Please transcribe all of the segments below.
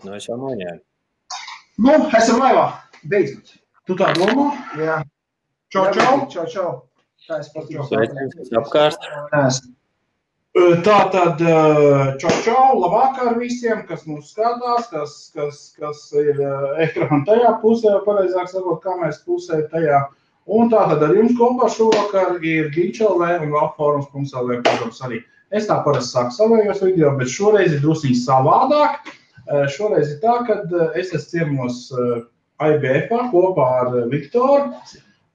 Nu, es jau noņēmu. Nu, esam laivā. Beidzot. Tu tā domā? Jā. Čau. Čau. Tā es pat Sveiciens apkārt. Tātad, čau, labvakar visiem, kas mūs skatās, kas ir ekrāna tajā pusē, pareizāk sakot, kameras pusē tajā. Un tātad ar jums kopā šovakar ir Ginčs.lv un Valforums.lv, protams, arī. Es tā parasti sāku savējos video, bet šoreiz ir drusīgi savādāk. Šoreiz ir tā, kad es esmu ciemos IBF-ā kopā ar Viktoru.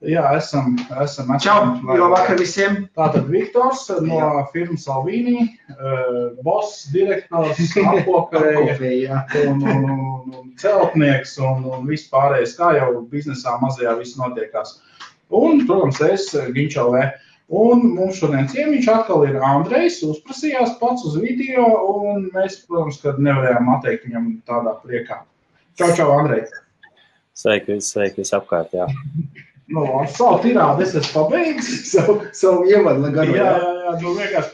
Jā, esam. Čau, labvakar visiem. Tātad Viktors no firmas Alvīnī, boss, direktors, apkopēja un celtnieks un viss pārējais, kā jau biznesā mazajā viss notiekās. Un, protams, es Ginčs.lv. Un mums šodien ciemiņš atkal ir Andrejs, uzprasījās pats uz video, un mēs, protams, kad nevarējām atteikt viņam tādā priekā. Čau, Andrej. Sveiki apkārt, jā. Nu, ar savu tirādu es esmu pabeidzis, savu ievadu garu. Jā, vienkārši.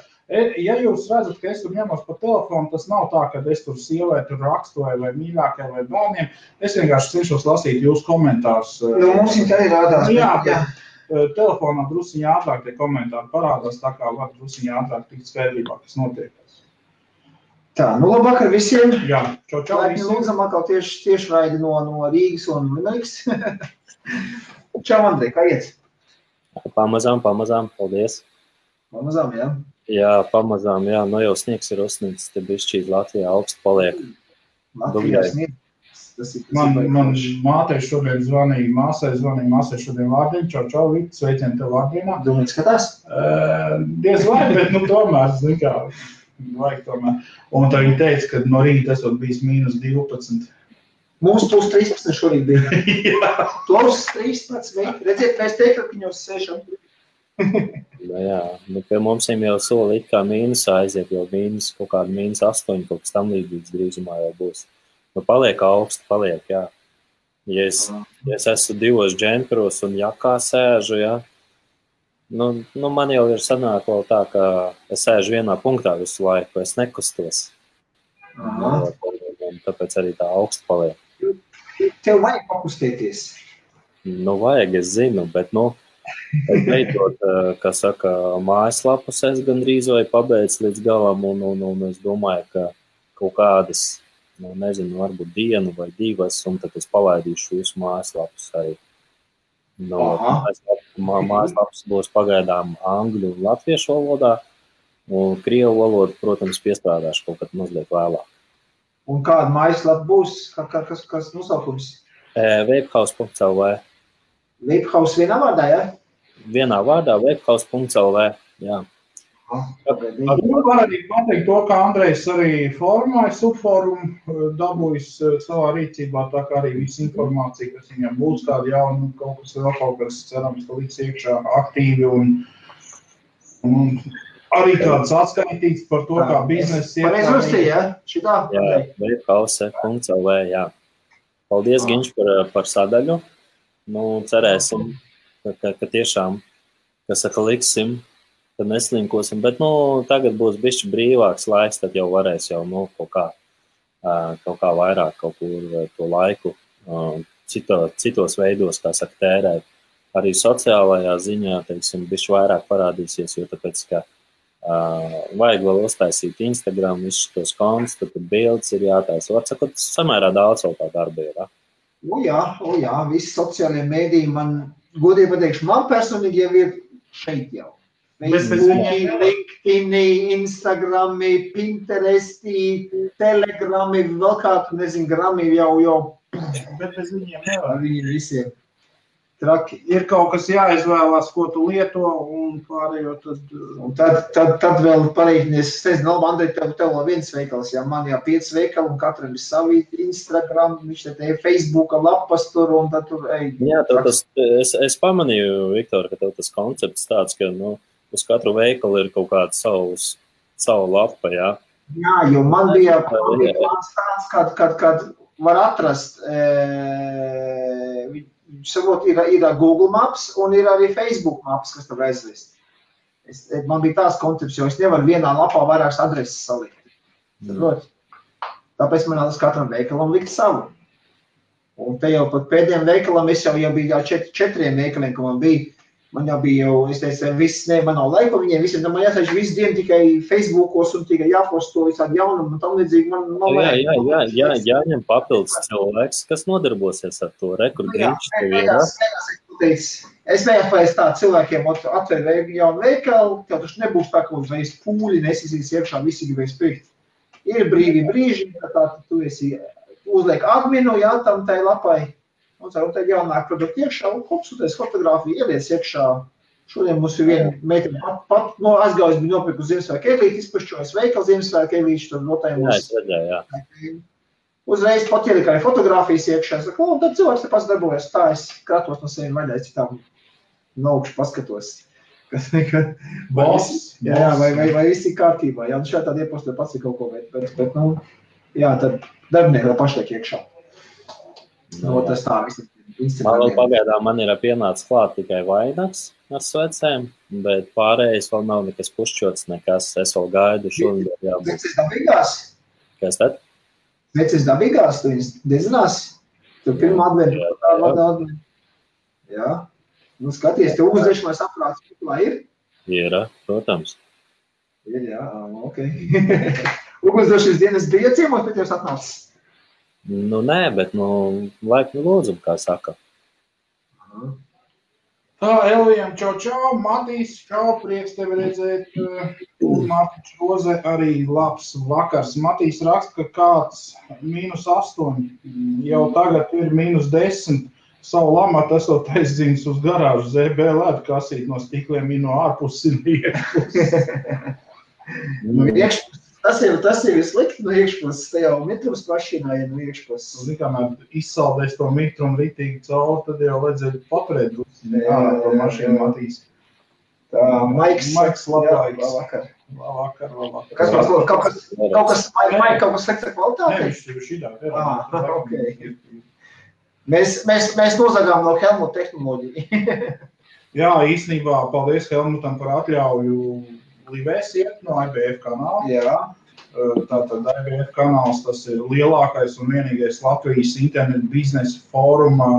Ja jūs redzat, ka es tur ņemos pa telefonu, tas nav tā, ka es tur sievai tur rakstu vai mīļākai vai bērniem. Es vienkārši cenšos lasīt jūsu komentārus. Nu, mums viņi tā ir rādās. Jā. Telefonā drusiņā ātrāk tie komentāri parādās, tā kā var drusiņā ātrāk tikt skaidrībā, kas notiekās. Tā, nu labvakar visiem. Jā, čau visiem. Lūdzam atkal tieši raidi no Rīgas un Limeriks. Čau, Andrej, kā iet? Pamazām, paldies. Pamazām, jā? Jā, pamazām, jā. Nu jau sniegs ir uzsnīgs, te bišķīt Latvijā augsts paliek. Latvijā sniegs. Man mātei šodien zvanīja, māsai šodien Vārdiņa. Čau, Vita, sveicien tev Vārdiņā. Domāju, skatās? Diez vai, bet tomēr, zin kā, vajag tomēr. Un tā viņa teica, ka no rīta esot bijis -12. Mums plus 13 šorīt bija. Plus 13. Redziet, mēs teikrakņos sēšam. Jā, nu pie mums jau soli it kā mīnusā aiziet, jau kaut kāda -8, kaut kas tam līdzīgs drīzumā jau būs. Nu, paliek augsti, jā. Ja es esmu 2 džemperos un jakā sēžu, jā, nu man jau ir sanāk vēl tā, ka es sēžu vienā punktā visu laiku, es nekustos. Tāpēc arī tā augsti paliek. Tev vajag pakustēties? Nu, vajag, es zinu, bet, es beidzot, kā saka, mājaslapus es gandrīz vai pabeidz līdz galam, un es domāju, ka kaut kādas, nezinu, varbūt dienu vai 2, un tad es palaidīšu jūsu mājaslapus arī. Mājaslaps būs pagaidām angļu un latviešu valodā, un krievu valodu, protams, piestrādāšu kaut kad mazliet vēlāk. Un kāda mājaslapa būs? Kas nosaukums? Vapehouse.lv. Vapehouse vienā vārdā, jā? Vienā vārdā, vapehouse.lv, jā. Var arī pateikt to, ka Andrejs arī formāja subforumu, dabūjis savā rīcībā, tā kā arī viss informācija, kas viņam būs tāda jauna, kaut kas cerams, ka līdz iekšā aktīvi un arī kāds atskaitīts par to, kā bizness iet. Pareiz uzstīja, jā? Šitā? Jā, vapehouse.lv, jā. Paldies, Ginč, par sadaļu. Nu, cerēsim, ka tiešām, kas saka, liksim, tad neslinkosim, bet, tagad būs bišķi brīvāks laiks, tad jau varēs jau, kaut kā vairāk kaut kur to laiku citos veidos, kā saka, tērēt. Arī sociālajā ziņā, teiksim, bišķi vairāk parādīsies, jo tāpēc, ka vajag vēl uztaisīt Instagram, visus tos kontus, tad bildes ir jātaisa. Var sakot, samērā daudz vēl tā darba ir, Jā, visi sociālie mēdīji man, godīgi pateikšu, man personīgi jau ir šeit jau. Facebooki, LinkedIni, Instagrami, Pinteresti, Telegrami, vēl kādu, nezinu, grami jau. Bet bez viņiem nevar. Viņi visiem traki. Ir kaut kas jāizvēlās, ko tu lieto, un pārējo tad... Un tad vēl pareiķinies, es nezinu, Andrej, tev vēl viens veikals, jā, man 5 veikali, un katram ir savi Instagram, viņš te Facebooka lapas tur, un tad tur, Jā, es pamanīju, Viktor, ka tev tas koncepts tāds, ka, uz katru veikalu ir kaut kāda savu lapa, jā? Jā, jo man bija plāns tāds, kad var atrast, savot, ir Google Maps un ir arī Facebook Maps, kas tev aizvest. Man bija tās koncepts, jo es nevaru vienā lapā vairākas adreses salikt. Tāpēc man nāc katram veikalam likt savu. Un te jau pat pēdējiem veikalam es jau biju četriem veikaliem, ka man jau bija es teicu, viss, man nav laika viņiem, visiem, man jāsaiž visu dienu tikai Facebookos un tikai jāposto visādi jaunumu un tam līdzīgi. Jāņem papildus cilvēks, kas nodarbosies ar to rekurgrīču. Es vējāpēc tā cilvēkiem atver jaunu veikalu, tev taču nebūs tā, ka uzreiz pūļi nesisīs iekšā, visi gribēs pirkt. Ir brīvi brīži, tā tu esi uzliek adminu, tam tai lapai, un tad jaunāk produktu iekšā, un kopsūties fotogrāfiju, ieliec iekšā. Šodien mums ir viena meitene pat aizgājus bija nopirku Ziemassvētku eglīti, izpašķojas veikalu Ziemassvētku eglīti, tad notājumos. Uzreiz pat ielika arī fotogrāfijas iekšā, es saku, un tad cilvēks te pats darbojas, tā es kratos no sevi vaļai citām naukšu paskatos. Vai viss ir kārtībā, jā, šā tāda iepostē pats ir kaut ko, bet jā, tad darbinieki paši tiek iekšā. Tas tā viss. Man vēl pagaidām man ir pienācis klāt tikai vainags ar svecēm, bet pārējais vēl nav nekas pušķots, nekas. Es vēl gaidu šodien jābūt. Sveces dabīgās? Kas tad? Sveces dabīgās, tu viņas dedzinās? Tu pirmā adventi. Jā. Nu skaties, te uzdešamais aprāts, lai ir? Ir, protams. Ir, jā, ok. Ugunsdošas dienas bija ciemos, bet jūs atnācis? Nu, nē, bet, laipni lūdzu, kā saka. Tā, Elvijam, čau, Matīs, čau, prieks tevi redzēt. Mārtiņš Roze, arī labs vakars. Matīs raksta, ka kāds -8, jau tagad ir -10. Savu lamatu esot aizdzinis uz garāžu ZB lētu kasīt no stikliem no ārpuses un iekšpuses. Tas ir slikti no iekšpuses, te jau mitrums mašīnā no iekšpuses. Kamēr izsaldēs to mitrumu ritīgi cauri, tad jau vajadzēja paturēt to mašīnu Matīs. Tā, Maiks labāks. Labvakar. Kas mums lūdzu? Kaut kas slikta kvalitāte? Nē, viņš ir šidā. Ok. Mēs nozagām no Helmuta tehnoloģiju. Jā, īstenībā paldies Helmutam par atļauju livēs iet no IBF kanāla. Jā. Tātad IBF kanāls, tas ir lielākais un vienīgais Latvijas internetu biznesa fóruma,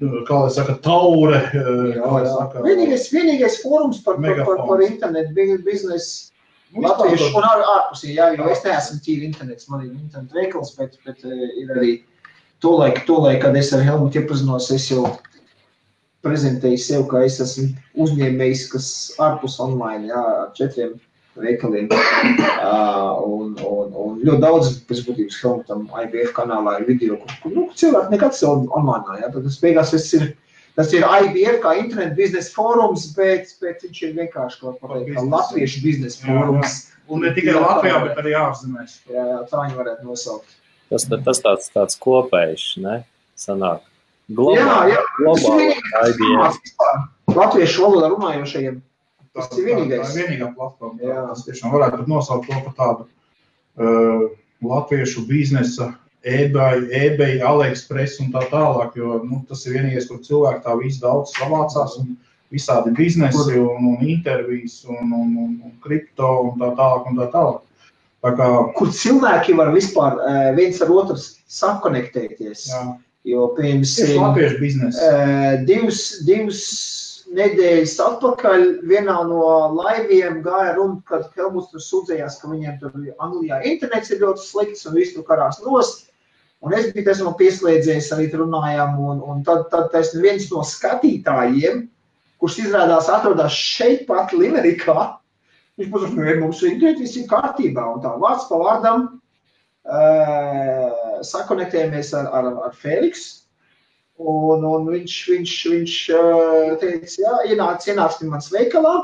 kā lai saka, taure. Vienīgais fórums par internetu biznesu latviešu un ārpusī, jā, jo es neesmu tīri internets, man ir internetu veikals, bet ir arī Tolaik, kad es ar Helmutu iepazinos, es jau prezentēju sev, ka es esmu uzņēmējs, kas ārpus online, jā, ar 4 veikaliem. Un ļoti daudz, pēc būtības, Helmutam IBF kanālā ir video, kur cilvēki nekad sev online, jā. Tad tas ir IBF kā internet biznesa fórums, bet viņš ir vienkārši kaut kā latviešu biznesa fórums. Un ne tikai Latvijā, bet arī ārzemēs. Jā, tā viņi varētu nosaukt. Tas tāds kopējs, ne? Sanāk. Jā. IBF. Latviešu valodā runājošajiem. Tas ir vienīgais. Tā ir vienīgā platforma. Tas tiešām varētu nosaukt to par tādu latviešu biznesa, eBay, AliExpress un tā tālāk, jo tas ir vienīgais, kur cilvēki tā visu daudz savācās un visādi biznesi un intervijas un kripto un tā tālāk. Kur cilvēki var vispār viens ar otru sakonektēties. Jā. Jo pirms latviešu biznesa. 2 nedēļas atpakaļ vienā no laiviem gāja runa, kad Helmuts tur sūdzējās, ka viņiem tur Anglijā internets ir ļoti slikts un viss tur karās nost. Un es biju esmu pieslēdzies, arī runājām, un tad viens no skatītājiem, kurš izrādās atrodās šeit pat Limerikā, viņš pasaka, mums viss ir kārtībā, un tā vārds pa vārdam sakonektējamies ar Feliks, un viņš teica, jā, ienāksim mans veikalā,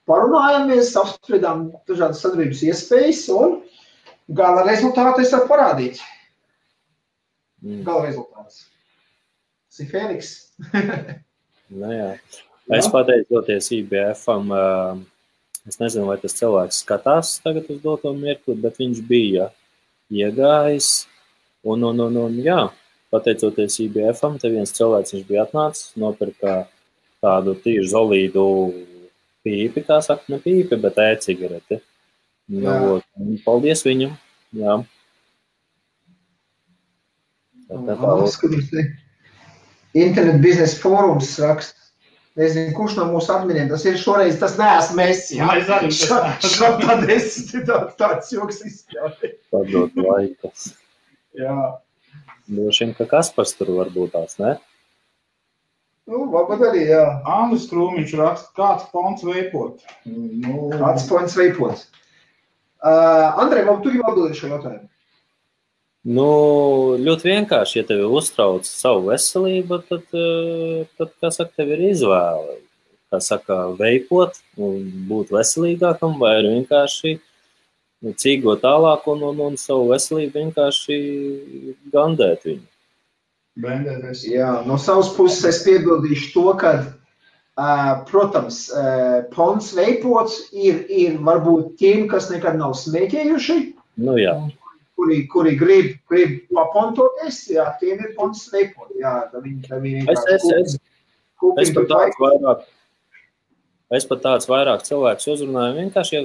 parunājamies, apspriedām dažādas sadarbības iespējas, un gala rezultātu es varu parādīt. Gala rezultāts. Tas ir Feliks. Jā. Es pateicoties IBF-am, es nezinu, vai tas cilvēks skatās tagad uz doto mirkli, bet viņš bija iegājis, un jā, pateicoties IBF-am, te viens cilvēks viņš bija atnācis, nopirka tādu tīru zolīdu pīpi, kā saka, ne pīpi, bet e-cigareti. Paldies viņam, jā. Internet biznesa fórums raksta. Nezinu, kurš no mūsu adminiem tas ir šoreiz, tas neesmu es, jā. Tad es tāds joks izspēlēju. Padot laikas. Jā. Droši, ka Kaspars tur varbūt tās, ne? Varbūt arī, jā. Andris Krūmiņš raksta, kāds ponts veipot? Kāds ponts veipot? Andrej, vai tu jau atbildēji šo jautājumu? Ļoti vienkārši, ja tevi uztrauc savu veselību, tad kā saka, tev ir izvēle. Kā saka, veipot, būt veselīgākam, vai arī vienkārši cīgot tālāk un savu veselību vienkārši gandēt viņu. Bendēties. Jā, no savas puses es piebildīšu to, ka, protams, ponts veipots ir varbūt tiem, kas nekad nav smēķējuši. Jā. Kuri grib papontoties, jā, tiem ir ponts veipot. Jā, Es pat tāds vairāk cilvēks uzrunāju vienkārši,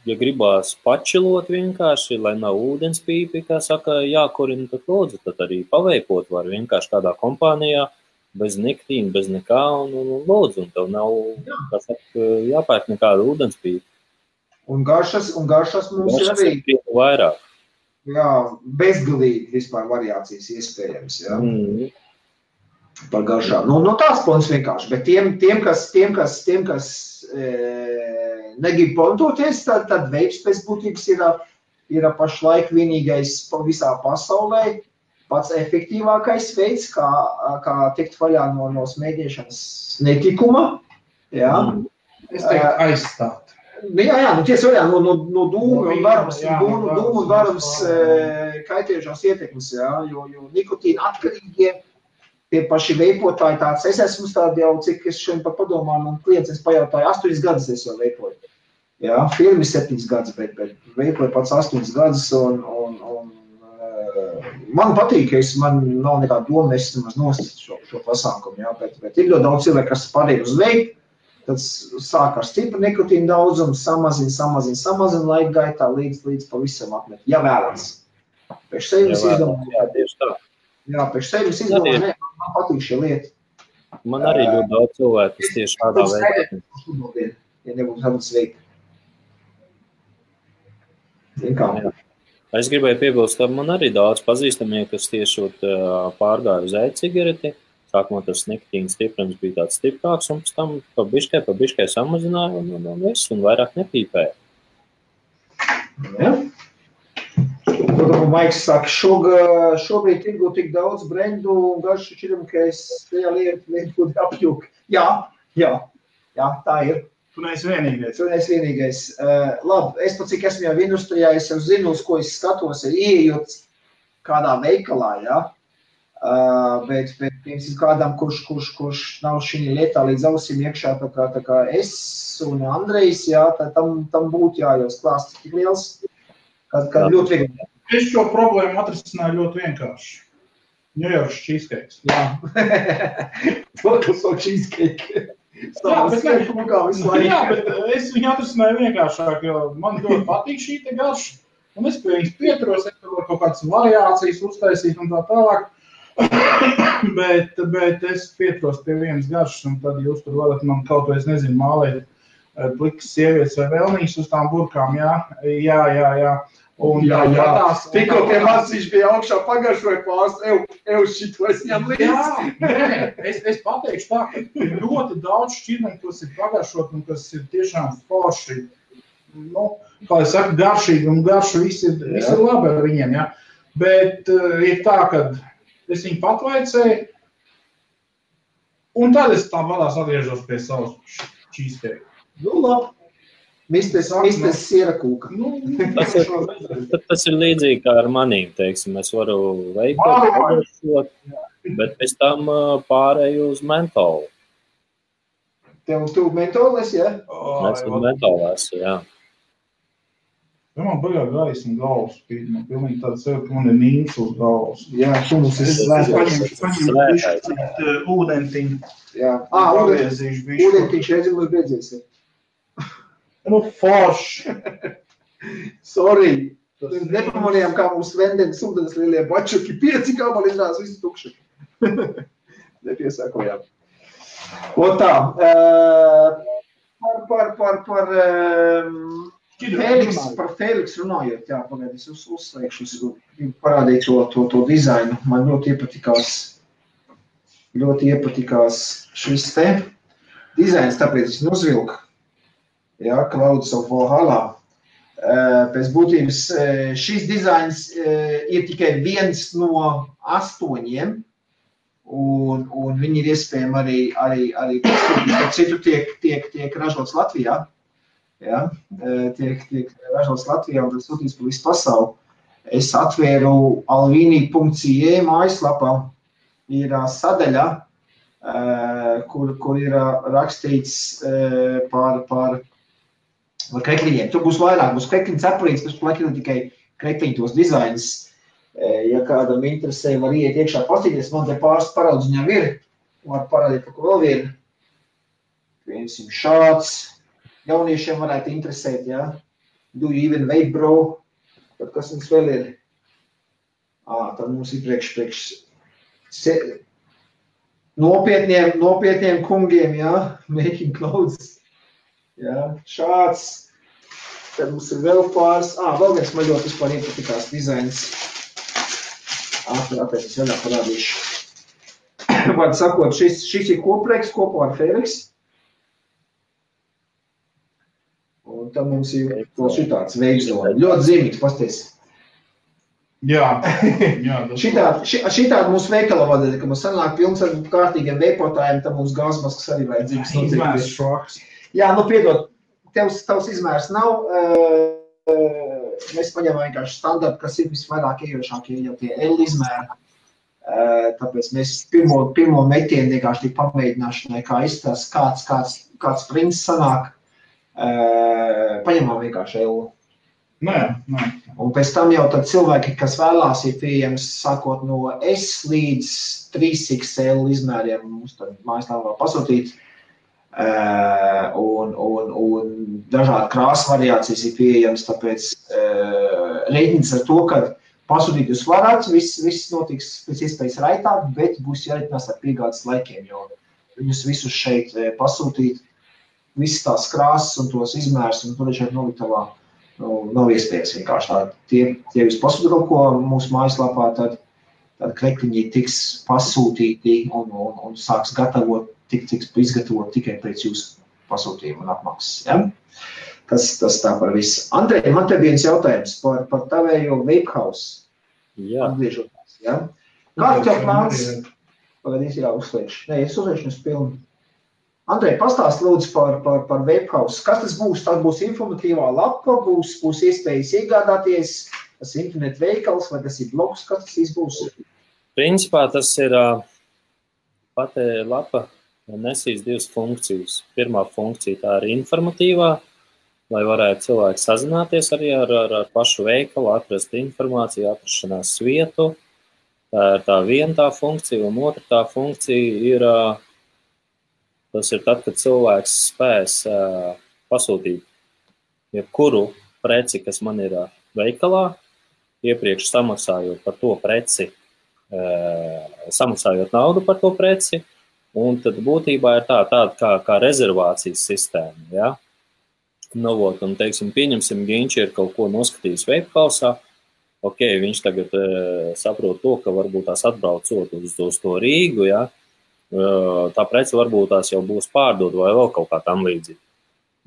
ja gribās pačilot vienkārši, lai nav ūdenspīpi, kā saka, jākurina, tad lūdzu, tad arī paveipot var vienkārši kādā kompānijā, bez nikotīna, bez nekā, un lūdzu, un tev nav, kā saka, jāpērk nekāda ūdenspīpa. Un garšas mums ir arī vairāk. Jā, bezgalīgi vispār variācijas iespējams, jā. Par garšām. Tās ponts vienkārši, bet tiem, kas negrib pontoties, tad veips pēc būtības ir pašlaik vienīgais visā pasaulē pats efektīvākais veids, kā tikt vaļā no smēķēšanas netikuma. Jā. Es teiktu aizstāt. Jā, tiesa vaļā no dūmu un varams kaitējušās ietekmes, jā, jo nikotīna atkarīgie tie paši veipotāji tāds, es esmu tādi jau, cik es šodien pat padomāju, man klients, es pajautāju, 8 gadus es jau veipoju. Jā, firmi 7 gadus, bet veipoju pats 8 gadus un man patīk, man nav nekāda doma, es maz nost šo pasākumu, jā, bet ir ļoti daudz cilvēku, kas pārēj uz veipu, tad sāk ar stipru nikotīnu daudzumu, samazina laika gaitā līdz pavisam apmet, ja vēlams. Pēc sevis izdomāju. Jā, tieši tā. Jā, pēc sevis izdomāju, man patīk šie lieti. Man arī ļoti daudz cilvēku, kas tieši tādā veidā. Ja nebūtu tādas veikta. Es gribēju piebilst, ka man arī daudz pazīstamie, kas tieši pārgāja uz e-cigareti. Sākumā tas nikotīns stiprums bija tāds stiprāks, un pēc tam pa biškai samazināja un viss, un vairāk nepīpēja. Ja. Maiks saka, šobrīd tirgu tik daudz brendu un garšu šķiram, ka es tajā lietu apjūku. Jā, tā ir. Tu neesi vienīgais. Labi, es pat cik esmu jau industrijā, es jau zinu, uz ko es skatos, ieejot kādā veikalā, jā. Bet piemēram kādam, kurš nav šī lietā līdz ausīm iekšā, tā kā es un Andrejs, jā, tam būtu jājaus klāsts tik liels, kad ļoti viegli. Es šo problēmu atrisināju ļoti vienkārši. New York cheesecakes. Jā. To cheesecake. Jā, bet es viņu atrisināju vienkāršāk, jo man ļoti patīk šī te garša, un es pie viņas pieturos, es varu kaut kādas variācijas uztaisīt un tā tālāk. bet es pieturos pie vienas garšas, un tad jūs tur varat man kaut ko, es nezinu, mālēt plikas sievietes vai vēlnīs uz tām burkām, jā. Un tikko tie mācīši bija augšā pagaršoja pārst, šito es ņem līdzi. Jā, es pateikšu tā, ka ir ļoti daudz šķirneņu, kas ir pagaršot un kas ir tiešām forši. Kā es saku, garšīgi un garšu viss ir labi ar viņiem, jā. Bet ir tā, ka es viņu patvaicēju, un tad es tā vadās atgriežos pie savas cheesecake. Labi. Mistes siera kūka. Tas ir līdzīgi kā ar manīm, teiksim. Es varu veikot, bet pēc tam pārēju uz mentolu. Tu mentoles, jā? Es mentolu esmu, jā. Ja man baļā gaisma galvas spīd, man pilnīgi tāda sev, ka man ir nīms uz galvas. Jā, tu mums esi paņemšu ūdentiņu. Jā, ūdentiņš reizim mums beidzies. Forši. Sorry. Nepamanījām, kā mums vendens ūdens lielie bačuki, 5 gabali izrādās visi tukši. Nepiesākojām. Un tā, par Fēliks runājot, jā, pagaid, es uzslēgšu, es gribu parādīt to dizainu. Man ļoti iepatikās šis te dizains, tāpēc es uzvilku, jā, Clouds of Valhalla. Pēc būtības šis dizains ir tikai viens no 8, un viņi ir iespējami arī citu tiek ražots Latvijā. Ja? Tiek ražots Latvijā un sūtīts pa visu pasauli. Es atvēru alvini.ie mājaslapā, ir sadaļa, kur ir rakstīts par krekliņiem. Tur būs vairāk, būs krekliņu cepurītes, pēc laikam tikai krekliņu tos dizainus. Ja kādam interesē, var iet iekšā pastīties, man te pāris paraudzes viņam ir, var parādīt, pa ko vēl vien. Piemēram, šāds, jauniešiem varētu interesēt, ja? Do you even vape, bro? Tad kas mums vēl ir? Tad mums ir priekš nopietniem kungiem, ja? Making clothes. Ja? Šāds. Tad mums ir vēl pāris. Vēl viens man ļoti vispār iepatikās dizains. Tāpēc es vēl parādīšu. Vārdu sakot, šis ir kopreks kopā ar Fēliks. Un tad mums ir šitāds veikzoni. Ļoti zīmīgs, pasties. Jā. Šitādi mūsu veikala vadēļ, ka mums sanāk pilns ar kārtīgiem veipotājiem, tad mums gāzmaskas arī vajadzīgs. Izmērs šoks. Jā, piedod, tavs izmērs nav. Mēs paņemam vienkārši standartu, kas ir visvairāk iejošākie jau tie L izmēri. Tāpēc mēs pirmo metienu vienkārši tik pamēģināšanai, kā izstās, kāds prints sanāk, paņemam vienkārši L. Nē. Un pēc tam jau tad cilvēki, kas vēlās, ir pieejams sākot no S līdz 3XL izmēriem, mums tad mājaslapā pasūtīt. Un dažādi krāsu variācijas ir pieejams, tāpēc reiķins ar to, ka pasūtīt jūs varat, viss notiks pēc iespējas raitāk, bet būs jāreikinās ar piegādes laikiem, jo viņus visus šeit pasūtīt, visas tās krāsas un tos izmērs un tur šeit noliktavā nav iespējas vienkārši tā. Tie jūs pasūtīt kaut ko mūsu mājaslapā, tad krekliņi tiks pasūtīti un sāks gatavot, tiks izgatavot tikai pēc jūsu pasūtījuma un apmaksas. Ja? Tas tā par visu. Andrej, man te viens jautājums par tavējo vape house. Jā. Atgriežoties, ja? Kāds tev plāns? Pagaidīs jāuzslēgšu. Nē, es uzliekšu uz pilnu. Andrej, pastāst lūdzu par vape house. Kas tas būs? Tas būs informatīvā lapa, būs iespējas iegādāties, tas ir internet veikals vai tas ir blogs, kas tas būs? Principā tas ir pati lapa nesīs 2 funkcijas. Pirmā funkcija tā ir informatīvā, lai varētu cilvēki sazināties arī ar pašu veikalu, atrast informāciju, atrašanās vietu. Tā ir tā viena tā funkcija, un otra tā funkcija ir, tas ir tad, kad cilvēks spēs pasūtīt jebkuru preci, kas man ir veikalā, iepriekš samaksājot par to preci, samaksājot naudu par to preci, un tad būtībā ir tāda kā rezervācijas sistēma, ja? Un, teiksim, pieņemsim, Ginč ir kaut ko noskatījis veipkausā, viņš tagad saprot to, ka varbūt tās atbraucot uz to Rīgu, ja? Tā prece varbūt tās jau būs pārdod vai vēl kaut kā tam līdzīgi.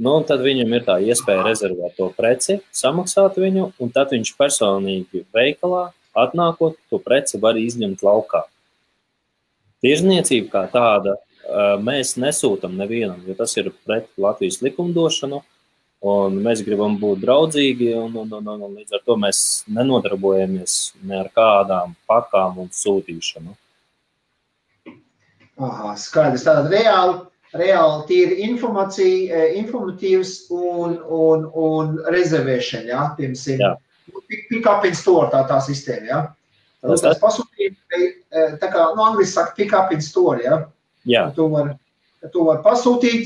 Un tad viņam ir tā iespēja rezervēt to preci, samaksāt viņu, un tad viņš personīgi veikalā, atnākot, to preci var izņemt laukā. Tirzniecība kā tāda mēs nesūtam nevienam, jo tas ir pret Latvijas likumdošanu, un mēs gribam būt draudzīgi, un līdz ar to mēs nenodarbojamies ne ar kādām pakām un sūtīšanu. Skaidrs. Tātad reāli tīri informācija, informatīvs un rezervēšana, ja? Piemēram, pick up in store tā sistēma, ja? Tas pasūtījumi, tā kā, angliski saka pick up in store, ja? Jā. Tu var pasūtīt,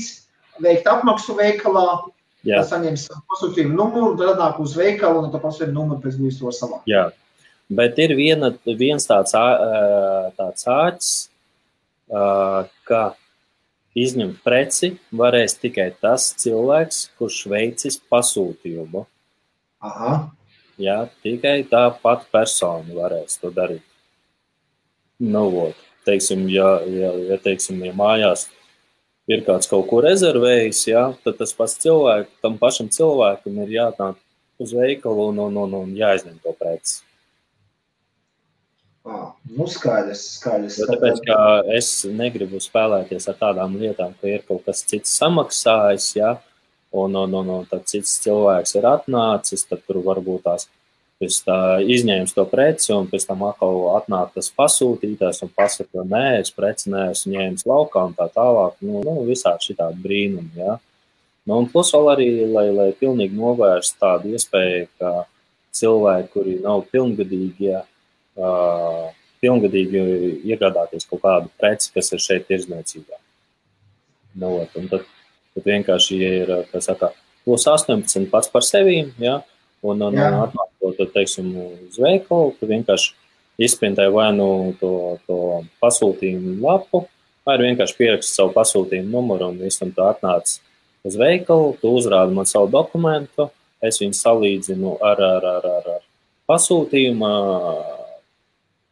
veikt apmaksu veikalā, Jā. Tā saņems pasūtījumu numuru, tad nāk uz veikalu un tā pasūtījumu numuru pēc būs to savā. Jā, bet ir viens tāds āķis, ka izņemt preci varēs tikai tas cilvēks, kurš veicis pasūtījumu. Aha. Jā, tikai tā pati persona varēs to darīt. Teiksim, ja mājās ir kāds kaut ko rezervējis, jā, tad tas pats tam pašam cilvēkam ir jātāk uz veikalu un jāizņem to preci. Skaidrs. Tāpēc, ka es negribu spēlēties ar tādām lietām, ka ir kaut kas cits samaksājis, jā, un tad cits cilvēks ir atnācis, tad tur varbūt tās izņēmis to preci, un pēc tam atkal atnāk tas pasūtītājs un pasaka, nē, es preci neesmu ņēmis laukā un tā tālāk. Visādi šitādi brīnumi, jā. Un plus vēl arī, lai pilnīgi novērst tādu iespēju, ka cilvēki, kuri nav pilngadīgi iegādāties kaut kādu preci, kas ir šeit tirdzniecībā. Un tad vienkārši ir, kā saka, plus 18 pats par sevīm, jā, un atnāk to, teiksim, uz veikalu, tu vienkārši izprintē vai to pasūtījumu lapu, vai vienkārši pieraksti savu pasūtījumu numuru un visam tu atnāc uz veikalu, tu uzrādi man savu dokumentu, es viņu salīdzinu ar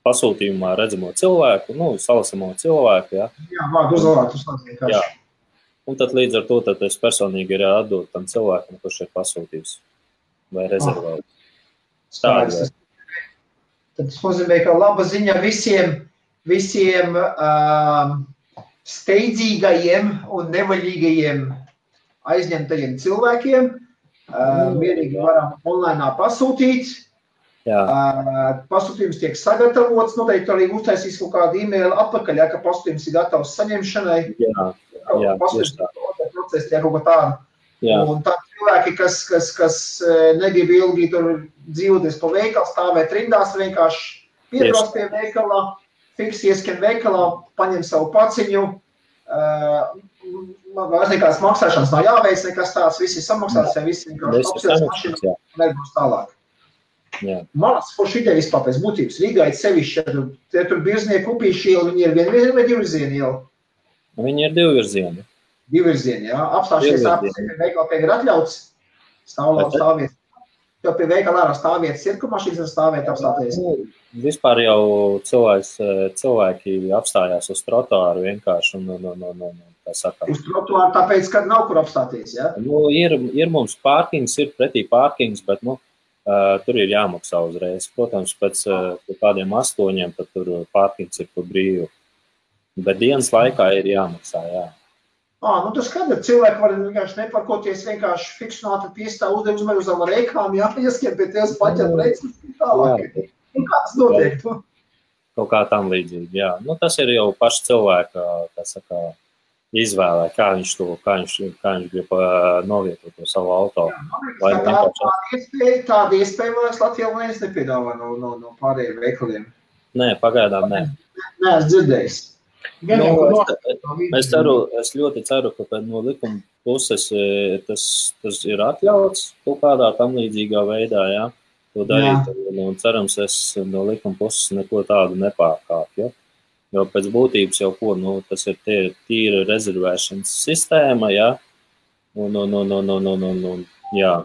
pasūtījumā redzamo cilvēku, salasamo cilvēku, jā. Jā, vārdu uzvārdu vienkārši. Jā. Un tad līdz ar to tad es personīgi ir atdot tam cilvēkam, kurš ir pasūtījis vai rezervējis. Tad tas nozīmē, ka laba ziņa visiem steidzīgajiem un nevaļīgajiem aizņemtajiem cilvēkiem. Mierīgi varam online pasūtīt. Pasūtījums tiek sagatavots, noteikti arī uztaisīs kaut kādu e-mailu atpakaļ, ka pasūtījums ir gatavs saņemšanai. Pasūtījums procesi tiek kaut kā tādu. Un tā cilvēki, kas negrib ilgi tur dzīvoties pa veikalu, stāvēt rindās, vienkārši piebrauc pie veikalā, fiksi ieskan veikalā, paņem savu paciņu, vairs nekāds maksāšanas nav jāveic, nekas tāds, visi samaksās, ja visi vienkārši apsies mašīnu un nebūs tālāk. Manas forši ideja vispār pēc būtības. Rīgā ir sevišķi, ja tur Birznieku upīši iela, viņi ir vienvirzieni vai divvirzieni iela? Viņi ir divvirzieni. Divvirzieni, jā. Apstāšies pie veikala pie ir atļauts, stāvvietas. Jo pie veikala ārā stāvvietas ir, ka mašīnas var stāvēt apstāties. Vispār jau cilvēki apstājās uz trotuāru vienkārši tā saka. Uz trotuāru tāpēc, ka nav kur apstāties, jā? Ir mums pārkings, ir pretī pārkings, bet, tur ir jāmaksā uzreiz. Protams, pēc kādiem 8, tad tur pārkings ir par brīvu. Bet dienas laikā ir jāmaksā, jā. Tas skaidrs, cilvēki var vienkārši neparkoties, vienkārši fiksionāti piestāv uzmanību uz reikām, ieskien pie tevis paķert reicis tālāk. Kā tas notiek? Kaut kā tam līdzīgi, jā. Tas ir jau paši cilvēka, izvēlē, kā viņš grib novietot to savu auto. Tāda iespēja, man Latvijā neviens nepiedāvā no pārējiem veikaliem. Nē, pagaidām nē. Nē, es dzirdējis. Es ļoti ceru, ka no likuma puses tas ir atļauts kaut kādā tam līdzīgā veidā, jā, to darīt. Un cerams, es no likuma puses neko tādu nepārkāpju. Jo pēc būtības jau tas ir tīra rezervēšanas sistēma, jā. Jā.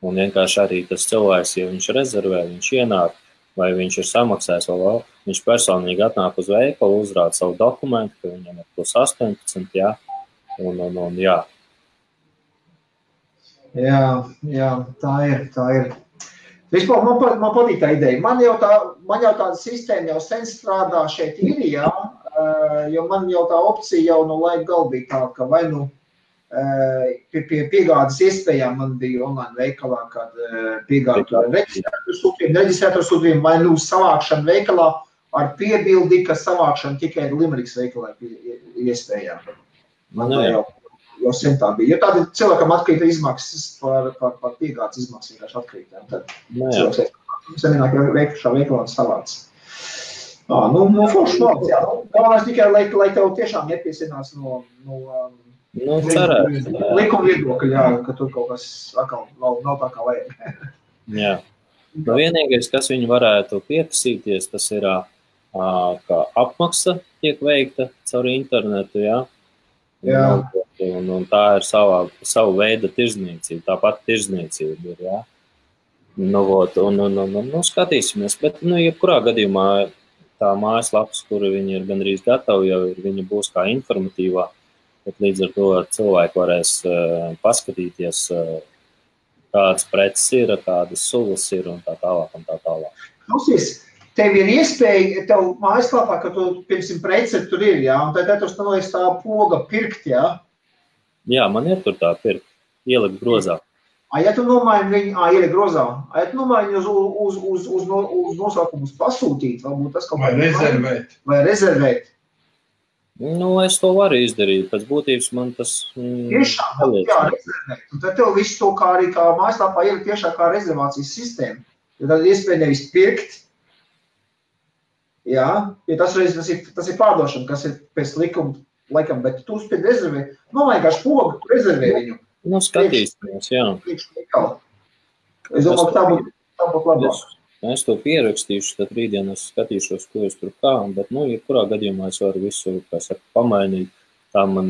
Un vienkārši arī tas cilvēks, ja viņš rezervē, viņš ienāk, vai viņš ir samaksājis vēl, viņš personīgi atnāk uz veikalu, uzrāda savu dokumentu, ka viņam ir plus 18, jā, un jā. Jā, tā ir. Vispār man patīk tā ideja. Man jau tāda sistēma jau sen strādā šeit ir, jā, jo man jau tā opcija jau no laika gal bija tā, ka vai pie piegādes iespējām man bija online veikalā, kad piegādu reģistrēto sūtījumu vai savākšanu veikalā ar piebildi, ka savākšana tikai Limerikas veikalā iespējām. Man jau sen tā bija. Jo tādi cilvēkam atkrīta izmaksas par piegādes izmaksas vienkārši atkrīta. Tad cilvēks senāk šā veikalā savāc. Forši malc, jā. Galvenais tikai, lai tev tiešām nepiesinās no Nu, cerētu. Likuma viedokļi, jā, ka tur kaut kas atkal nav tā kā vajag. Jā. Nu, vienīgais, kas viņi varētu pieprasīties, tas ir, ka apmaksa tiek veikta caur internetu, jā. Un tā ir savu veidu tirzniecība, tāpat tirzniecība ir, jā. Nu, skatīsimies, bet, jebkurā gadījumā tā mājaslapas, kura viņi ir gandrīz gatavi, jau viņa būs kā informatīvā, bet līdz ar to cilvēki varēs paskatīties, kādas preces ir, kādas sulas ir un tā tālāk. Klausies, tev ir iespēja, tev mājaslapā, ka tu, piemēram, preci tur ir, jā, un tad tur stanolies tā poga pirkt, jā? Jā, man ir tur tā pirkt, ielikt grozā. Ja tu nomaini viņu, ielikt grozā, ja tu nomaini uz nosaukumus pasūtīt, varbūt tas kaut vai rezervēt. Vai rezervēt. Nu, es to varu izdarīt, pēc būtības man tas... Tiešām, jā, rezervēt. Un tad tev visu to kā arī kā mājaslapā ielikt tiešām kā rezervācijas sistēma. Jo tad iespēja nevis pirkt, jā, jo tas ir pārdošana, kas ir pēc likuma, bet tu uzspēj rezervēt, vienkārši pogu, tu rezervē viņu. Nu, skatīsimies, jā. Es domāju, ka tā būtu labāk. Es to pierakstīšu, tad rītdien es skatīšos, ko es tur kā, bet, jebkurā gadījumā es varu visu, pamainīt. Tā man,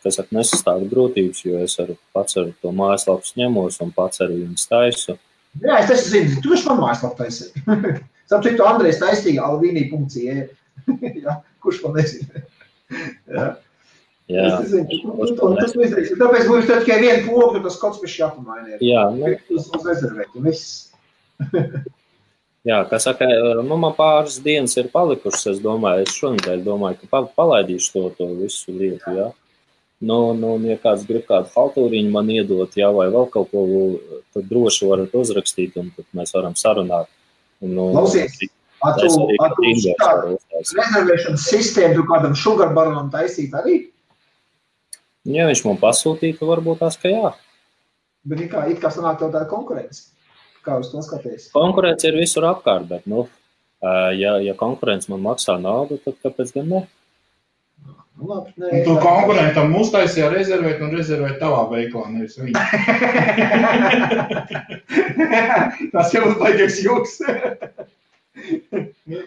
nesastāv grūtības, jo es pats ar to mājaslapas ņemos un pats arī viņas taisu. Jā, es zinu, tu viņš man mājaslapu taisi. Sapcitu, Andrejs taistīja alvīnī.ie. Jā, kurš man nezina. Jā. Jā. Es nezinu, tas izdarīsim. Tāpēc būs tikai vienu pogu, tas kaut kas jāpamaina. Jā, uz rezervēt, un viss. Jā, kā saka, man pāris dienas ir palikušas, es domāju, es šonedēļ domāju, ka palaidīšu to visu lietu, jā. Ja kāds grib kādu haltūriņu man iedot, jā, vai vēl kaut ko, tad droši varat uzrakstīt, un tad mēs varam sarunāt. Klausies, rezervēšanas sistēmu tu kādam sugarbaronam taisīt arī? Ja viņš man pasūtītu, varbūt tās, ka jā. Bet it kā sanāk tev tāda konkurence? Kā uz to skaties? Konkurence ir visur apkārt, bet, ja konkurence man maksā naudu, tad kāpēc gan ne? Labi, un tu konkurentam uztaisīja rezervēt un rezervēt tavā veiklā, nevis viņa. Tas jau uzbaigies joks.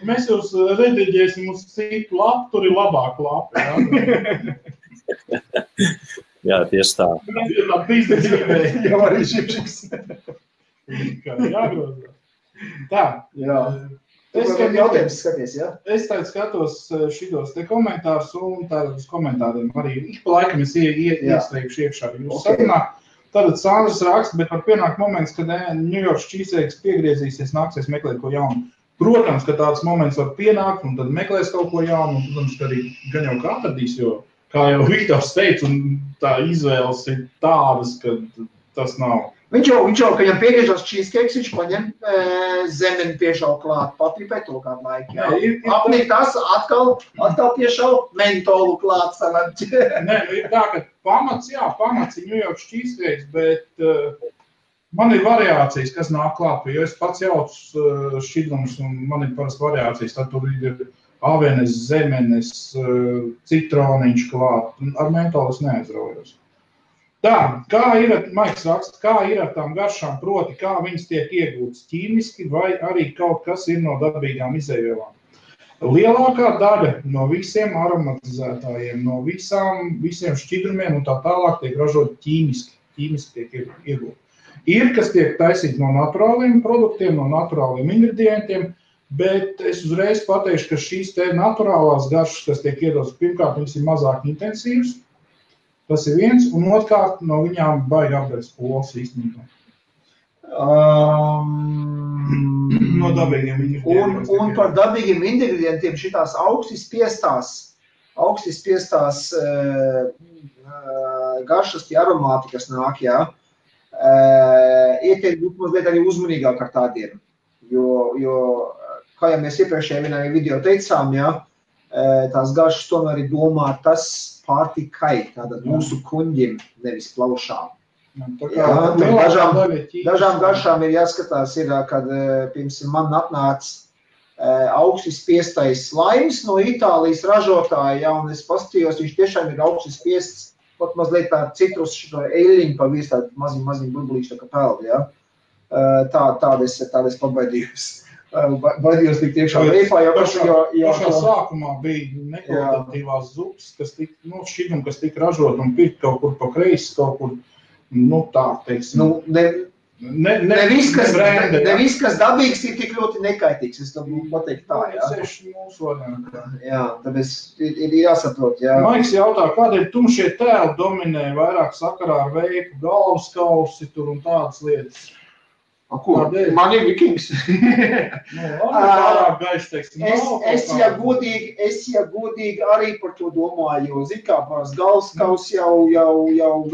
Mēs jūs rediģēsim uz citu lapu, tur ir labāk lapi. Jā, tieši tā. Jau arī šipšiks. Jāgrozā. Tā. Jā. Jautājums skaties, jā? Es tagad skatos šitos te komentārus un tātad uz komentāriem arī. Ik pa laikam es iestrēgšu iekšā jūsu sarunā. Tātad Sandrs raksta, bet var pienākt moments, kad New York cheesecakes piegriezīsies, nāksies meklēt ko jaunu. Protams, ka tāds moments var pienākt un tad meklēs kaut ko jaunu. Un, protams, ka arī gan jau kā atradīs, jo, kā jau Viktors teica, un tā izvēles ir tādas, ka tas nav. Viņš jau, ka viņam piegriežās cheesecakes, viņš paņem zemeni piešau klāt, patripē to kādu laiku. Apnīt tas, atkal piešau mentolu klāt sanāt. Nē, ir tā, ka pamats ir New York cheesecakes, bet man ir variācijas, kas nāk klāt, jo es pats jaucu šķidrumus un man ir parasti variācijas, tad tur ir avenes, zemenes, citroniņš klāt, ar mentolu es neaizraujos. Tā, Maiks raksta, kā ir ar tām garšām, proti, kā viņas tiek iegūtas ķīmiski vai arī kaut kas ir no dabīgām izēvielām. Lielākā daļa no visiem aromatizētājiem, no visiem šķidrumiem un tā tālāk tiek ražot ķīmiski tiek iegūti. Ir, kas tiek taisīti no naturāliem produktiem, no naturāliem ingredientiem, bet es uzreiz pateikšu, ka šīs te naturālās garšas, kas tiek iedotas, pirmkārt, viņas ir mazāk intensīvas. Tas ir viens, un otrkārt no viņām baigi apgādāt pols īstenībā. No dabīgiem ingredientiem. Un par dabīgiem ingredientiem šitās augsti spiestās garšas, tie aromāti, kas nāk, jā, ietiek būt mazliet arī uzmanīgāk ar tādiem. Jo kā jau mēs iepriekšējā vienā video teicām, jā, tās garšas tomēr ir domāt tas pārtikai, tātad mūsu kuņģim, nevis plaušām. Dažām garšām ir jāskatās, kad, piemēram, man atnāca augsti spiestais slaims no Itālijas ražotāja, ja, un es paskatījos, viņš tiešām ir augsti spiests pat mazliet tā citrus šito eļļiņu pa virs tādu maziņu burbulīšu tā kā peldi, ja. Tāda es pabaidījos. Baidījos tik tiekšā veipā, pašā sākumā bija nekvalitatīvās zupas, kas tika, šķidrumi, kas tika ražot un pirkt kaut kur pa kreisi, kaut kur, tā, teiksim. Ne viss, kas dabīgs, ir tik ļoti nekaitīgs, es to pateikt tā, jā. Seši mūsu variantā. Jā, tāpēc ir jāsaprot, jā. Maiks jautā, kādēļ tumšie tēli dominē vairāk sakarā ar veipu, galvas kausi tur un tādas lietas? Ko? Man ir vikings. Es godīgi arī par to domāju, jo zin kā pārs galvaskaus jau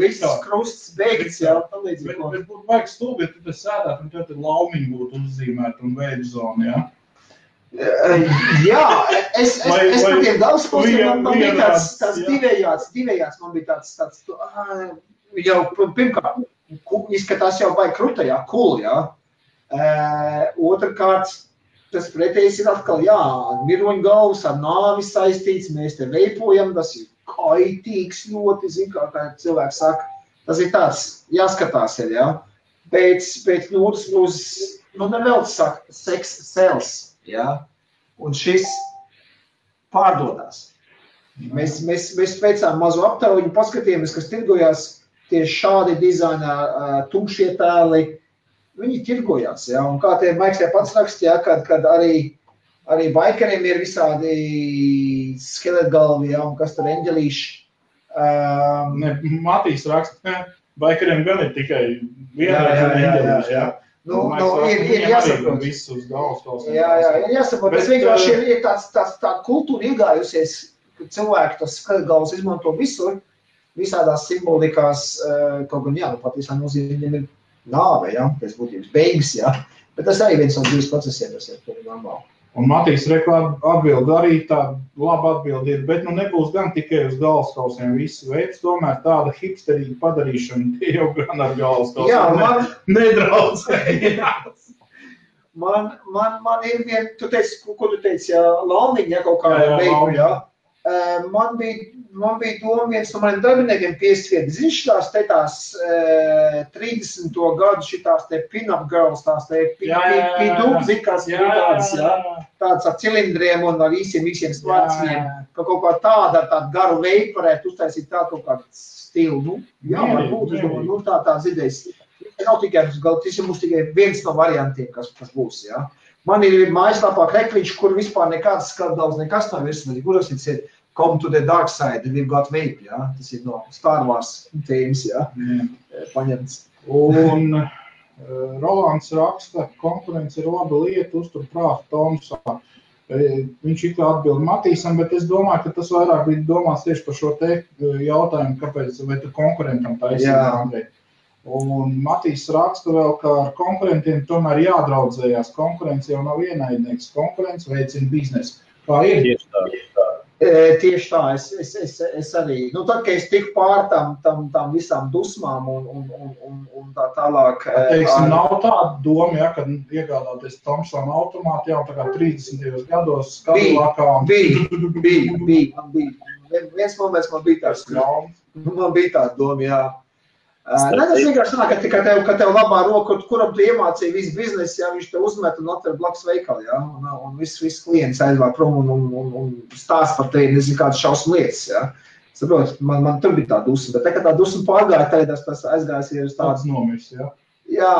viss krusts beigts, jā. Bet būtu vajag stulbi, ja tu te sēdāt un tev te laumiņi būtu uzzīmēt un veidu zonu, jā? Jā, es par tiem galvaskausiem, man bija tāds divējāds, man bija tāds, jau pirmkārt, izskatās jau vai krutajā, cool, jā. Otrkārt, tas pretējs ir atkal, jā, miroņgalvs ar nāvi saistīts, mēs te veipojam, tas ir kaitīgs ļoti, zin kā cilvēks saka, tas ir tāds, jāskatās ir, jā. Pēc otras puses, nevēl saka, sex sells, jā, un šis pārdodās. Mēs veicām mazu aptauju, paskatījāmies, kas tirgojās, tieši šādi dizainā tumšie tēli, viņi tirgojās, jā, un kā tie Maiks pats rakstīja, kad arī baikeriem ir visādi skeletgalvi, jā, un kas tur eņģelīši. Matīs raksta, baikeriem gan ir tikai vienreiz eņģelīši, jā. Ir jāsaprot. Visus galvas. Jā, ir jāsaprot, tas vienkārši ir tā kultūra iegājusies, ka cilvēki tos skeletgalvus izmanto visur, visādās simbolikās, kaut gan, jā, patiesā nozīmē viņiem ir nāve, jā, pēc būtības beigas, jā, bet tas arī viens no dzīves procesiem, tas ir normāli. Un Matīs atbild arī tāda laba atbildi ir, bet nebūs gan tikai uz galvaskausiem visu veids, tomēr tāda hipsterīga padarīšana, tie jau gan ar galvaskausiem. Jā, nedraudzējās. Man ir vien, ko tu teici, jā, Launiņa, jā, kaut kāda veidu, jā. Man bija doma viens no maniem darbiniekiem piesviet, tās 30. gadu šitās te pin-up girls, tās te pidūbzi, kas bija tādas, jā, tādas ar cilindriem un ar īsiem stvarciem, ka kaut kā tāda ar tādu garu veidu varētu uztaisīt tādu kaut kādu stilu, jā, varbūt, es domāju, tādas idejas. Nav tikai, tas ir mums tikai viens no variantiem, kas būs, jā. Man ir mājaslapā krekliņš, kur vispār nekāds skatdals, nekas nav virsmas, kuras ir Come to the dark side, we've got vape, jā. Tas ir no Star Wars tēmas, jā, paņemts. Un Rolands raksta, konkurence ir laba lieta, uztur prātu Tomsā. Viņš kā atbild Matīsam, bet es domāju, ka tas vairāk bija domāts tieši par šo te jautājumu, kāpēc, vai tu konkurentam taisīt. Un Matīs raksta vēl, ka ar konkurentiem tomēr jādraudzējās. Konkurence jau nav ienaidnieks, konkurence veicina biznesu. Kā ir? Tieši tā, es arī, tad, kad es tiku pār tam visām dusmām un tā tālāk. Teiksim, nav tāda doma, ja, kad iegādāties Thomson automātu jau tā kā 30. gados Kadillakā. Bija. Viens moments man bija tāds, man bija tāda doma, jā. Tas vienkārši tā, ka tev labā roka, kuram tu iemācīji visu biznesu, jā, viņš te uzmet un atver blakus veikali, jā, un viss klients aizvār prom un stāst par tevi, nezinu, kādas šausmu lietas, jā. Saprot, man tur bija tā dusma, bet tā dusma pārgāja, tagad tas aizgājās ir uz tāds nomirs, jā. Jā,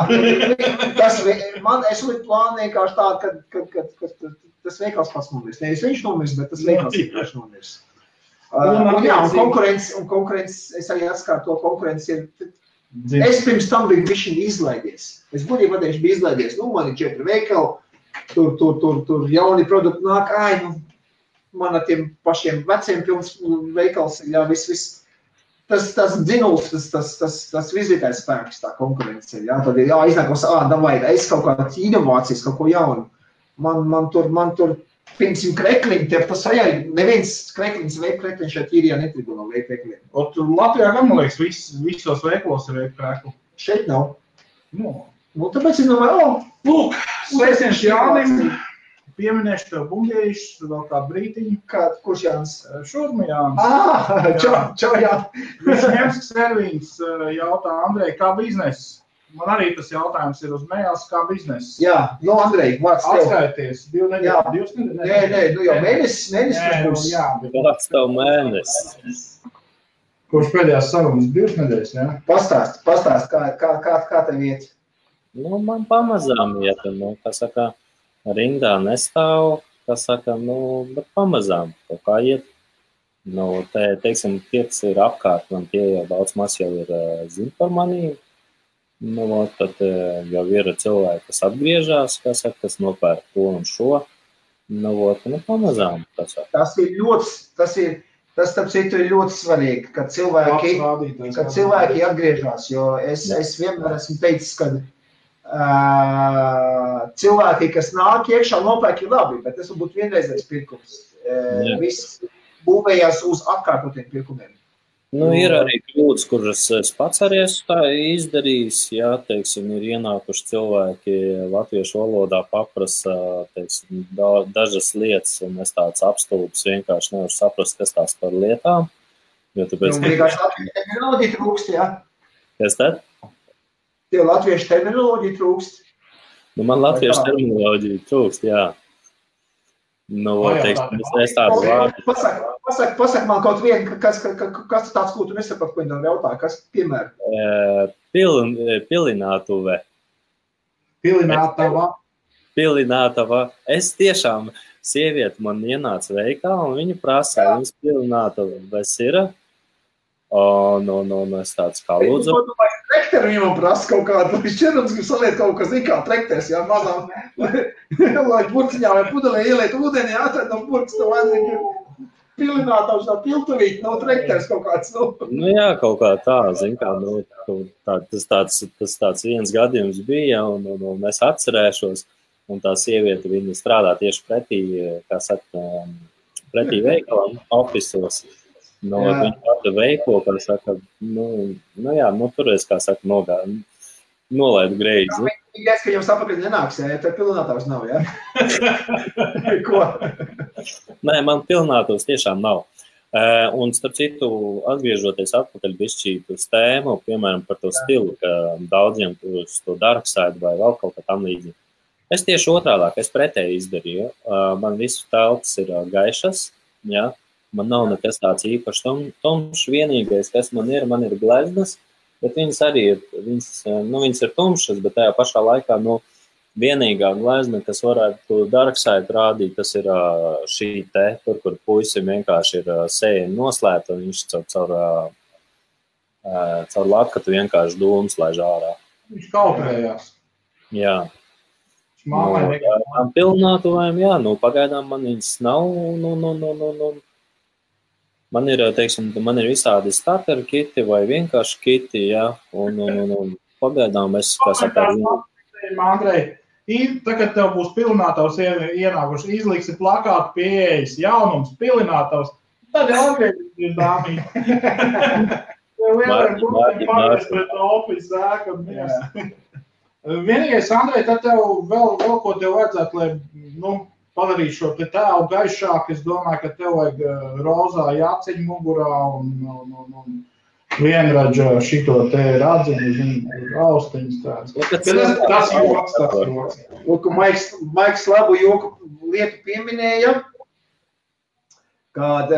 es liku plānu vienkārši tā, ka tas veikals pats nomirs. Nevis viņš nomirs, bet tas veikals vienkārši nomirs. Un konkurence, es arī atskāru to konkurence ir, es pirms tam biju bišķiņ izlaidies. Es būtībā patieši biju izlaidies, man ir 4 veikali, tur jauni produkti nāk, man ar tiem pašiem veciem pilns veikals, jā, viss. Tas dzinuls, tas vizītājs spēks, tā konkurence ir, jā, tad ir jāiznākos, davai, es kaut kādas inovācijas, kaut ko jaunu. Man tur piemēram krekliņi, tas vajag, neviens krekliņš, veip krekliņš šeit īrijā netrigo no veip krekliņiem. Tur Latvijā gan, man liekas, visos veiklos ir veip krekli. Šeit nav. Tāpēc es domāju, lūk, sveiciens Jānim, pieminēšu tev bungējušas vēl kādu brītiņu. Kurš Jānis? Šurma Jānis. Čau, Jānis. Visņemsks Servins jautā, Andrej, kā bizness? Man arī tas jautājums ir uz mējās, kā bizness. Jā, Andrej, vārds tev. Atskaities, 2 nedēļas, 2 nedēļas. Nē, jau mēnesis būs. Vārds tev mēnesis. Kurš pēdējās sarunas 2 nedēļas, jā? Pastāst, kā tev iet? Man pamazām iet, kā saka, rindā nestāv, kā saka, bet pamazām kaut kā iet. Teiksim, tie, kas ir apkārt, man tie jau daudz maz jau ir zin par manī. Tad jau ir cilvēki, kas atgriežās, kā saka, kas nopērk to un šo. Pamazām. Tas starp citu ir ļoti svarīgi, kad cilvēki atgriežās, jo es vienmēr esmu teicis, ka cilvēki, kas nāk iekšā, nopērk ir labi, bet tas var būt vienreizais pirkums. Viss būvējās uz atkārtotiem pirkumiem. Ir arī kļūdas, kuras es pats arī esmu tā izdarījis, jā, teiksim, ir ienākuši cilvēki latviešu valodā paprasa, teiksim, dažas lietas, un es tāds apstulbs vienkārši nevaru saprast, kas tās par lietām. Jo tāpēc... Vienkārši latviešu terminoloģija trūkst, jā? Kas tad? Tev latviešu terminoloģija trūkst? Man latviešu terminoloģija trūkst, jā. Teiksim, es tādu vārdu. Pasaka man kaut vienu, kas tāds, ko tu nesaprati, ko viņi jautāja, kas, piemēram? Pilinātuve. Pilinātava. Es tiešām, sieviete man ienāca veikalā, un viņa prasā, viņas pilinātuves ir. Es tāds kā lūdzu. Trekteru viņam prasa kaut kādu, viņš čerums grib saliet kaut kas, kā trekters, jā, mazām, lai burciņā vai pudelē ieliet ūdeni, atrad no burks, tev vajadzīgi pilinātavs no piltuvīt, no trekters kaut kāds, Jā, kaut kā tā, zin kā, tas tāds viens gadījums bija, un es atcerēšos, un tā sieviete, viņa strādā tieši kā saka, pretī veikalam, ofisos. Viņa tāda veiklo, kā saka, turies, kā saka, nolaid greizi. Viņa ka jums apakaļ nenāks, ja tev pilinātavs nav, jā? Ko? Nē, man pilinātavs tiešām nav. Un, starp citu, atgriežoties atpakaļ bišķīt uz tēmu, piemēram, par to stilu, ka daudziem uz to dark side vai vēl kaut kā tam līdzīgi. Es tieši otrādāk, es pretēji izdarīju. Man visu telpas ir gaišas, jā. Man nav nekas tāds īpašs tumšs, vienīgais, kas man ir gleznas, bet viņas arī ir, viņas ir tumšas, bet tajā pašā laikā, vienīgā glezna, kas varētu dark side rādīt, tas ir šī te, kur puisim vienkārši ir sēja noslēpta, un viņš caur latkatu vienkārši dūmus laiž ārā. Viņš kautrējās. Jā. Tām pilnātuvēm, jā, pagaidām man viņas nav, Man ir, teiksim, visādi starter kiti vai vienkārši kiti, jā, un pagaidām es, kā saka, Andrej, tagad tev būs pilinātavs ienākuši, izliksi plakātu pieejas, jaunums, pilinātavs, tad jau atgriežas dāmī. Tev vienkārši pārēs pret opis zēka un mies. Vienīgais, Andrej, tad tev vēl ko tev vajadzētu, lai, padarīt šo te tēlu gaišāk, es domāju, ka tev vajag rozā jāceņu mugurā un vienradža šito te radziņu, austiņas tāds. Tas joks. Lūk, Maiks labu joku lietu pieminēja, kad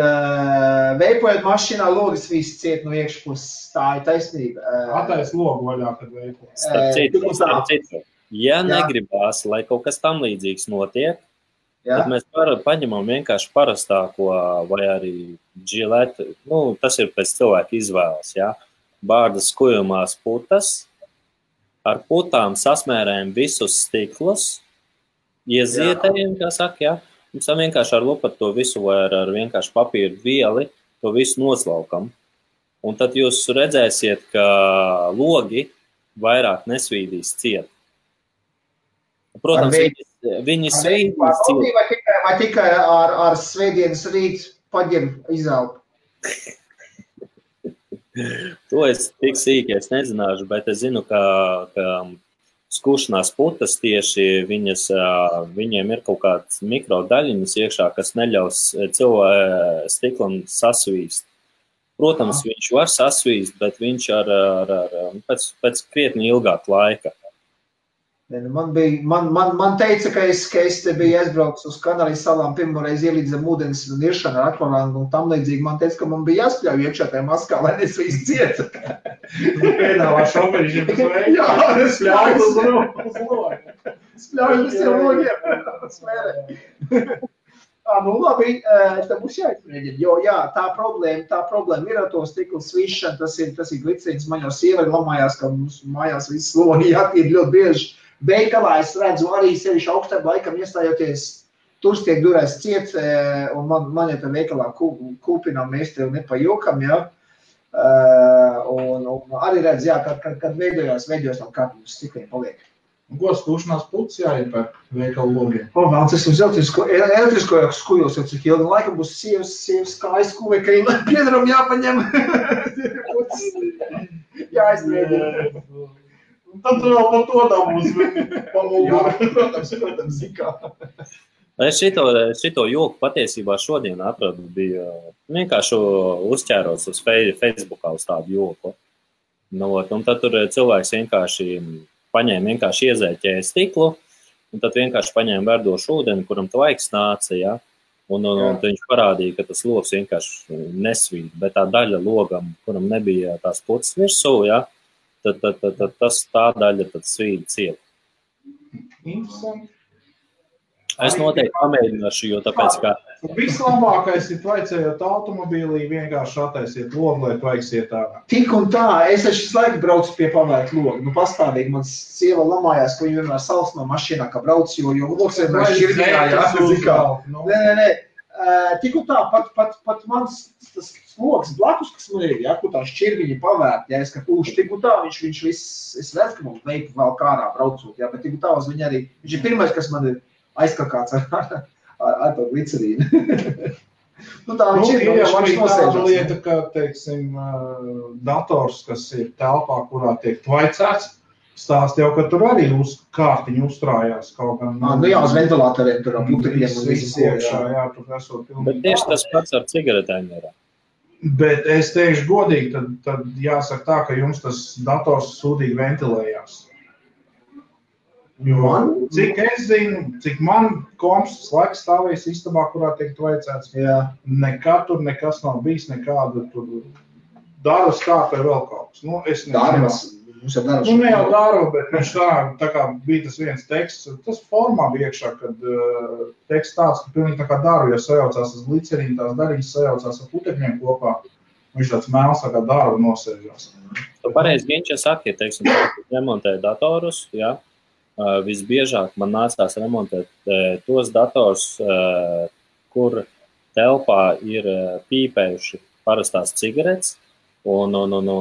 veipojot mašīnā logas viss ciet no iekšpuses, tā ir taisnība. Atais logu vaļā, kad veipojot. Starp citu, ja negribās, lai kaut kas tam līdzīgs notiek, tad mēs paņemam vienkārši parastāko vai arī džiletu, tas ir pēc cilvēka izvēles, jā. Bārdas kujumās putas, ar putām sasmērējam visus stiklus, iezietējam, kā saka, jā. Mums vienkārši ar lupatu to visu vai ar vienkārši papīru vieli to visu noslaukam. Un tad jūs redzēsiet, ka logi vairāk nesvīdīs ciet. Protams, viņi svīdīs ciet. Vai tikai ar svētdienas rīt paģem izelpu? To es tik sīki es nezināšu, bet es zinu, ka skušanās putas tieši viņiem ir kaut kāds mikrodaļiņas iekšā, kas neļaus stiklam sasvīst. Protams, viņš var sasvīst, bet viņš pēc krietni ilgāk laika. Man teica, ka es te biju aizbraucis uz Kanārijas salām, pirmoreiz ielīdz zem ūdens niršana ar akvalangu un tam līdzīgi. Man teica, ka man bija jāspļauj iekšā tajā maskā, lai nesvīst ciet. Pēdāvā šoferiņš ir jā, spļauj uz logiem. Spļauj uz tiem logiem. Smērē. Nu labi, te būs jāizmēģina, jo jā, tā problēma ir ar to stiklu svīšanu, tas ir glicīns, man jau sieva lamājās, ka mums mājās viss logi jātīd ļoti bieži. Veikalā es redzu arī sevišķi augstām laikam iestājoties, tur tiek durēs ciet, un man jau te veikalā kūpinām mēs tev nepajokam, jā. Un arī redz, jā, kad veidojās tam kāpums stikliem paliek. Un ko skūšanās putas jāiepērk veikalu logiem? Vēl tas uz elektrisko skujos, jau cik ilgi laikam būs sievas kājas skuvē, ka viņam piedaram jāpaņem. Jāizmēģina. Tad tu vēl par to dabūs pamūgu. Protams, kā. Es šito joku patiesībā šodien atradu, bija vienkārši uzķēros uz Facebookā uz tādu joku. Un tad tur cilvēks vienkārši iezēķēja stiklu, un tad vienkārši paņēma verdošu ūdeni, kuram tvaiks nāca, ja? Un viņš parādīja, ka tas logs vienkārši nesvīt, bet tā daļa logam, kuram nebija tās putas virsū, ja? Tad tā daļa tad svīt ciet. Interesanti. Es noteikti pamēģināšu, jo tāpēc, ka... Vislabākais ir tvaicējot automobīlī, vienkārši attaisiet logu, lai tvaiksiet ārā. Tik un tā, es visu laiku braucu pie pavērt logu. Pastāvīgi man sieva lamājās, ka viņa vienmēr salsmā mašīnā, ka brauc, jo logs vienmēr šķirgījā, jā. Nē. Tik un tā, pat mans tas logs blakus, kas man ir, jā, kur tā šķirgiņa pavērt, jā, es kā pūšu, tik un tā, viņš viss, es redzu, ka mums veiku vēl kārā braucot, jā, bet tik un tā uz viņa arī, viņš ir pirmais, kas man ir aizkakāts ar to glicerīnu. Tā viņš ir arī tāda lieta, ka, teiksim, dators, kas ir telpā, kurā tiek tvaicēts, stāst jau, ka tur arī uz kārtiņu uzstrājās kaut gan. Jā, uz ventilatoriem tur putekļiem un viss iekšā, jā, tur esot pilnīgi. Bet tieši tas pats ar cigaretēm ir. Bet es teikšu godīgi, tad jāsaka tā, ka jums tas dators sūdīgi ventilējās. Jo, cik es zinu, cik man komps laiks stāvēs istabā, kurā tiek tvaicēts, nekad tur nekas nav bijis, nekāda tur daras kāp vai vēl kaut kas. Es nezinu. Ne jau daru, bet viņš tā kā bija tas viens teksts, tas formā bija iekšā, kad teksts tāds, ka pilnīgi tā kā daru, ja sajaucās tas glicerīni, tās dariņas sajaucās ar putekļiem kopā, viņš tāds mēls tā kā daru nosēžās. Tu pareizi Ginča saki, teiksim, remontēja datorus, jā. Visbiežāk man nācās remontēt tos dators, kur telpā ir pīpējuši parastās cigaretes, un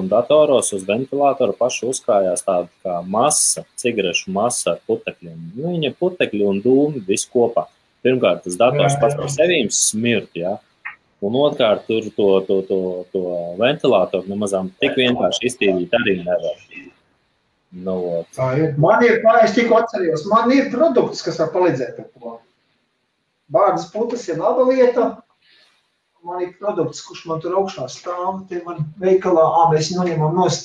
datoros uz ventilātoru pašu uzkrājās tāda kā masa, cigarešu masa ar putekļiem. Viņa putekļi un dūmi visu kopā. Pirmkārt, tas dators pats par sevīm smirt, jā. Un otrkārt, tur to ventilātoru nemazām tik vienkārši iztīrīt arī nevar. Man ir, es tikko atcerījos, man ir produkts, kas var palīdzēt ar to. Bārdas putas ir laba lieta. Man ir produkts, kurš man tur augšā stāv, te man veikalā, mēs noņemam nost.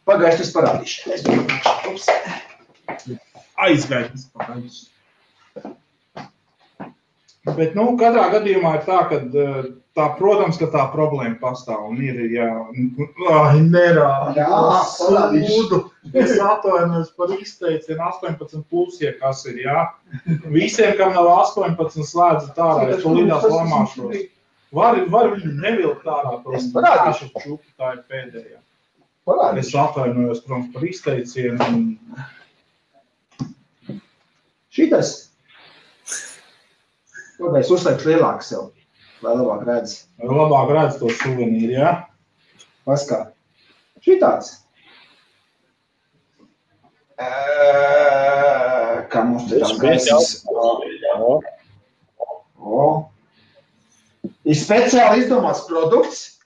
Pagaiši, es parādīšu. Aizgājums pagaiši. Bet, katrā gadījumā ir tā, ka protams, ka tā problēma pastāv un ir, sūdu. Es atvainojos par izteicienu 18+, ja kas ir, jā. Visiem, kam nav 18, slēdzat ārā, es to lidās lamāšos. Var viņu nevilkt ārā, tos parādīšu čupu, tā ir pēdējā. Es atvainojos, protams, par izteicienu. Šitas? Es uzslēgšu lielāk sev, lai labāk redz. Lai labāk redz to suvenīru, jā? Paskā. Šitāds. Kā mums te tās gaisas. Ir speciāli izdomāts produkts,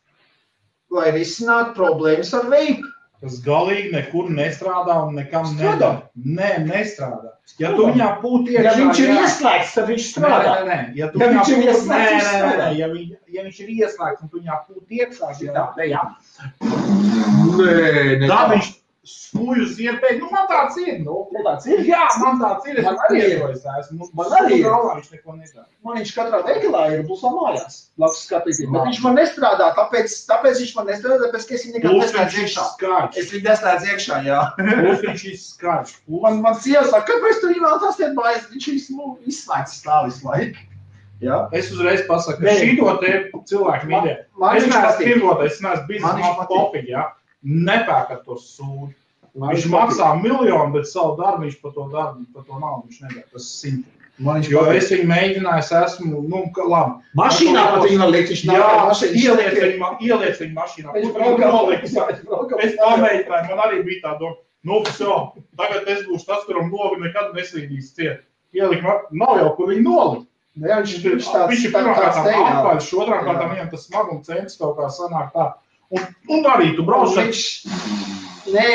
lai risinātu problēmas ar veipu. kas galīgi nekur nestrādā un nekam nedara. Nē, nestrādā. Ja tu viņā pūti iekšā... Ja viņš ir ieslēgts, tad viņš strādā. Nē. Ja viņš ir ieslēgts, ja viņš ir ieslēgts un tu viņā pūti iekšā, tā viņš spūju uz iepēju. Nu, man tāds ir. Jā, man tāds ir. Man arī ir. Viņš neko nedara. Man viņš katrā veikalā ir busā mājās. Labs skatīties. Bet viņš man nestrādā, tāpēc viņš man nestrādā, tāpēc, ka es viņu nekad neslēdz iekšā. Es viņu neslēdz iekšā, jā. Viņš ir skarš. Man sieva saka, kāpēc tu vēl tas tiek bājas? Viņš izslēgts stāvis laiku. Jā. Es uzreiz pasaku, ka šito te cilvēku mīļē. Es neesmu pirmotais, es neesmu biznesa popiņi, jā. Nepērkat to sūdu. Viņš maksā miljonu, bet savu darbu viņš par to naudu viņš nedara. Tas ir 100. Jo es viņu mēģināju, esmu, labi. Mašīnā pat viņu var likt, viņš nav kā mašīnā. Ieliec viņu mašīnā. Es pamēģināju, man arī bija tā doma, tagad es būšu tas, kuram novi nekad neslīdīs ciet. Ielikt, nav jau, kur viņu nolikt. Viņš ir pirmkārtām atpaļš, otrām kārtām viņam tas smaguma centrs kaut kā sanāk tā. Un arī tu brauc. Nē.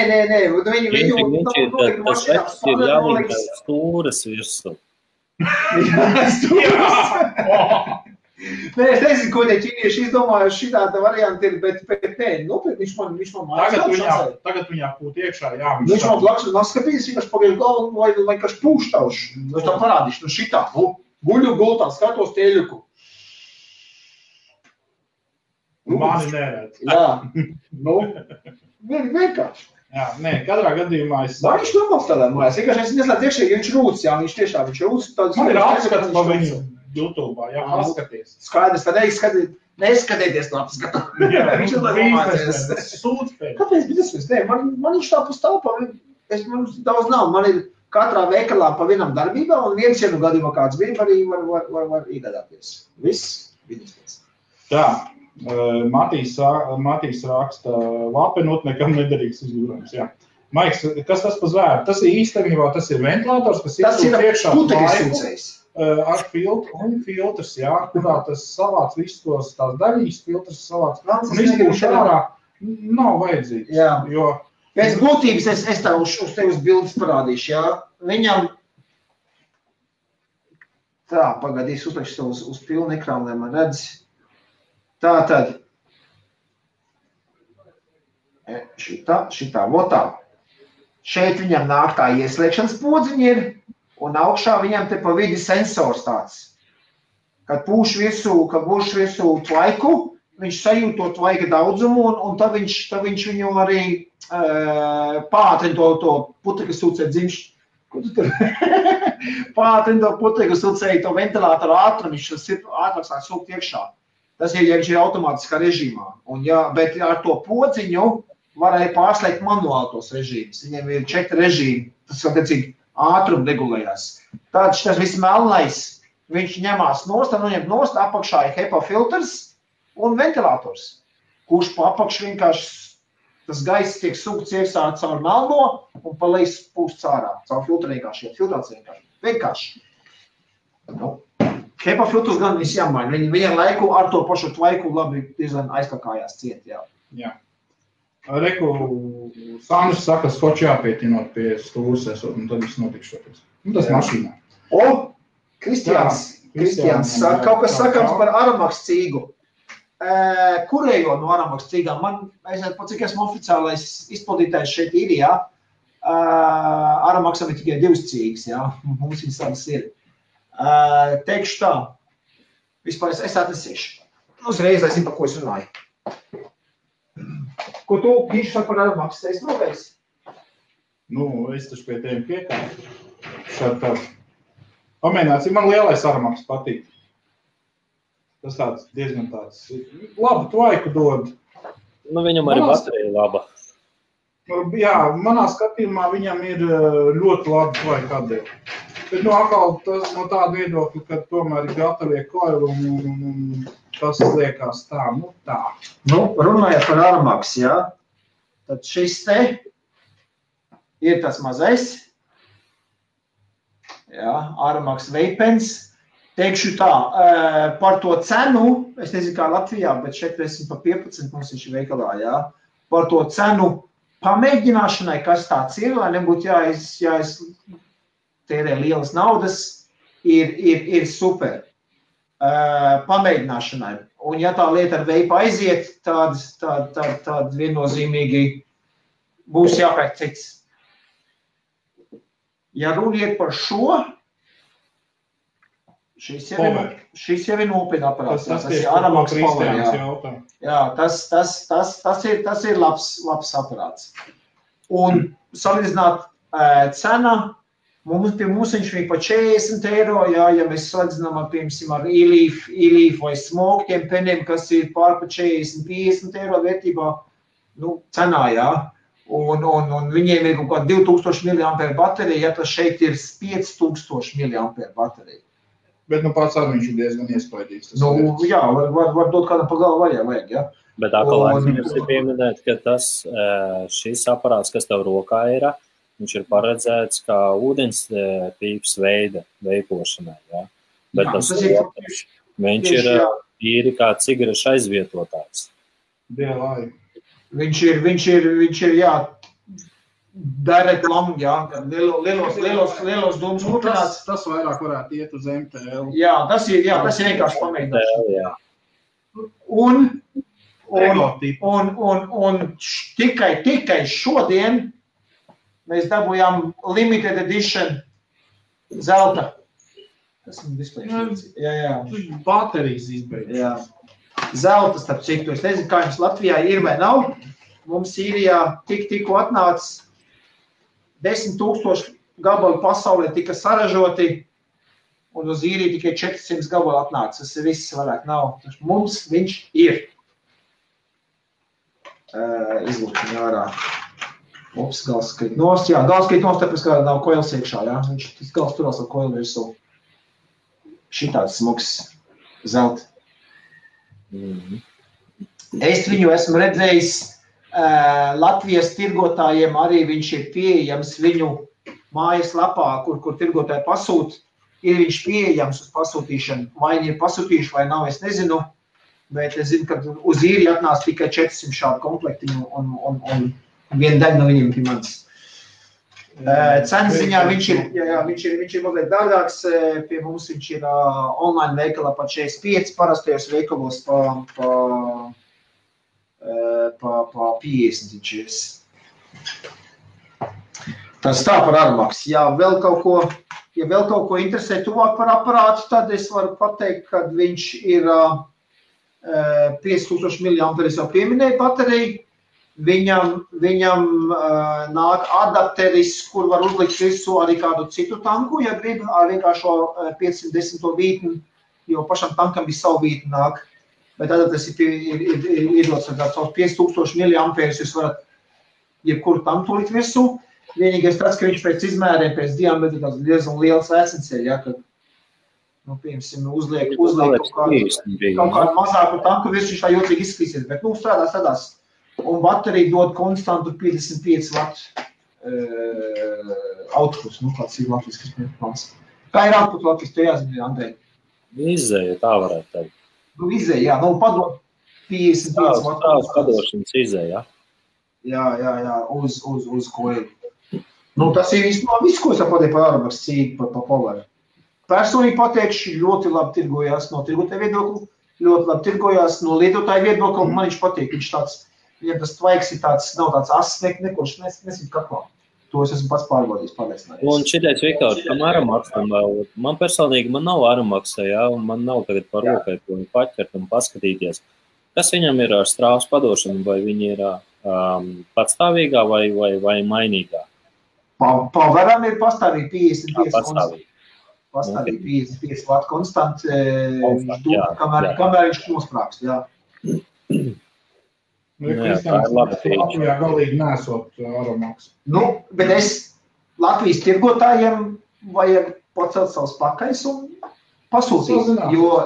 Viņš ir tas vecs ir jāliek stūras virsū. Nē, es nezinu, ko tie ķīnieši izdomājuši šitāda varianta ir, bet nē, viņš man mājas. Tagad viņā pūt iekšā, jā. Viņš man blakus un skatījis, vienkārši pagaidu galvu, vai kāds pūštauši. Es tam parādīšu, šitā, guļu gultā, skatos tieļuku. Mani neredz. Jā, vienkārši. Jā, nē, katrā gadījumā es... Viņš normāls tādā mājās, vienkārši es neslēdz iekšā, ja viņš rūc, jā, viņš tiešām rūc. Man ir apskats pa viņu YouTube, jā, paskaties. Skaidrs, tad neskatieties to apskatu. Jā, viņš ir biznesa, sūdz pēc. Kāpēc biznesa? Nē, man viņš tā pastāvā, man daudz nav, man ir katrā veikalā pa vienam darbībā, un viens, ja nu gadījumā kāds bija, arī var iegādāties. Viss, biznesa. Tā. Matīs raksta, lapenot nekam nederīgs izgudrojums, jā. Maiks, kas tas pa zvēru? Tas ir īstenībā, tas ir ventilators, kas ir putekļsūcējs. Ar filtrs, jā, kurā tas savāc visus tos tās daļīs, filtrs savāc. Un izpūš ārā nav vajadzīgs. Jā. Jo... Pēc būtības es tā uz tevis bildes parādīšu, jā. Viņam... Tā, pagadīs, uzliekšu uz pilnu ekrānu, lai man redz. Tātad, šitā, votā. Šeit viņam nāk tā ieslēgšanas podziņa ir, un augšā viņam te pa vidi sensors tāds. Kad būšu virsū tvaiku, viņš sajūt to tvaika daudzumu, un tad viņš viņu arī pātrina to putekļu sūcēju dzimšu. Ko tu tur? Pātrina to putekļu sūcēju, to ventilātoru ātrumu, viņš ātrāk sāk sūkt iekšā. Tas ir, ja viņš ir automātiskā režīmā. Bet ar to podziņu varēja pārslēgt manuāli tos režīmus. Viņiem ir 4 režīmi, tas attiecīgi ātrumu regulējās. Tāds tas viss melnais, viņš ņemās nost, apakšā ir HEPA filtrs un ventilators, kurš pa apakšu vienkārši tas gaiss tiek sūkts iekšā caur melno un pa leju pūsts ārā, caur filtru vienkārši, filtrācija vienkārši. HEPA filtrs gan viss jāmaina, viņam laiku ar to pašu tvaiku labi diezgan aizkakājās ciet, jā. Jā. Reku, Sandrs saka, skoči jāpietinot pie stūras esot, un tad viss notikšoties. Tas mašīnā. Kristiāns saka, kaut kas sakams par Aramax cīgu. Kurējo no Aramax cīgām? Es pat cik esmu oficiālais izpildītājs šeit ir, jā. Aramaxam ir tikai 2 cīgas, jā. Mums viņas tādas ir. Teikšu tā, vispār es atnesīšu. Uzreiz, lai zinu, par ko es runāju. Ko tu, Kīši, saka par Aramax? Es novējis? Es taču pie tiem piekāju. Šādi tāds. Pamēģināts, man lielais Aramax patīk. Tas tāds diezgan tāds labu tvaiku dod. Viņam arī baterija laba. Jā, manā skatījumā viņam ir ļoti labi tvaiku atdeva. Bet atkal tas no tāda viedokļa, ka tomēr ir gatavie koili un tas liekas tā, tā. Runājot par Aramax, jā, tad šis te ir tas mazais, jā, Aramax Vapens. Teikšu tā, par to cenu, es nezinu kā Latvijā, bet šeit esmu pa 15, mums viņš ir veikalā, jā, par to cenu pamēģināšanai, kas tāds ir, lai nebūtu jāiztērē lielas naudas, ir super. Pamēģināšanai. Un ja tā lieta ar veipu aiziet, tad viennozīmīgi būs jāpērk cits. Ja runiet par šo, šis jau ir nopietni aparāts. Tas ir Aramax Power, jā, tas ir labs aparāts. Un salīdzināt cena, pie mums viņš bija pa 40 €, jā, ja mēs salīdzinām ar e-leaf vai smoktiem peniem, kas ir pār pa 40-50 € vērtībā, cenā, jā. Un viņiem ir kaut kā 2000 mAh baterija, ja tas šeit ir 5000 mAh baterija. Bet pats arī viņš ir diezgan iespaidīgs. Jā, var dot kādam pa galvu vajag, jā. Bet atkal aizmirst ir pieminēt, ka šis aparāts, kas tev rokā ir, viņš ir paredzēts kā ūdens pīps veida veipošanai, jā. Bet viņš ir īri kā cigarešu aizvietotājs. DLI. Viņš ir, jā, direct long, jā, lielos dūmus kurināts. Tas vairāk varētu iet uz MTL. Jā, tas ir vienkārši pamēģināšana. Un tikai šodien mēs dabūjām limited edition zelta. Tas man displejs. Jā. Baterijas izbeidz. Jā. Zelta, starp citu. Es nezinu, kā jums Latvijā ir vai nav. Mums Sīrijā tikko atnāca 10 000 gabalu pasaulē tika saražoti, un uz Īriju tikai 400 gabalu atnāca. Tas ir viss vairāk nav. Mums viņš ir. Izlūkšana ārā. Ups, gals skrit nost. Jā, gals skrit nost, tāpēc, kā nav koils iekšā, jā. Viņš gals turās ar koilu virsū. Šitāds smuks zelta. Es viņu esmu redzējis Latvijas tirgotājiem, arī viņš ir pieejams viņu mājaslapā, kur tirgotāji pasūt. Ir viņš pieejams uz pasūtīšanu. Vai viņi ir pasūtījuši vai nav, es nezinu. Bet es zinu, ka uz Īriju atnāca tikai 400 šādu komplektiņu un viena daļa no viņiem pie manis. Cenas ziņā viņš ir mazliet dārgāks, pie mums viņš ir online veikalā pa 45, parastajos veikalos pa 50 viņš ir. Tas tā par Aramax. Ja vēl kaut ko interesē tuvāk par aparātu, tad es varu pateikt, ka viņš ir 5000 mAh, es jau pieminēju bateriju. Viņam nāk adapteris, kur var uzlikt visu arī kādu citu tanku, ja grib, ar vienkāršo 510 vītni, jo pašam tankam ir savu vītni nāk. Bet adapteris ir iedots ar tāds 5000 mAh, jūs varat jebkuru tanku likt virsū. Vienīgais tāds, ka viņš pēc izmēriem, pēc diametra tāds diezgan liels vēcens ir, ja, kad, piemēram, uzliek kaut kādu mazāku tanku virsū, viņš tā jocīgi izskatīsies, bet, strādās. Un baterija dod konstantu 55 watt output, kāds ir latviskas plāns. Kā ir output latvis, tu jāzina, Andrej? Izēja, tā varētu teikt. Izēja, jā, padod 55 watt. Tās padošanas izēja. Jā, uz koilu. Tas ir viss, ko es pateicu par Aramax cīgu, par Power. Personīgi pateikšu, ļoti labi tirgojās no tirgotāja viedokļa, ļoti labi tirgojās no lietotāja viedokļa, man viņš patīk, viņš tāds, ja tas tvaiks ir tāds, nav tāds ass, nekurš nesit kaklā. To es esmu pats pārbaudījis, pārliecinājies. Un šitais, Viktor, tam Aramaxam vēl, man personīgi, man nav Aramaxa, jā, un man nav tagad par rokai, ko viņu paķert un paskatīties. Kas viņam ir ar strāvas padošanu, vai viņi ir patstāvīgā vai mainīgā? Poweram ir pastāvīgi 55 konstanti. Pastāvīgi 55 watt konstanti, kamēr viņš nosprākst, jā. Tā ir labi. Latvijā galīgi nesot Aramax. Bet es Latvijas tirgotājiem vajag pacelt savus pakaļus un pasūtīt, jo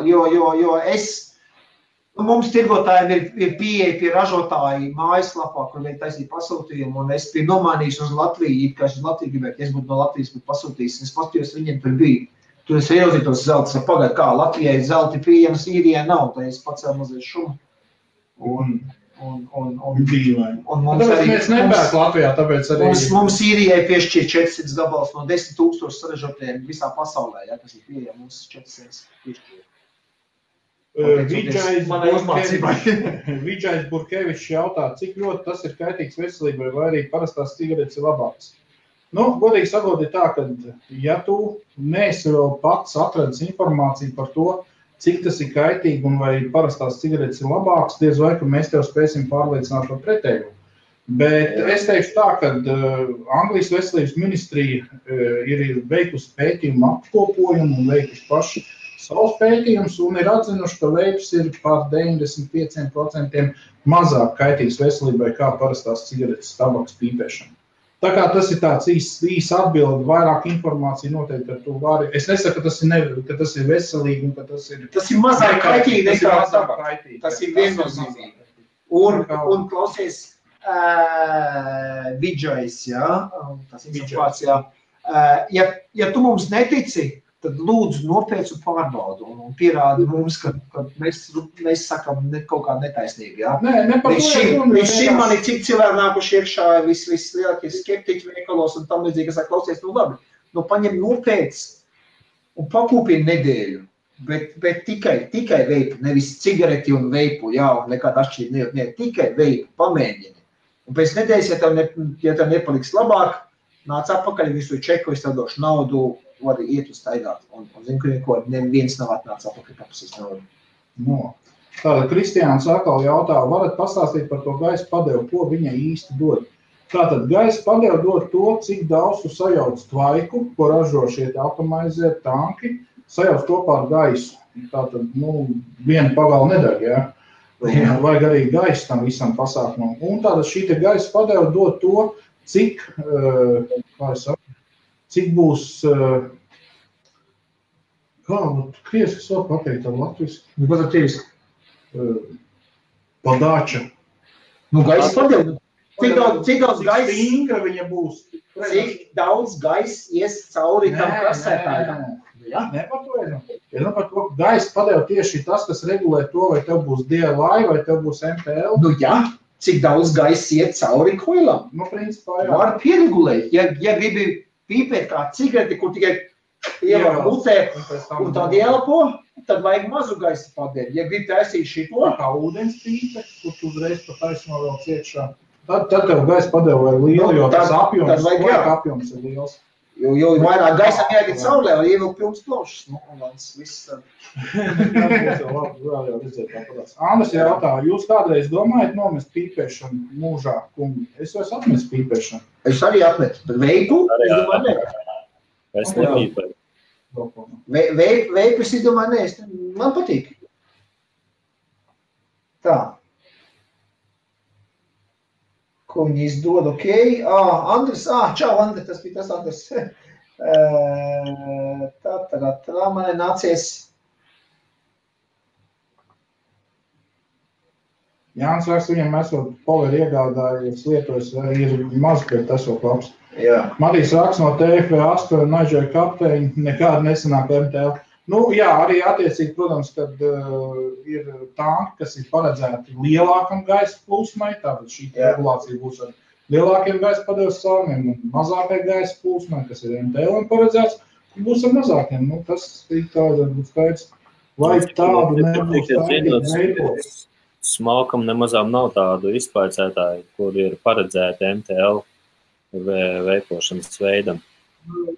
mums tirgotājiem ir pieeja pie ražotāji mājaslapā, kur viņi taisīja pasūtījumu, un es biju nomainījis uz Latviju, kā es uz Latviju gribētu, es būtu no Latvijas būtu pasūtījis, un es paskatījos, viņiem tur bija. Tur es ieauzītos zeltas, pagaid kā, Latvijai zelti pieejams, Īrijai nav, tā es pacēlu mazliet šumu. Dīvaini. Tāpēc mēs nepērk Latvijā, tāpēc arī... Mums Īrijai piešķir 400 gabals no 10,000 saražotiem visā pasaulē, ja, kas ir pieejami, mums 400 piešķir. Vidžais Burkevičs jautā, cik ļoti tas ir kaitīgs veselībai, vai arī parastās cigaretes ir labākas. Nu, godīgi sakot, ir tā, ka ja tu neesi vēl pats atradis informāciju par to, cik tas ir kaitīgi un vai parastās cigaretes ir labākas, diez vai, ka mēs tev spēsim pārliecināt par pretējumu. Bet es teikšu tā, ka Anglijas veselības ministrija ir veikusi pētījumu apkopojumu un veikusi paši savus pētījumus un ir atzinuši, ka veips ir par 95% mazāk kaitīgs veselībai kā parastās cigaretes tabakas pīpēšana. Tā kā tas ir tāds īs atbildi, vairāk informācija noteikti ar to vari. Es nesaku, ka tas ir veselīgi un ka tas ir... Tas ir mazāk kaitīgi nekā tabaks. Tas ir viennozīmīgi. Un klausies, Vidžais, jā, tas ir vārds, jā. Ja tu mums netici, tad lūdzu nopietnu pārbaudu un pierādi mums, ka mēs sakam kaut kā netaisnīgi, jā. Līdz šim man ir cik cilvēki nākuši iekšā vislielākie skeptiķi veikalos un tam līdzīgi, kas klausies, nu labi, nu paņem nopietns un pakūpini nedēļu, bet tikai veipu, nevis cigareti un veipu, jā, un nekāda atšķirība, ne, tikai veipu, pamēģini. Un pēc nedēļas, ja tev nepaliks labāk, nāc atpakaļ visu čeku, es tev došu naudu, var iet uz staigāt. Un zinu, ka neviens nav atnācis atpakaļ papasīs naudu. No. Tātad Kristiāns atkal jautā, varat pastāstīt par to gaisa padevu, ko viņai īsti dod? Tātad gaisa padevu dod to, cik daudz tu sajauc tvaiku, ko ražo šie automaizie tanki, sajauc kopā ar gaisu. Tātad, viena pagala nedeg, jā. Vajag arī gaisa tam visam pasākumam. Un tātad šī te gaisa padevu dod to, cik, cik būs, krieviski var pateikt ar latviski? Nu, pat ar krieviski? Padāča. Nu, gaisa padevu. Cik daudz gaisa? Cik stingra viņa būs? Cik daudz gaisa ies cauri tam krasētājam? Jā, ne par to ir. Ja par to gaisa padevu tieši tas, kas regulē to, vai tev būs DLI, vai tev būs MTL. Nu, jā. Cik daudz gaisa iet cauri koilam? Nu, principā, jā. Var pieregulēt. Ja gribi pīpēt kā cigareti, kur tikai ievar mutē un tad ielpo, tad vajag mazu gaisa padevi. Ja gribi taisīt šito, kā ūdens pīpe, kur tu uzreiz pa taisno vēl ciekšā, tad tev gaisa padevi vajag lielu, jo tas apjoms ir liels. Jo vairāk gaisam jāiet saulē, un ievilk pilns plošs. Nu, un viss... Andris jautā, jūs kādreiz domājat nomest pīpēšanu mūžā, kungi? Es jau esmu atmetis pīpēšanu. Es arī atmetu, bet veipu, es domāju, ne. Es nepīpēju. Veipu, es domāju, ne. Man patīk. Tā. Ko viņi izdod, ok. Andris, čau, Andris, tas bija tas Andris. Tā man nācies. Jānis raksta, viņam esot poleri iegādājies lietojas, ir maz, bet esot labs. Jā. Matīs raksta no TFV8 un Naidžēja kapteiņi, nekāda nesanāk MTL. Nu, jā, arī attiecīgi, protams, kad ir tanki, kas ir paredzēti lielākam gaisa plūsmai, tātad šī regulācija būs ar lielākiem gaisa padevas caurumiem un mazākai gaisa plūsmai, kas ir MTL paredzēts, būs ar mazākiem. Nu, tas ir tāda būs skaidrs. Vai tādu nebūs tādi veikos? Smalkam nemazām nav tādu izpaicētāju, kur ir paredzēti MTL veipošanas veidam.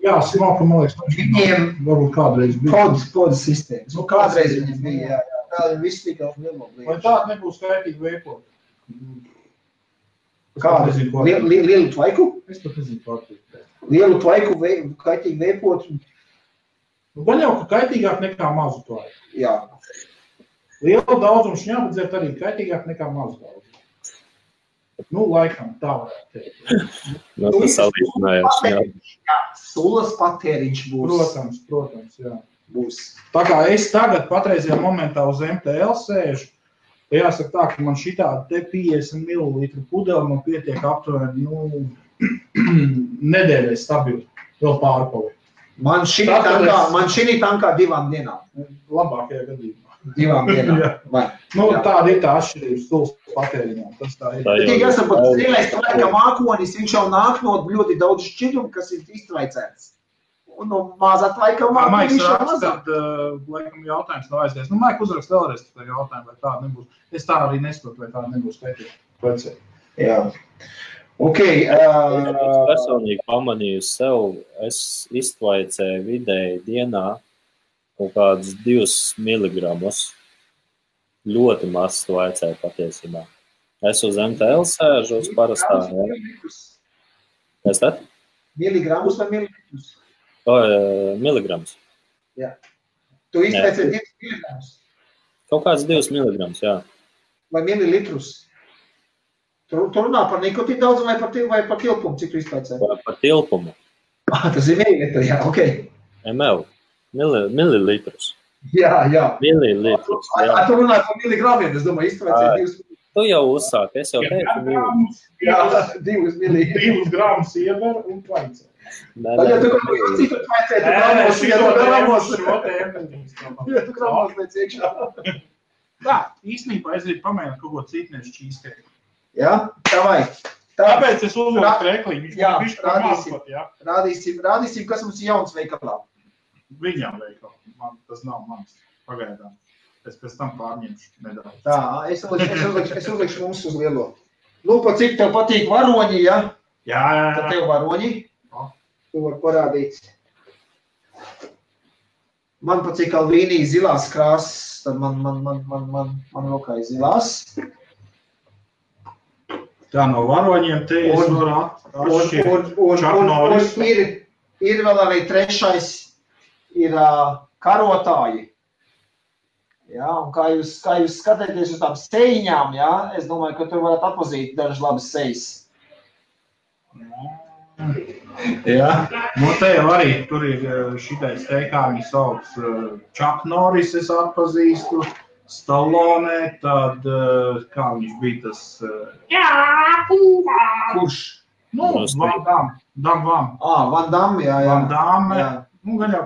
Jā, smalka, man liekas, viņiem varbūt kādreiz bija. Podas sistēmas. Nu, kādreiz viņiem bija, jā. Tā viss tika nemoblīgi. Vai tāda nebūs kaitīgi veipot? Kāda? Lielu tvaiku? Es pat nezinu pārtīk. Lielu tvaiku kaitīgi veipot? Nu, gan jau, ka kaitīgāk nekā mazu tvaiku. Jā. Lielu daudzumu šņāpadzēt arī kaitīgāk nekā mazu daudzumu. Nu, laikam, tā varētu teikt. No, tas salīdzinājās, jā. Sulas patēriņš būs. Protams, jā. Būs. Tā kā es tagad patreizajā momentā uz MTL sēžu, jāsaka tā, ka man šitāda te 50 ml pudeli man pietiek aptuveni, nedēļai stabili, vēl pārpali. Man šī tankā 2 dienām. Labākajā gadījumā. 2 dienām. Tāda ir tā atšķirības stūles patēriņā. Tas tā ir. Tik esam pat strīlēs, ka mākonis, viņš jau nāk no ļoti daudz šķidrumu, kas ir iztraicēts. Un no mazā tvaika mākonis viņš jau mazāk. Laikam jautājums nav aizdies. Maik uzrakst vēlreiz tā jautājumu, vai tāda nebūs. Es tā arī nesaprotu, vai tāda nebūs pētīt. Jā. Ok. Es personīgi pamanīju sev, es iztvaicēju vidēji dienā kaut kādus 2 miligramus. Ļoti maz tvaicēju patiesībā. Es uz MTL sēžu uz parastā. Kas tad? Miligramus vai mililitrus? Miligrams. Jā. Tu iztvaicēji 2 miligramus? Kaut kāds 2 miligrams, jā. Vai mililitrus? Tu runā par nikotīnu daudz vai par tilpumu, cik tu iztvaicēji? Par tilpumu. Tas ir mililitri, jā, ok. ML. Mililitrus. Jā. Mililitrus, jā. Tu runāji par miligramiem, es domāju, iztvaicēji 2 miligramus. Tu jau uzsāk, es jau teicu miligramus. Jā, 2 miligramus. 2 gramus ieber un tvaicē. Ja tu kaut ko citu tvaicē, tu gramos pēc iekšā. Tā, īstenībā es gribu pamēģināt kaut ko citniešu čīstēju. Jā, tā vajag. Tāpēc es uzvilku krekliņu. Jā, rādīsim, kas mums ir jauns veikalā. Viņām veikalā. Tas nav mans. Pagaidām. Es pēc tam pārņemšu nedaudz. Tā, es uzlikšu mums uz lielo. Pa cik tev patīk varoņi, ja? Jā. Tad tev varoņi. Tu var parādīt. Man pa cik Alvīnī zilās krāsas, tad man rokā ir zilās. Tā no varoņiem te es varu atšķirt Chuck Norris. Ir vēl arī trešais, ir karotāji. Jā, un kā jūs skatāties uz tām sejiņām, jā, es domāju, ka tur varat atpazīt dažas labas sejas. Jā, te jau arī tur ir šitais te, kā viņi sauc, Chuck Norris es atpazīstu, Stallone, tad kā viņš bija tas... Kurš? Van Damme. Van Damme, jā. Van Damme. Gan jau,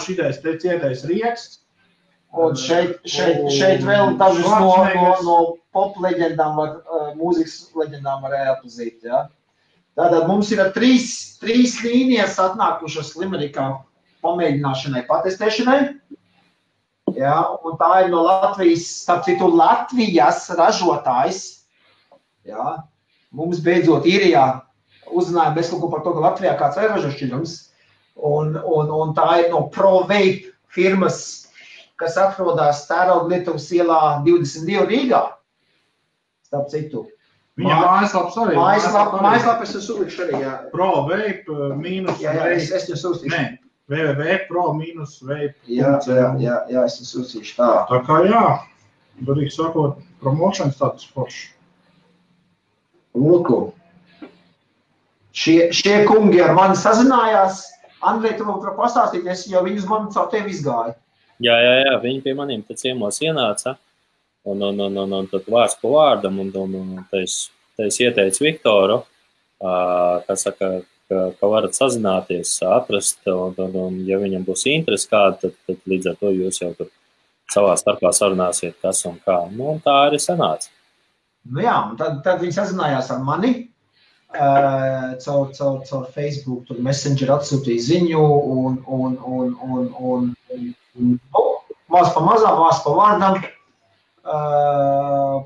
šitais te ciedais rieksts. Un šeit vēl dažus no pop leģendām, mūzikas leģendām varēja atpazīt, jā. Tātad mums ir 3 līnijas atnākušas Limerikā pamēģināšanai, patestēšanai. Jā, un tā ir no Latvijas, starp citu Latvijas ražotājs. Jā, mums beidzot Īrijā uzzinājām bez kaut ko par to, ka Latvijā kāds ir ražo šķidrums. Un tā ir no ProVape firmas, kas atrodas Tērauglietuvas ielā 22 Rīgā. Starp citu. Viņa mājaslaps arī. Mājaslapas es uzlikšu arī, jā. ProVape mīnus... Jā, es jūs uztīšu. Nē, www.pro-vape. Jā, es jūs uztīšu tā. Tā kā jā, darīgi sakot, promotion status forši. Lūku. Šie kungi ar mani sazinājās. Andrej, tu man pastāstīties, jo viņi uz mani caur tevi izgāja. Jā, viņi pie maniem te ciemos ienāca. Un tad vārds pa vārdam, un es ieteicu Viktoru, kas saka, ka varat sazināties, atrast, un ja viņam būs interesi kāda, tad līdz ar to jūs jau tur savā starpā sarunāsiet, kas un kā. Nu, un tā arī sanāca. Nu jā, un tad viņi sazinājās ar mani, caur Facebook, tur Messenger atsūtīja ziņu, un maz pa mazām, maz pa vārdam,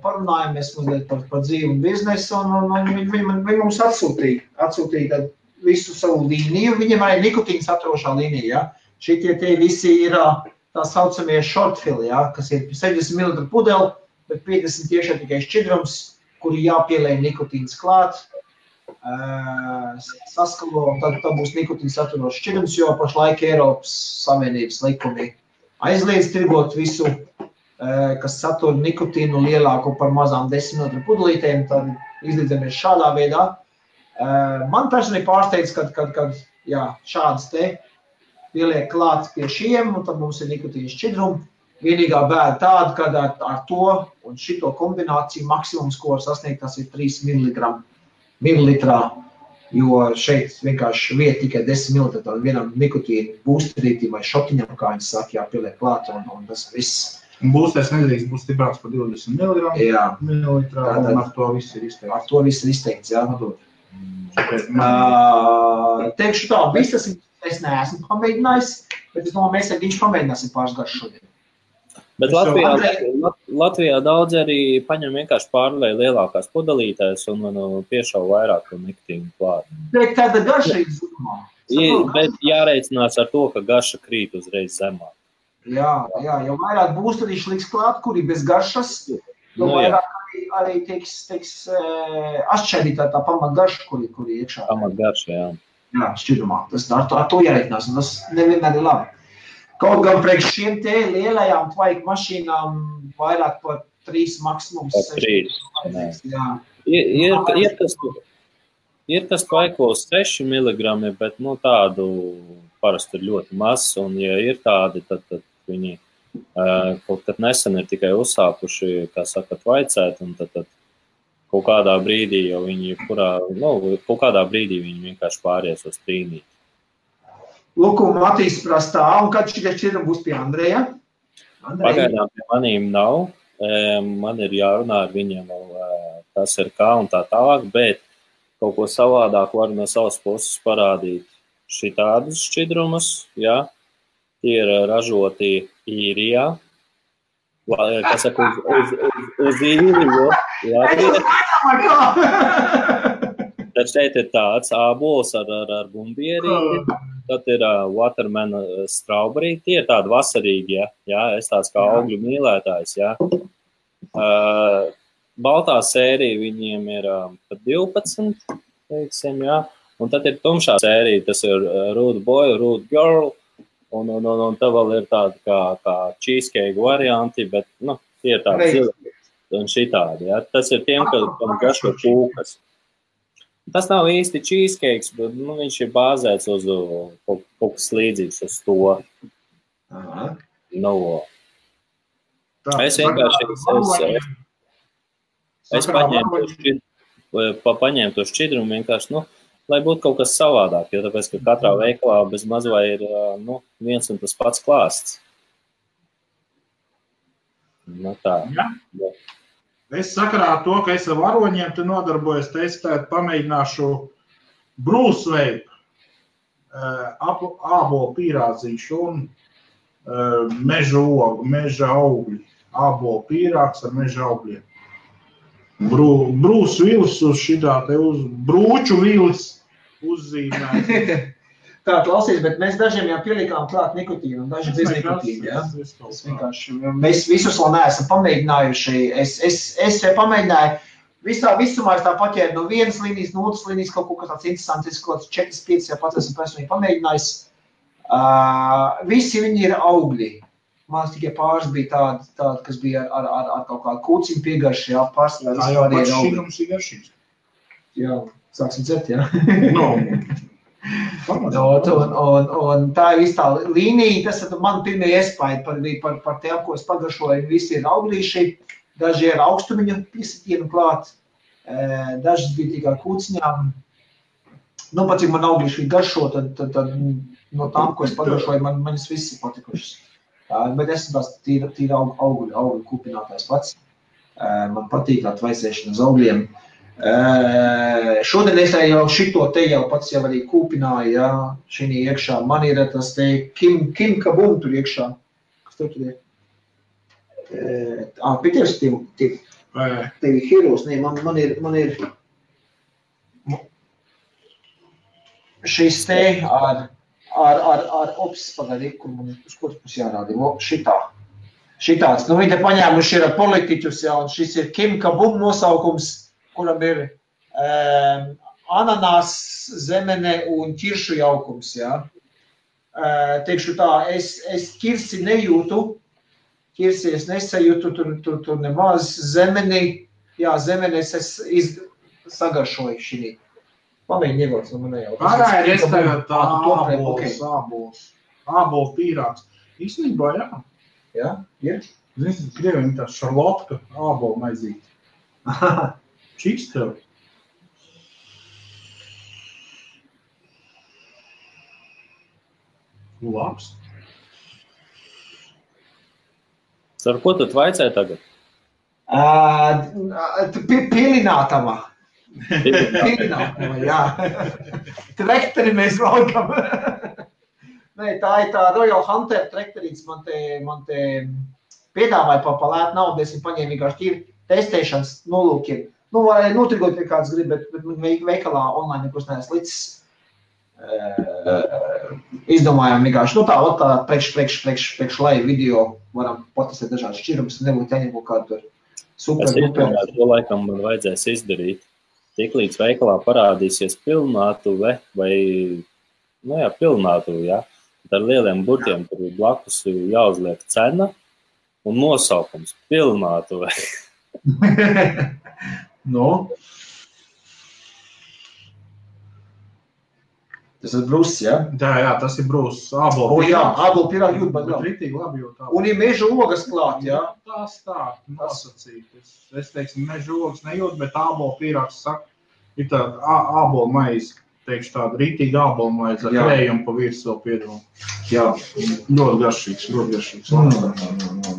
parunājamies mazliet par dzīvi un biznesu, un viņi mums atsūtīja visu savu līniju, viņiem arī nikotīna saturošā līnija, ja? Šitie tie visi ir tā saucamie shortfili, ja? Kas ir 60 ml pudeli, bet 50 tiešām tikai šķidrums, kuri jāpielēj nikotīns klāt, saskalo, un tad būs nikotīna saturošs šķidrums, jo pašlaik Eiropas Savienības likumi aizliedz tirgot visu, kas satura nikotīnu lielāku par mazām 10 ml pudelītēm, tad izlīdzamies šādā veidā. Man personīgi pārsteidz, kad jā, šādas te pieliek klāt pie šiem, un tad mums ir nikotīna šķidrumi. Vienīgā bēda tāda, kad ar to un šito kombināciju maksimums, ko var sasniegt, tas ir 3 mililitrā, jo šeit vienkārši vieta tikai 10 ml vienam nikotīnu būsterītim vai šotiņam, kā viņi saka, jāpieliek klāt, un tas viss. Būstais nedrīkst būt stiprāks par 20 mililitrā, un ar to viss ir izteikts. Ar to viss ir izteikts, jā. Teikšu tā, viss tas es neesmu pamēģinājis, bet es domāju, mēs ar viņš pamēģināsim pāris garš šodien. Bet Latvijā daudz arī paņem vienkārši pārlēja lielākās pudelītēs un piešauj vairāk nikotīnu klāt. Bet tāda garša ir zumā. Bet jāreicinās ar to, ka garša krīt uzreiz zemā. Jā, jo vairāk būs, tad viņš liks klāt, kuri bez garšas, jo vairāk arī tiks atšķērītā tā pamatgarša, kuri iekšā. Pamatgarša, jā. Jā, šķidrumā. Tas ar to jāreikinās, un tas nevienmēr ir labi. Kaut gan priekš šiem te lielajām tvaika mašīnām vairāk par 3 maksimums. Par 3, jā. Ir kas tvaikos 6 mg, bet tādu parasti ir ļoti maz, un ja ir tādi, tad viņi kaut kad nesen ir tikai uzsākuši, kā saka, tvaicēt, un tad kaut kādā brīdī jau viņi, kaut kādā brīdī viņi vienkārši pāries uz trīnīt. Lūk, un Matīs prastā, un kad šitie šķidrumi būs pie Andreja? Pagaidām pie manīm nav, man ir jārunā ar viņiem, kas ir kā un tā tālāk, bet kaut ko savādāk var no savas puses parādīt šitādus šķidrumus, jā. Tie ir ražoti Īrijā, kas saka, uz Īriju, Latvijā. Tad šeit ir tāds ābols ar bumbierīti, tad ir waterman strawberry, tie ir tādi vasarīgi, jā, es tāds kā augļu mīlētājs, jā. Baltā sērija viņiem ir pat 12, teiksim, jā, un tad ir tumšā sērija, tas ir Rude Boy, Rude Girl, un tā vēl ir tāda kā cheesecake varianti, bet, tie ir tādi zili un šitādi, jā. Tas ir tiem, kam garšo kūkas. Tas nav īsti cheesecakes, bet, viņš ir bāzēts uz kaut kas līdzīgs uz to. Es vienkārši, es paņēmu to šķidrumu vienkārši, lai būtu kaut kas savādāk, jo tāpēc, ka katrā veikalā bez mazvai ir, viens un tas pats klāsts. Tā. Ja. Es sakarā ar to, ka es ar varoņiem te nodarbojos, testēt, pamēģināšu Bruce Vape, ābolu pīrādziņš un meža augļi, ābolu pīrāgs ar meža augļiem. Bruce Willis uz šitā te uz brūču Willis uzzīmēt. Tā, klausies, bet mēs dažiem jau pielikām klāt nikotīnu un daži bez nikotīnu, jā? Mēs visus vēl neesam pamēģinājuši. Es pamēģināju, visumā es tā paķēru no vienas līnijas, no otras līnijas, kaut ko tāds interesants, kaut 4-5 jau pats esmu personīgi pamēģinājis. Visi viņi ir augļi. Man tikai pāris bija tādi, kas bija ar kaut kādu kūciņu piegarši, jā, pārsvarā vispār ir augļi. Tā jau pats šīgums ir garšīgs. Jā, sāksim dzert, jā. Un tā ir viss tā līnija, tas ir man pirmie iespaidi par tiem, ko es pagaršoju. Visi ir auglīši, daži ir augstumiņu piesitienu klāt, dažas bija tikai kūciņām. Pat cik man auglīši garšo, tad no tām, ko es pagaršoju, manis viss ir patikušas. Bet es esmu tās tīri augļu kūpinātājs pats. Man patīk tā tvaicēšana uz augļiem. Šodien es jau šito te jau pats jau arī kūpināju, jā, šī iekšā. Man ir tas te Kim Kabum tur iekšā. Kas tur ir? Pie tevi heroes, ne, man ir šis te ar ops, pagādi, kur man uz kuras pus jārādi, šitāds. Viņi te paņēmuši ir politiķus, jā, un šis ir Kim Kabum nosaukums, kuram ir ananās, zemene un ķiršu jaukums, jā. Teikšu tā, es ķirsi nejūtu, ķirsi es nesajūtu, tur nemaz zemeni, jā, zemenes es sagaršoju šī. Pamēģi ievots no manē jau. Pārā ir es tagad tā ābols pīrāgs. Īstenībā, jā. Jā, ir? Zini, Krieviem tā šarlotka ābola maizīte. Čiks tev. Labs. Ar ko tu vaicāji tagad? Pilinātava. Pilinātava, jā. Trekteri mēs valkam. Nē, tā ir tā Royal Hunter trekterīts. Man te piedāvāja pa lētu naudu, es viņu paņēmu vienkārši tīri testēšanas nolūkiem. Nu, vai notrigot, ja kāds grib, bet veikalā online nekus neesmu līdz izdomājām vienkārši. Nu tā priekš live video varam patestēt dažādas šķirumus, nebūtu jāņem kaut kādu tur super. Es izdomāju, to laikam man vajadzēs izdarīt. Tiklīdz veikalā parādīsies pilnātuve vai, nu jā, pilnātuve, jā. Ar lieliem burtiem tur blakus jāuzliek cena un nosaukums pilnātuve. Nu? Tas ir brūss, jā? Jā, tas ir brūss. Ābolu jā, ābolu pirāgi jūt, bet ritīgi labi jūt. Un ir meža ogas klāt, jā? Tas tā, nosacīt. Es teiksim, meža ogas nejūt, bet ābolu pirāgs saka, ir tāda ābolu maize, teikšu tāda ritīgi ābolu maize ar krējumu pa virs vēl piedomu. Jā, ļoti garšīgs.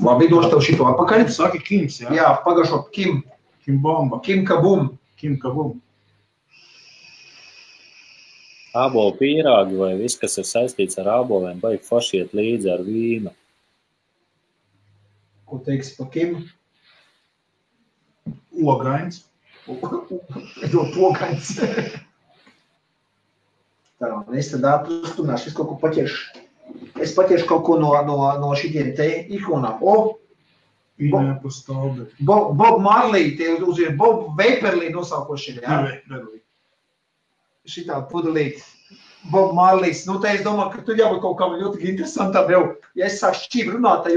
Labi, došu tev šito atpakaļ. Saki Kims, jā? Jā, pagašo Kim. Kim bomba. Kim kabum. Ābolu pīrāgi vai viss, kas ir saistīts ar āboliem, baigi forši iet līdzi ar vīnu. Ko teiksi pa Kim? Ogains. Ļoti ogains. Tā, es tad atrastunāšu, es kaut ko paķeršu. Es paķeršu kaut ko no šitiem te ikonām. Bob Marley, tie uzviet Bob Vaporly nosaukoši ir, jā? Vaporly. Šitā pudelīt. Bob Marleys. Nu, te es domāju, ka tu jābūt kaut kam ļoti interesantam jau. Ja es sāku šķīm runāt, tad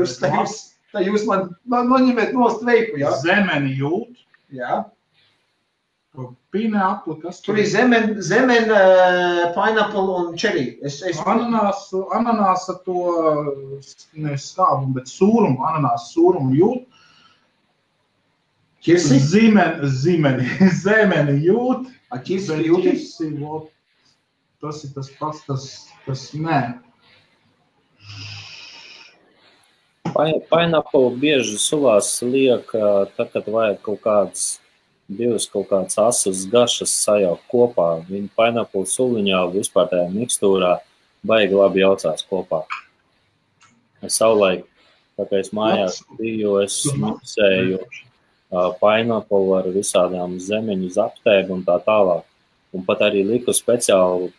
jūs man noņemiet nost veipu, jā? Zemeni jūt. Jā. Pīne apli, kas tur ir zemen, pineapple un cherry. Ananāsa to, ne skābumu, bet sūrumu, ananāsa sūrumu jūt. Ķirsi? Zemeni jūt. Ķirsi jūtis? Tas ir tas pats, tas nē. Pineapple bieži sulās liek, tad, kad vajag kaut kādas asas garšas sajaukt kopā. Viņa pineapple suliņā vispār tajā mikstūrā baigi labi jaucās kopā. Es savulaik, tā kā es mājās biju, es miksēju pineapple ar visādām zemeņu zaptēm un tā tālāk. Un pat arī liku speciāli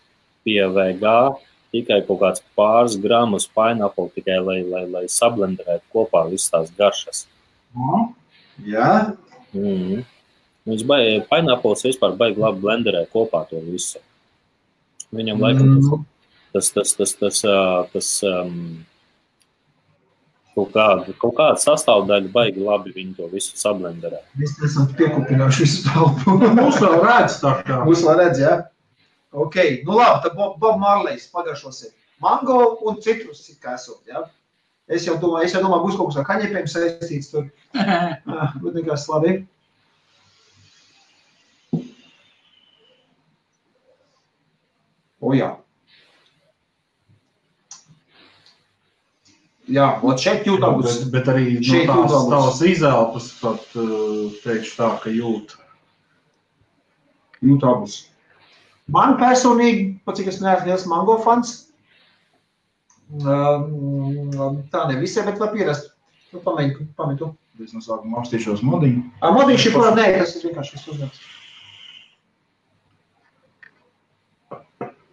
pie VG tikai kaut kāds pāris gramus pineapple, tikai lai sablenderētu kopā visas tās garšas. Jā? Pineapples vispār baigi labi blenderē kopā to visu. Viņam laikam tas kaut kāda sastāvdaļa baigi labi viņi to visu sablenderē. Mēs esam piekupinājuši visu telpu. Mūs vēl redz tā kā. Mūs vēl redz, jā? Ok, nu labi, tad Bob Marleys pagaršosim. Mango un citrus it kā esot, jā? Es jau domāju, būs kaut kas ar kaņepiem saistīts tur. Bet nekas labi. O jā. Jā, ot šeit jūt abus. Bet arī no tās izelpas pat teikšu tā, ka jūt abus. Man personīgi, pat cik es neesmu liels mango fans, tā ne visai, bet var pierast. Nu, pamēģi tu. Es no sākuma apstīšos modiņu. Modiņš ir kurā, nē, tas ir vienkārši viss uzņemts.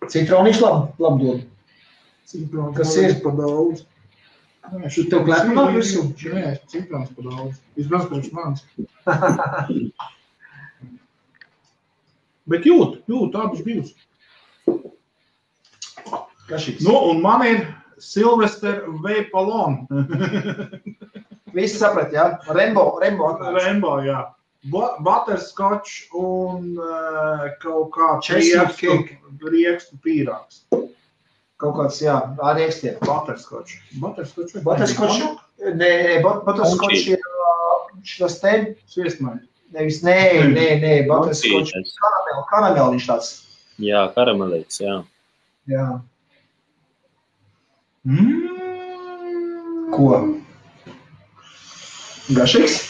Citroniņš labi dod. Kas ir? Pa daudz. Tev klēpumā visu? Nē, citrons pa daudz. Izbrauc priekš manis. Bet jūt abus divus. Kašīgs. Nu, un man ir Sylvester Vaporlon. Visi saprat, jā? Rainbow atnāc. Rainbow, jā. Butterscotch un kaut kāds riekstu pīrāgs. Kaut kāds, jā, ar riekstiem. Butterscotch. Butterscotch? Nē, butterscotch ir šitas te. Sviestmaļi. Nevis, nē, butterscotch. Karameliņš tāds. Jā, karamelīts, jā. Jā. Ko? Garšīgs?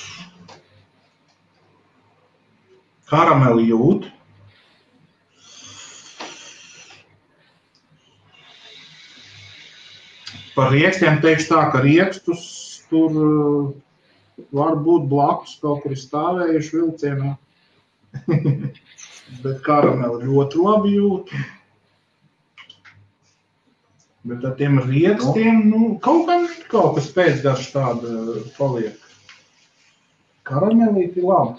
Karameli jūt. Par riekstiem teikšu tā, ka riekstus tur var būt blakus, kaut kur stāvējuši vilcienā. Bet karameli ļoti labi jūt. Bet ar tiem riekstiem, kaut kas pēcgarš tāda paliek. Karamelīti labi.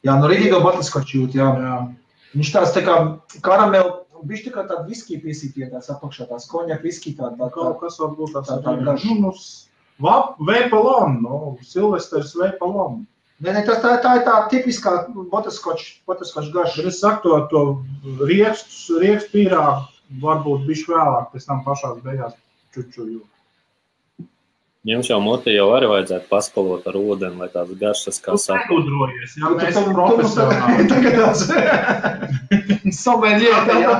Jā, rītīgo butterskoču jūt, jā. Viņš tāds tā kā karameli, viņš tā kā tāda viskija piesītie tāds apakšā, tās koņak viskija tāda. Kaut kas varbūt tāds Vapalon, Silvesters Vapalon. Nē, tā ir tā tipiskā butterskoču garša. Bet es saku to riekstu pīrāgu varbūt bišķi vēlāk, pēc tam pašās beigās čučuju. Jums jau moti jau arī vajadzētu paskalot ar ūdeni, lai tāds garšas kā saka. Tu nekudrojies, jā, mēs esam profesionāli. Tagad tāds someļie.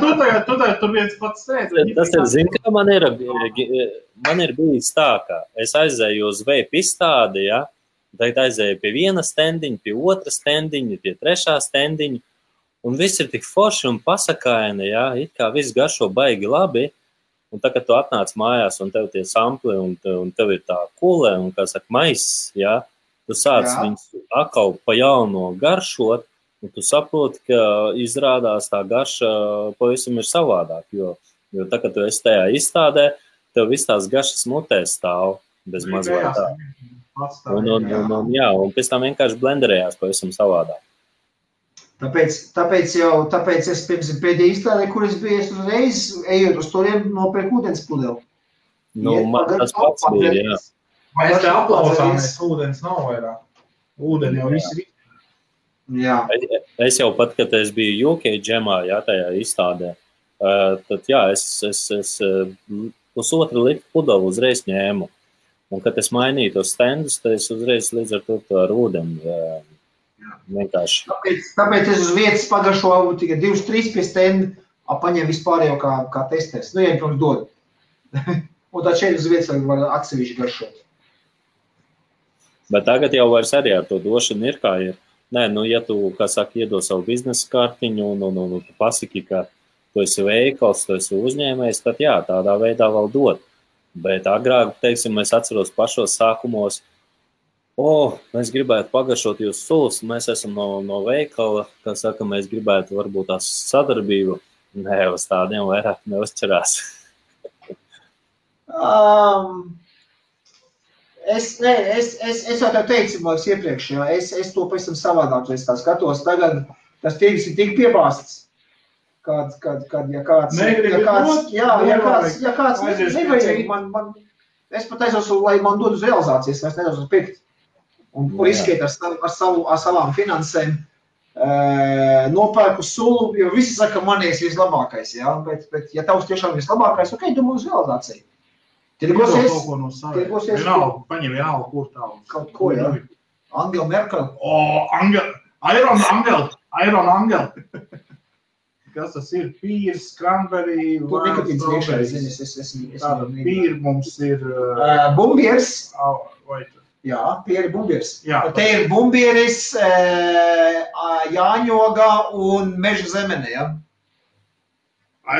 Tu tagad tur viens pats sēdz. Tas ir, zin, kā man ir bijis tā, ka es aizēju uz veipu izstādi, ja? Tagad aizēju pie viena stendiņa, pie otra stendiņa, pie trešā stendiņa, un viss ir tik forši un pasakaini, ja? It kā viss garšo baigi labi. Un tā, kad tu atnāc mājās un tev tie sampli un tev ir tā kulē un, kā saka, maiss, ja, tu sāc viņus atkal pa jauno garšot, un tu saproti, ka izrādās tā garša pavisam ir savādāk, jo tā, kad tu esi tajā izstādē, tev viss tās garšas mutē stāv bez mazliet tā. Un pēc tam vienkārši blenderējās pavisam savādāk. Tāpēc es pirms pēdējā izstādē, kur es biju, es uzreiz ejot uz turien nopērku ūdens pudeli. Man tas pats bija, jā. Mēs te aplausāmies, ūdens nav vairāk. Ūdeni jau viss ir. Jā. Es jau pat, kad es biju UK džemā, jā, tajā izstādē, tad jā, es pusotru litru pudeli uzreiz ņēmu. Un, kad es mainīju tos stendus, tad es uzreiz līdz ar to ar ūdeni vienkārši. Tāpēc es uz vietas pagaršoju tikai 2-3 pie stendi, paņem vispārējo kā testers. Ja pirms dod. Un tad šeit uz vietas var atsevišķi garšot. Bet tagad jau vairs arī ar to došanu ir kā ir. Nē, ja tu, kā saka, iedod savu biznesa kartiņu un tu pasaki, ka tu esi veikals, tu esi uzņēmējs, tad jā, tādā veidā vēl dod. Bet agrāk, teiksim, es atceros pašos sākumos, mēs gribētu pagaršot jūsu sulas, mēs esam no veikala, kā saka, mēs gribētu varbūt tās sadarbību. Nē, uz tādiem vairāk neuzķerās. Es jau tev teicu, man iepriekš, jā, es to pavisam savādāk, es tā skatos, tagad tas tirgus ir tik piebāsts, kad ja kāds nevajag, es pat aizos, lai man dod uz realizācijas, es nedaudz uz pirkt. Un riskēt ar savām finansēm, nopērku sulu, jo visi saka, man ir vislabākais, jā, bet ja tavs tiešām ir vislabākais, ok, domā uz realizāciju. Tirgosies. Paņem vienalga, kur tālu. Kaut ko, jā. Angela Merkel. Iron Angel. Kas tas ir? Pīrs, cranberry, tur nikotīns iekšā, zini, tāda pīri mums ir... Bumbiers. Jā, tie ir bumbiers. Te ir bumbieris, jāņogā un meža zemene, jā.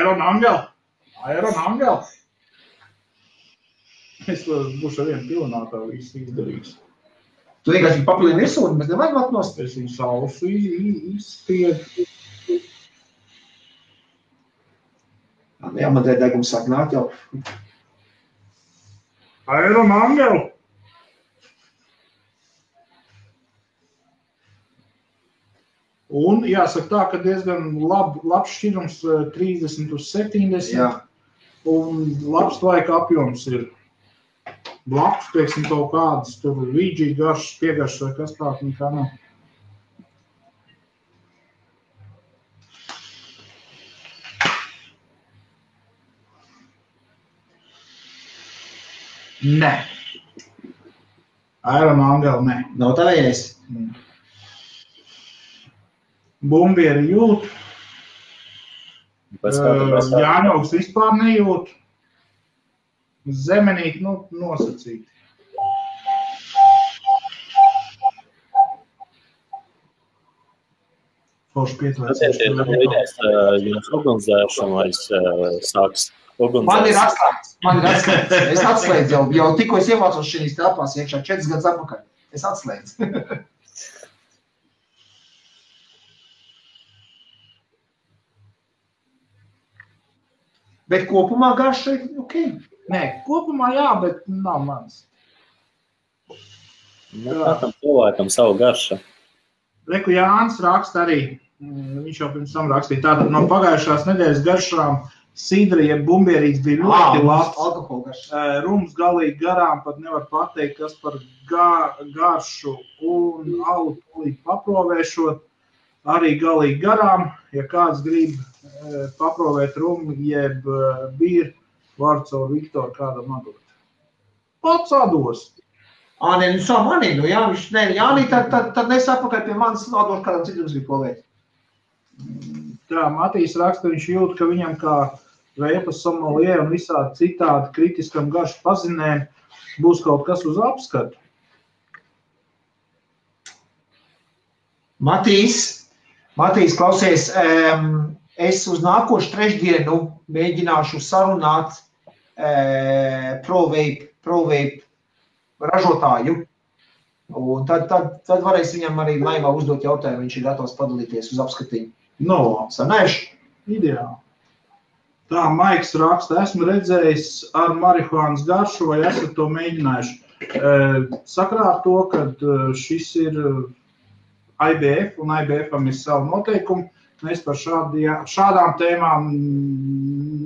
Iron Angel. Es būšu ar vienu pilnātā visu izdarījis. Tu vienkārši papilini virsū, bet nevajag atnost. Es viņu sausu izspiedu. Jā, man te degums sāk nākt jau. Iron Angel. Un jāsaka tā, ka diezgan labs šķirums 30 uz 70. Jā. Un labs laika apjoms ir blakus, teiksim, kaut kādas tur vīģī garšas, piegaršas vai kas tā, nekā nav. Nē. Iron Angel, nē. Nav tavējais. Bumbieri jūt. Jāņaugs vispār nejūt. Zemenīgi, nosacīti. Forši pieturēties. Jums ugunsdzēršana vairs sāks ugunsdzēršana. Man ir atslēdz. Es atslēdzu jau tikko es ievācos šīs telpās iekšā 4 gadus atpakaļ. Es atslēdzu. Bet kopumā garša ir ok? Nē, kopumā jā, bet nav mans. Katram cilvēkam savu garša. Reku Jānis raksta arī, viņš jau pirms tam rakstīja, tātad no pagājušās nedēļas garšām sidra, jeb bumbierīts bija ļoti labs. Alkoholgarša. Rums galīgi garām, pat nevar pateikt, kas par garšu un alu tūlīt paprovēšot. Arī galīgi garām, ja kāds grib paprovēt rumu, jeb bīru, var caur Viktoru kādam atdot. Pats atdos. Nē, nu savu manī, nu jā, viņš, nē, Jānī, tad nesapakaļ pie manis atdošu kādam citam grib provēt. Tā, Matīs raksta, viņš jūt, ka viņam kā veipas sommelier un visādi citādi kritiskam garšu pazinēm būs kaut kas uz apskatu. Matīs, klausies, es uz nākošu trešdienu mēģināšu sarunāt ProVape ražotāju. Un tad varēs viņam arī laivā uzdot jautājumu, viņš ir gatavs padalīties uz apskatiņu. No, sanēšu. Ideāli. Tā, Maiks raksta, esmu redzējis ar marihuānas garšu, vai esat to mēģinājuši. Sakrā ar to, ka šis ir IBF, un IBF-am ir savu noteikumu, mēs par šādām tēmām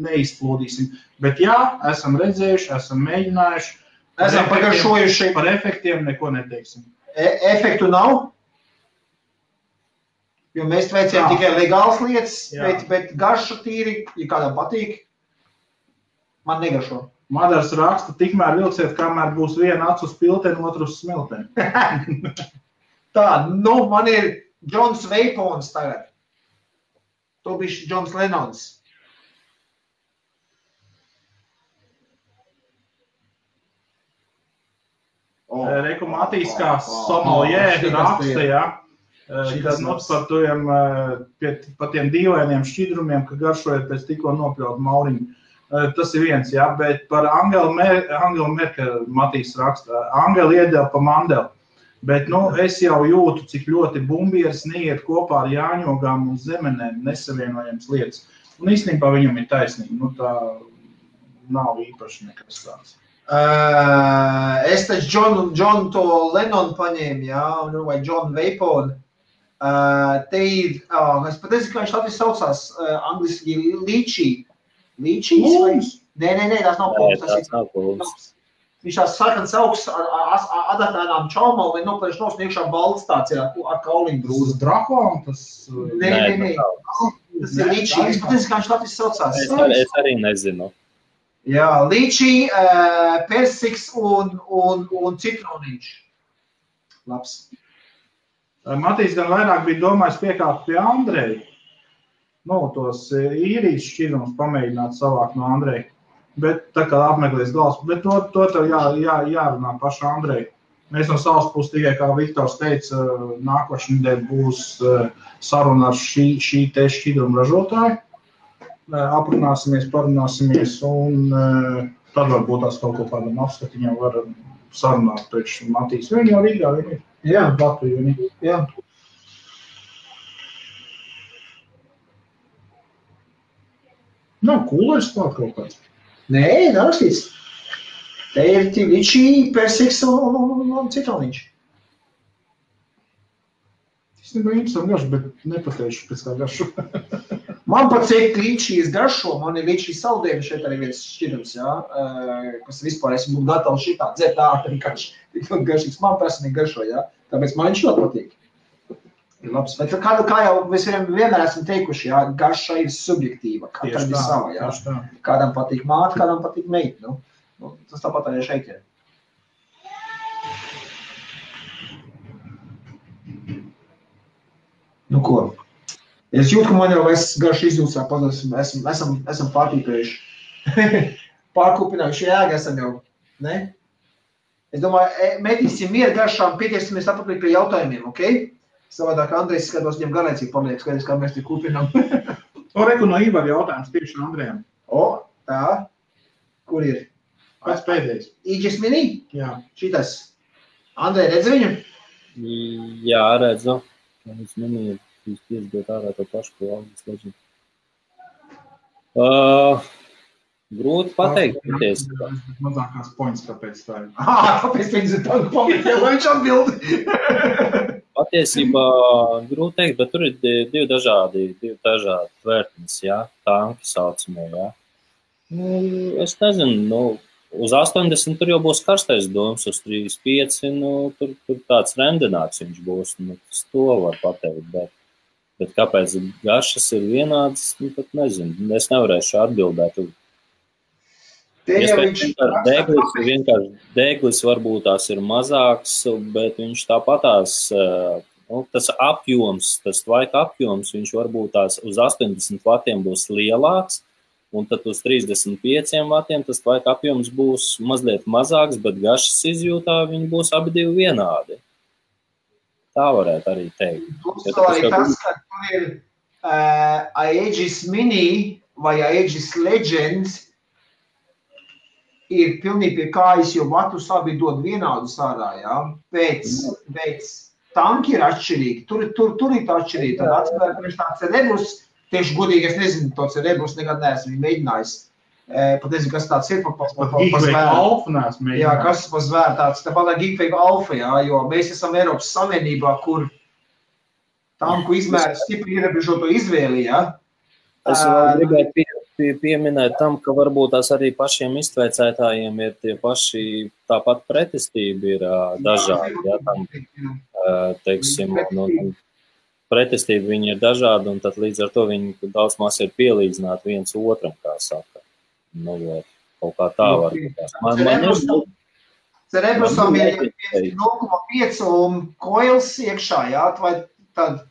neizplūdīsim. Bet jā, esam redzējuši, esam mēģinājuši. Esam pagaršojuši. Par efektiem neko neteiksim. Efektu nav? Jo mēs veicējām tikai legālas lietas, bet garša tīri, ja kādam patīk, man negaršo. Madars raksta, tikmēr vilciet, kamēr būs viena acu uz pilteni, otru uz smilteni. Tā, nu, man ir Džons Veipons tagad. To bišķi Džons Lenons. Reku Matīs kā sommelier raksta, jā. Kad par tiem dīvainiem šķidrumiem, ka garšojot pēc tikko nopļaut mauriņu. Tas ir viens, jā, bet par Angelu Merkel Matīs raksta. Angela iedeva pa mandeli, bet, nu, es jau jūtu, cik ļoti bumbieris neiet kopā ar jāņogām un zemenēm nesavienojams lietas. Un īstenībā viņam ir taisnība, nu tā nav īpaši nekas tāds. Es taču John to Lennon paņēmu, jā, vai John Veiponu. Te ir, es pat nezinu, kā viņš Latvijas saucās, angliski līčī. Līčīs vai? Nē, tās nav pulvs, tas ir pulvs. Viņš tās sarkans augsts ar adatēnām čaumām, vai noplēš nos un iekšā balts tāds, jā, ar kauliņu grūzu. Tas drakolam, tas... Nē. Tas ir līčī, es pat nezinu, kā viņš Latvijas saucās. Es arī nezinu. Jā, līčī, persiks un citronīši. Labs. Matīs gan vairāk bija domājis piekāpt pie Andreja. Nu, tos īrijas šķidrumus pamēģināt savākt no Andreja. Bet tā kā apmeklēs galvas, bet to tev jārunā paša Andreja. Mēs no savas puses tikai, kā Viktors teica, nākošais nedēļa būs saruna ar šī te šķidrumu ražotāju. Aprunāsimies, parunāsimies un tad varbūt tās kaut ko kādam apskatiņam var sarunāt priekš Matīs. Viņi jau Rīgā, viņi ir. Jā, Latviju, viņi. Jā. Nav kūlēs klāt kaut kāds. Nē, nav rakstīts. Te ir līčī, persiks un citronīši. Es nebiju interesanti garšu, bet nepateikšu pēc kā garšu. Man patīk līčīs garšo, man ir līčīs saldējumi šeit arī viens šķidrums, jā, kas vispār es būtu gatavs šitā dzert ātri garšīgs. Man personīgi garšo, jā, tāpēc man viņš ļoti patīk. Ir labs, bet kā jau mēs vienmēr esam teikuši, jā, garša ir subjektīva, katram ir sava, jā. Kādam patīk māte, kādam patīk meita, nu, tas tāpat arī šeit ir. Nu ko? Es jūtu, ka man jau garš izdūsā pazudus, esam pārtīpējuši. Pārkūpinājuši jēga esam jau, ne? Es domāju, metīsim mieru garšām, pieķersimies atpakaļ pie jautājumiem, ok? Savādāk Andrejs skatos, viņam garēcīgi paliek, skaties, kā mēs te kupinām. Reku no Ivar jautājums tieši Andrejam. Tā. Kur ir? Pēc pēdējais. Aegis Mini? Jā. Šitas. Andrej, redzi viņu? Jā, redzu. Es minēju, jūs piesdot ārā to pašu, ko August Legend. Grūti pateikt. Mazākās points, kāpēc tā ir. Kāpēc viņas ir tanku pamēt, ja viņš atbildi? Patiesībā grūti teikt, bet tur ir divi dažādi tvērtnes, jā, tanki saucamie, jā. Es nezinu, uz 80 tur jau būs karstais doms, uz 35, tur tāds rendināts viņš būs, tas to var pateikt, bet kāpēc garšas ir vienādas, pat nezinu, es nevarēšu atbildēt. Vienkārši deglis varbūt tās ir mazāks, bet viņš tāpatās, tas apjoms, tas tvaika apjoms, viņš varbūt tās uz 80 vatiem būs lielāks, un tad uz 35 vatiem tas tvaika apjoms būs mazliet mazāks, bet garšas izjūtā viņi būs abi divi vienādi. Tā varētu arī teikt. Plus arī tas, ka tur ir Aegis Mini vai Aegis Legends, ir pilnīgi pie kājas, jo vatus abi dod vienādus ārā, jā. Pēc tanki ir atšķirīgi, tur ir tā atšķirīgi. Tad atspēr priekš tā Cerebrus, tieši godīgi es nezinu, to Cerebrus nekad neesmu viņu mēģinājis. Pat nezinu, kas tāds ir pa zvēru. Jā, kas pa zvēru tāds, tāpat kā Geekwave Alpha, jā, jo mēs esam Eiropas Savienībā, kur tanku izmēri stipri ierobežoto izvēli, jā. Es vēl gribētu pieminēt tam, ka varbūt tās arī pašiem iztveicētājiem ir tie paši, tāpat pretestība ir dažādi, jā, tam, teiksim, pretestība viņi ir dažādi, un tad līdz ar to viņi daudz maz ir pielīdzināti viens otram, kā saka. Kaut kā tā var būt. Cerebrusam ir 0,5 un koils iekšā, jā, vai tad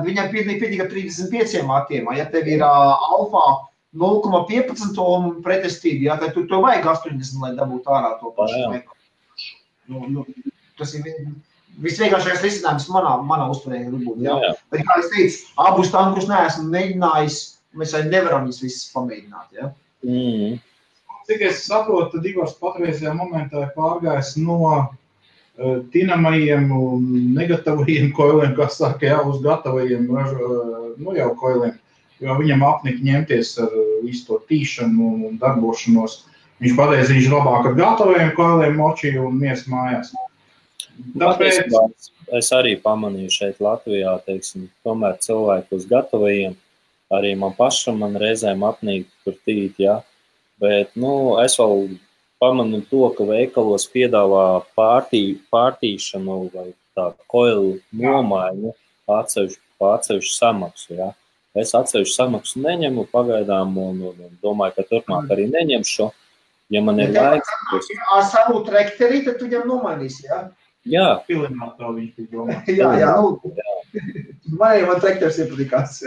viņam pietiek 35 vatiem, ja tev ir alfā 0,15 un pretestība, jā, tad tu vajag 80, lai dabūtu ārā to pašu. Tas ir visvienkāršākais risinājums manā uztverē būt, jā. Bet, kā es teicu, abus tankus neesmu mēģinājis, mēs arī nevaram viņus visus pamēģināt, jā. Cik es saprotu, tad Ivars patreizajā momentā ir pārgājis no tinamajiem un negatavajiem koiliem, kas saka, jā, uz gatavajiem, jau koiliem, jo viņam apnika ņemties ar visu to tīšanu un darbošanos. Viņš pateica, viņš labāk ar gatavajiem koiliem močī un mies mājās. Tāpēc es arī pamanīju šeit Latvijā, teiksim, tomēr cilvēku uz gatavajiem, arī man reizēm apnīk tur tīt, jā, bet, es vēl pamanu to, ka veikalos piedāvā pārtīšanu vai tā koilu nomaiņu atsevišķu samaksu, jā. Es atsevišķu samaksu neņemu pagaidām un domāju, ka turpmāk arī neņemšu, ja man ir laiks. Ar savu trekterī, tad tu viņam nomainīsi, jā? Jā. Pilinātā viņš bija domā. Jā. Man trekters iepatikās.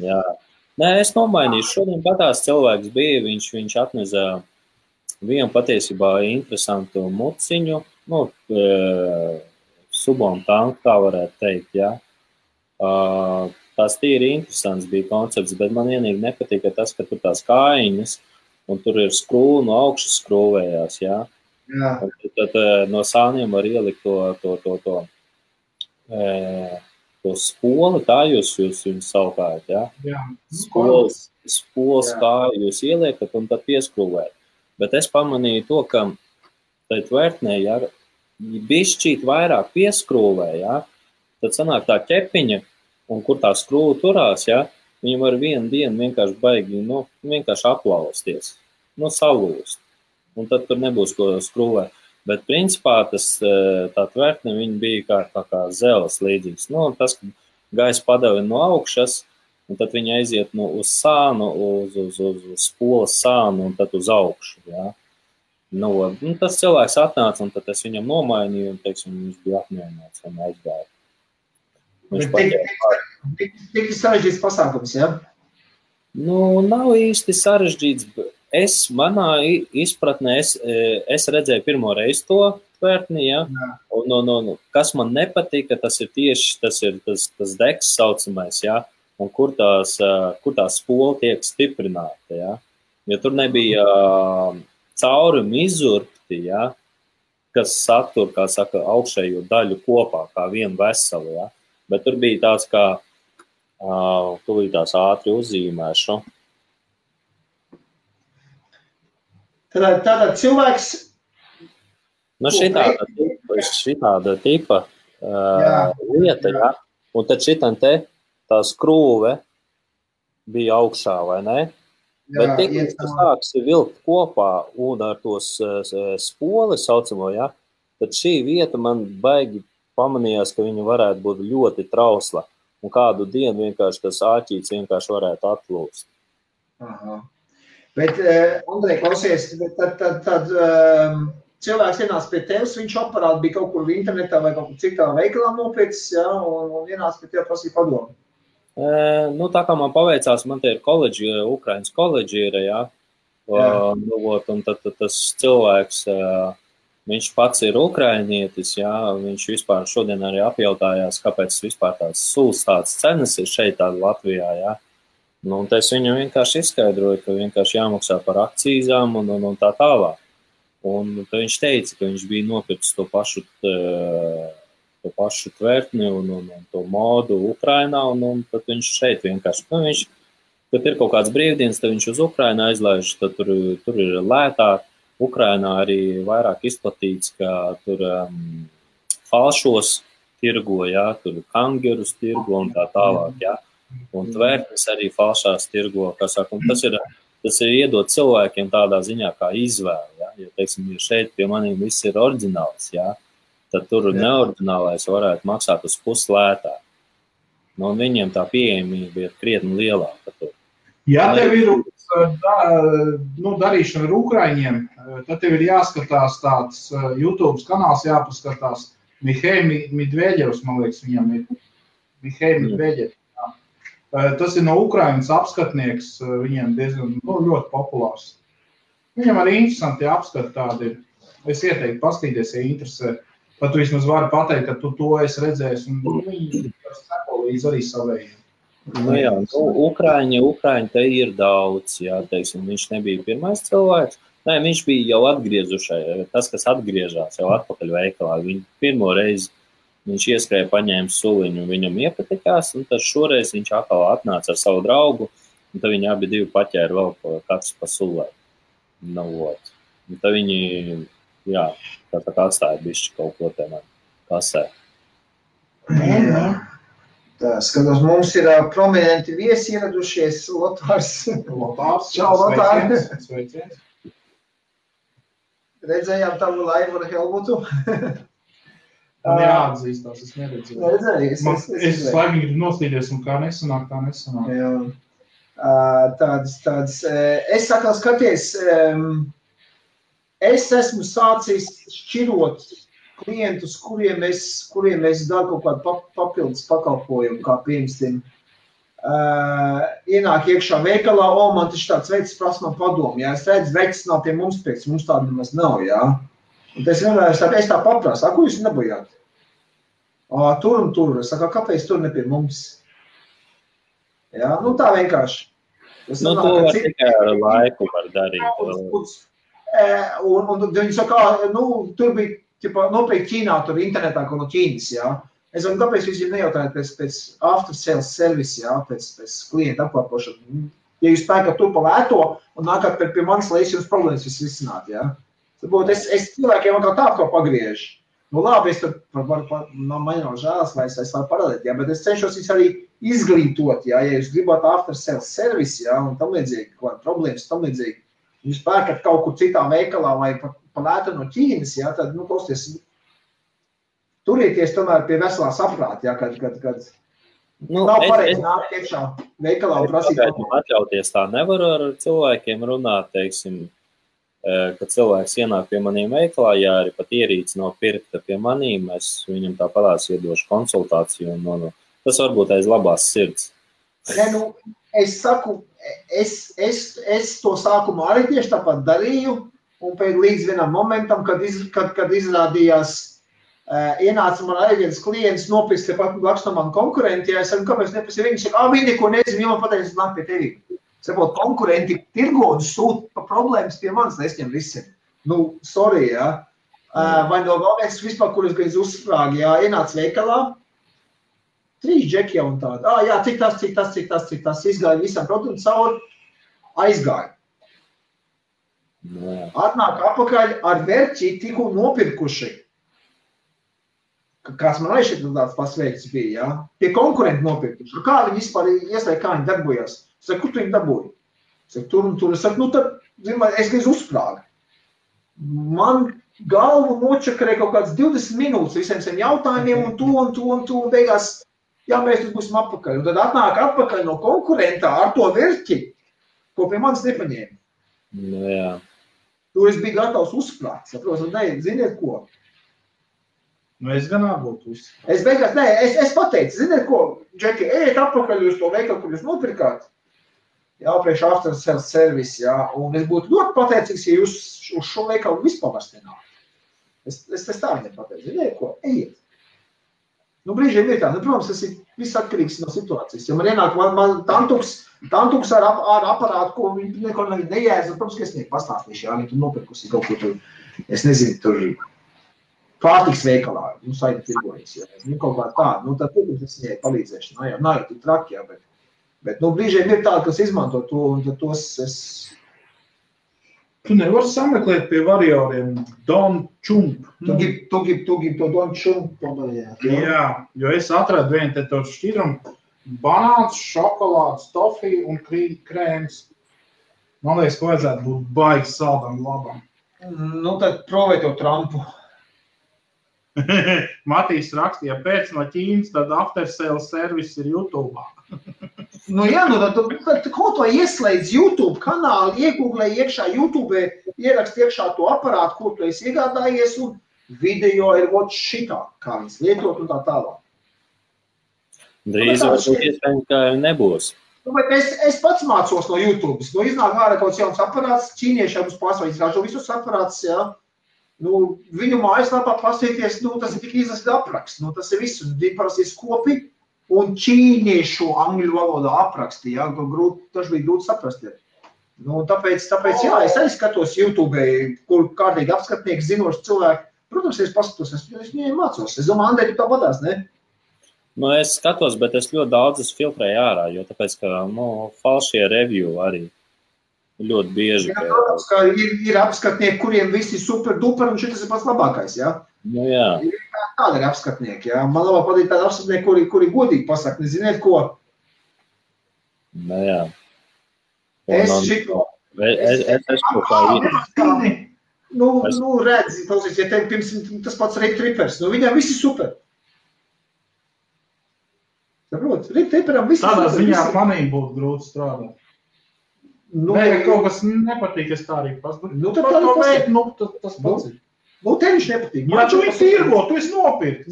Jā. Nē, es nomainīšu. Šodien patās cilvēks bija, viņš atneza vienu patiesībā interesantu muciņu, subom tanku, tā varētu teikt, jā. Tās tīri interesants bija koncepts, bet man vienīgi nepatika tas, ka tur tās kājiņas, un tur ir skrūva no augšas skrūvējās, jā. Jā. Tad no sāniem var ielikt to spoli, tā jūs viņu saukājat, jā? Jā. Spols kā jūs ieliekat un tad pieskrūvēt. Bet es pamanīju to, ka tai tvērtnē, ja bišķīt vairāk pieskrūvē, jā, tad sanāk tā ķepiņa, un kur tā skrūva turās, jā, viņa var vienu dienu vienkārši baigi, vienkārši aplausties, salūst. Un tad tur nebūs ko skrūvēt. Bet principā tā tvērtne viņa bija kā zeles līdzīgs. Tas, ka gaisa padeva no augšas, un tad viņa aiziet uz sānu, uz spolas sānu, un tad uz augšu. Jā. Tas cilvēks atnāca, un tad es viņam nomainīju, un, teiksim, viņš bija apmierināts un aizgāja. Tik sarežģīts pasākums, jā? Nav īsti sarežģīts. Manā izpratnē, es redzēju pirmo reizi to tvērtni, ja? Un kas man nepatika, tas ir tieši tas deks saucamais, jā, un kur tā spola tiek stiprināta, jā. Jo tur nebija caurumi izurpti, jā, kas satur, kā saka, augšējo daļu kopā, kā vienu veselu, jā. Bet tur bija tāds, kā, tūlītās ātri uzzīmēšu. Tātad cilvēks... šitāda tipa lieta, jā. Un tad šitam te tā skrūve bija augšā, vai ne? Bet tik, tas sāksi vilkt kopā un ar tos spoli saucamo, jā, tad šī vieta man baigi pamanījās, ka viņa varētu būt ļoti trausla. Un kādu dienu vienkārši tas āķīts vienkārši varētu atlūst. Aha. Bet, Andrej, klausies, tad cilvēks ienāca pie tevis, viņš aparāti bija kaut kur internetā vai kaut kur citā veikalā nopircis, jā, un ienāca pie tevi prasīja padomu. Tā kā man paveicās, man te ir koledži, Ukrainas koledži ir, jā. Un tad tas cilvēks, viņš pats ir ukrainietis, jā, viņš vispār šodien arī apjautājās, kāpēc vispār tāds suls tāds cenas ir šeit tāda Latvijā, jā. Un es viņam vienkārši izskaidroju, ka vienkārši jāmaksā par akcīzām un tā tālāk. Un tad viņš teica, ka viņš bija nopircis to pašu tvertni un to modu Ukrainā, un tad viņš šeit vienkārši, kad ir kaut kāds brīvdienas, tad viņš uz Ukrainu aizlaiž, tad tur ir lētāk. Ukrainā arī vairāk izplatīts, ka tur falšos tirgo, jā, tur kangerus tirgo un tā tālāk, jā. Un tvertnes arī falšās tirgo, kā saka, un tas ir iedot cilvēkiem tādā ziņā kā izvēle, jā. Jo, teiksim, ja šeit pie maniem viss ir oriģināls, jā, tad tur neoriģinālais varētu maksāt uz puslētāk. Un viņiem tā pieejamība ir krietni lielāka tur. Ja tev ir darīšana ar Ukraiņiem, tad tev ir jāskatās tāds YouTube kanāls, jāpaskatās Mihej Medvedjevs, man liekas, viņam ir Mihej Medvedjevs. Tas ir no Ukrainas apskatnieks, viņiem diezgan ļoti populārs. Viņam arī interesanti apskati tādi ir. Es ieteiktu paskatīties, ja interesē. Pat tu vismaz vari pateikt, ka tu to esi redzējis, un viņi seko līdz arī savējiem. Jā, Ukraiņi te ir daudz, jā, teiksim, viņš nebija pirmais cilvēks. Nē, viņš bija jau atgriezušai, tas, kas atgriežās jau atpakaļ veikalā. Viņu pirmo reizi viņš ieskrēja, paņēma suliņu, viņam iepatikās, un tad šoreiz viņš atkal atnāca ar savu draugu, un tad viņi abi divi paķēra vēl katrs pa sulē. Un tad viņi, jā, tā atstāja bišķi kaut ko tenā kasē. Tā, skatos, mums ir prominenti viesi ieradušies, Lotārs. Čau, Lotār. Sveiciens. Redzējām tavu laivu ar Helmutu. Man jāatzīstās, es neredzēju. Neredzēju, es laimīgi gribu noslīdies, un kā nesanāk. Jā. Tādas. Es sakal skaties, es esmu sācis šķirot klientus, kuriem es daru kaut kādu papildus pakalpojumu, kā piemēram, ienāk iekšā veikalā, man taču tāds veids prasa man padomu, jā, es redzu, veids nav pie mums pēc, mums tāda nemaz nav, jā. Un es vienmēr tā paprasu, ko jūs nebojāt? Tur un tur, es saku, kāpēc tur ne pie mums? Jā, tā vienkārši. To var tikai ar laiku var darīt. Un viņi saka, tur bija, nopirkt Ķīnā, tur internetā, ko no Ķīnas, jā. Es varu, kāpēc jūs viņam nejautājat pēc after sales service, jā, pēc klienta apkalpošana. Ja jūs pērkat to pa lēto un nākat pie manis, lai es jums problēmas risināt, jā. Tāpēc es cilvēkiem kā tā kā pagriežu. Labi, es tad man nav žēlas, vai es varu parādīt, jā, bet es cenšos viņus arī izglītot, jā, ja jūs gribat after sales service, jā, un tam līdzīgi, kāda problēmas, tam līdzīgi. Jūs pērkat kaut kur citā veikalā vai pa lētu no Ķīnas, jā, tad, klausties, turieties tomēr pie veselā saprāta, jā, kad nav pareizi nākt iekšā veikalā un prasīt. Atļauties tā nevaru ar cilvēkiem runāt, teiksim, kad cilvēks ienāk pie maniem veikalā, ja arī pat ierīce nav pirkta pie manīm, es viņam tā parās iedošu konsultāciju un tas varbūt aiz labās sirds. Es saku, es to sākumā arī tieši tāpat darīju, un līdz vienam momentam, kad izrādījās ienāca man arī viens klients nopirkt tepat blakus no man konkurenti, ja es saku, kāpēc nepasi viņi saka, viņi neko nezinu, jau man pateicis, nāk pie tevi. Sapot, konkurenti tirgo un sūt pa problēmas pie manis, nesņem visi. Nu, sorry, ja. Vai no galvenais vispār, kur es gaiz uzsprāgi, ja, ienāca veikalā, 3 džeki jau un tāda. Jā, cik tas, izgāja visam produktu cauri, aizgāja. Atnāk apakaļ ar verķi tikko nopirkuši. Kāds man arī šeit tāds pasveikts bija, ja? Pie konkurenti nopirkuši. Kā viņi vispār ieslēg, kā viņi darbojās? Es saku, kur tu viņi dabūji? Es saku, tur un tur. Es saku, nu tad, es gaiz uzsprāgu. Man galvu nočakarēja kaut kāds 20 minūtes visiem saviem jautājumiem un to, un beigās, jā, mēs tur būsim apakaļ. Un tad atnāk apakaļ no konkurentā ar to verķi, ko pie manis nepaņēma. Nu, jā. Tur es biju gatavs uzsprāgt, saprotu, ne, ziniet ko? Nu, es gan būtu uzsprāgt. Es beigās, es pateicu, ziniet ko, Džeki, ejiet apakaļ uz to veikalu, kur jūs nopirkāt. Jā, priekš after sales service, jā, un es būtu ļoti pateicīgs, ja jūs uz šo veikalu vispār vairs nenāk. Es tā viņam pateicu, ziniet ko, ejiet. Nu, brīžiem ir tā, nu, protams, tas ir viss atkarīgs no situācijas. Ja man ienāk, man tantuks ar aparātu, ko viņi neko nejēdz, protams, ka es nieku pastāstīšu, jā, viņi tur nopirkusi kaut ko tur, es nezinu, tur pārtiks veikalā, nu, saita tirgojas, jā, nu, kaut kā tāda, nu, tad, protams, es viņai palīdzēšu, nav jau tik traki, jā, bet, nu, brīžiem ir tāda, kas izmanto to, un tad tos es... Tu nevari sameklēt pie varioriem Don Chump. Tu gribi to Don Chump padarīt. Jā, jo es atradu vienu te to šķidrumu. Banāns, šokolāds, tofija un krēms. Man liekas, ka vajadzētu būt baigi saldam labam. Nu, tad provē to Trumpu. Matīs rakstīja, pēc no Ķīnas, tad after sales service ir YouTube. Nu jā, nu tad kaut vai ieslēdz YouTube kanālu, iegooglē iekšā YouTube, ierakst iekšā to aparātu, ko tu esi iegādājies, un video ir vot šitā, kā viņas lietot un tā tālāk. Drīz varbūt iespējams, ka nebūs. Nu, bet es pats mācos no YouTube. Nu, iznāk ārā kaut jauns aparāts, ķīniešiem uz pārsvarā izrāžo visus aparātus, jā. Nu, viņu mājaslapā pastīties, nu, tas ir tik izlasīt apraksts, nu, tas ir viss, un viņi parasti skopi un ķīniešu angļu valodā apraksti, jā, tas bija grūti saprast. Nu, tāpēc, jā, es arī skatos YouTube, kur kārtīgi apskatnieki, zinoši cilvēki. Protams, es paskatos, es viņiem mācos. Es domāju, Andrej, tu tā padās, ne? Nu, es skatos, bet es ļoti daudz filtrēju ārā, jo tāpēc, ka, nu, falšie review arī ļoti bieži. Jā, protams, ka ir apskatnieki, kuriem visi super duper, un šitas ir pats labākais, jā? Nu, jā. Tāda ir apskatnieki, jā. Man labāk patīk tāda apskatnieki, kuri godīgi pasaka, neziniet ko? Nu, jā. Es šito... Es kaut kā ir. Nu, redzi, klausies, ja tev pirms tas pats Rip Trippers, nu viņam visi super. Saprot, Rip Tripperam visi tādā super. Tādā ziņā manīm būtu grūti strādāt. Nu, nē, kaut kas nepatīk, es tā arī pasaka. Nu, tad tā pasaka. Nu, tas pats ir. Nu, tev viņš nepatīk. Jā, tu viņš tirgo, tu esi nopirkt.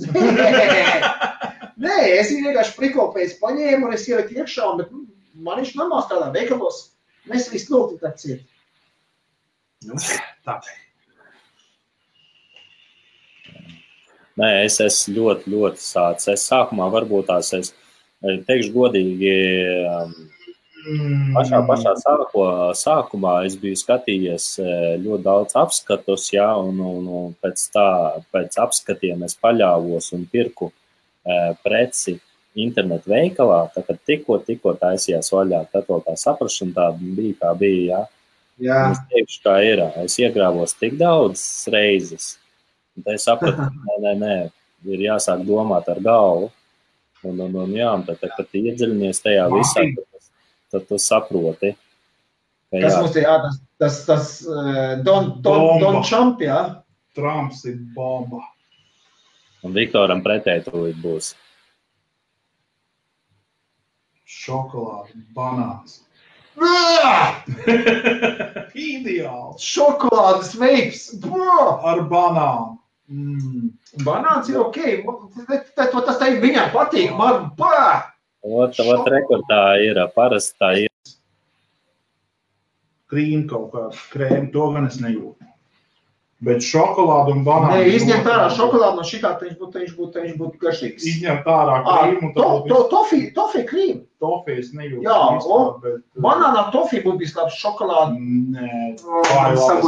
Nē, es viņu vienkārši prikopējis paņēmu, un es ieliku iekšā, bet man viņš normāls tādā veikalos. Mēs visu lūgtu tā ciet. Nu, tā. Nē, es ļoti sācu. Es sākumā varbūt tās, es teikšu godīgi, pašā sākumā es biju skatījies ļoti daudz apskatus, jā, un pēc apskatiem es paļāvos un pirku preci internetu veikalā, tā kad tikko taisījās vaļā, tad vēl tā saprašana tāda bija, kā bija, jā. Jā. Es teikšu, kā ir, es iegrāvos tik daudz reizes, un tad es sapratu, nē, ir jāsāk domāt ar galvu, un jā, tad, kad iedziļinies tajā visā, tad tu saproti. Kas mums ir tas Don Trump, jā? Trumps ir bomba. Un Viktoram pretēji tūlīt būs. Šokolāde, banāns. Ideāls. Šokolādes veips. Ar banānu. Banāns ir ok. Tas tā viņai patīk. Man, Ot rekordā ir, parasti tā ir. Krīm kaut kādu krēmu, to gan es nejūtu. Bet šokolādu un banānu... Nē, izņemt ārā šokolādu no šitā, viņš būtu garšīgs. Izņemt ārā krīmu. Tofī krīmu. Tofī es nejūtu. Jā, bet... Banānā tofī būtu bijis labs šokolādu. Nē,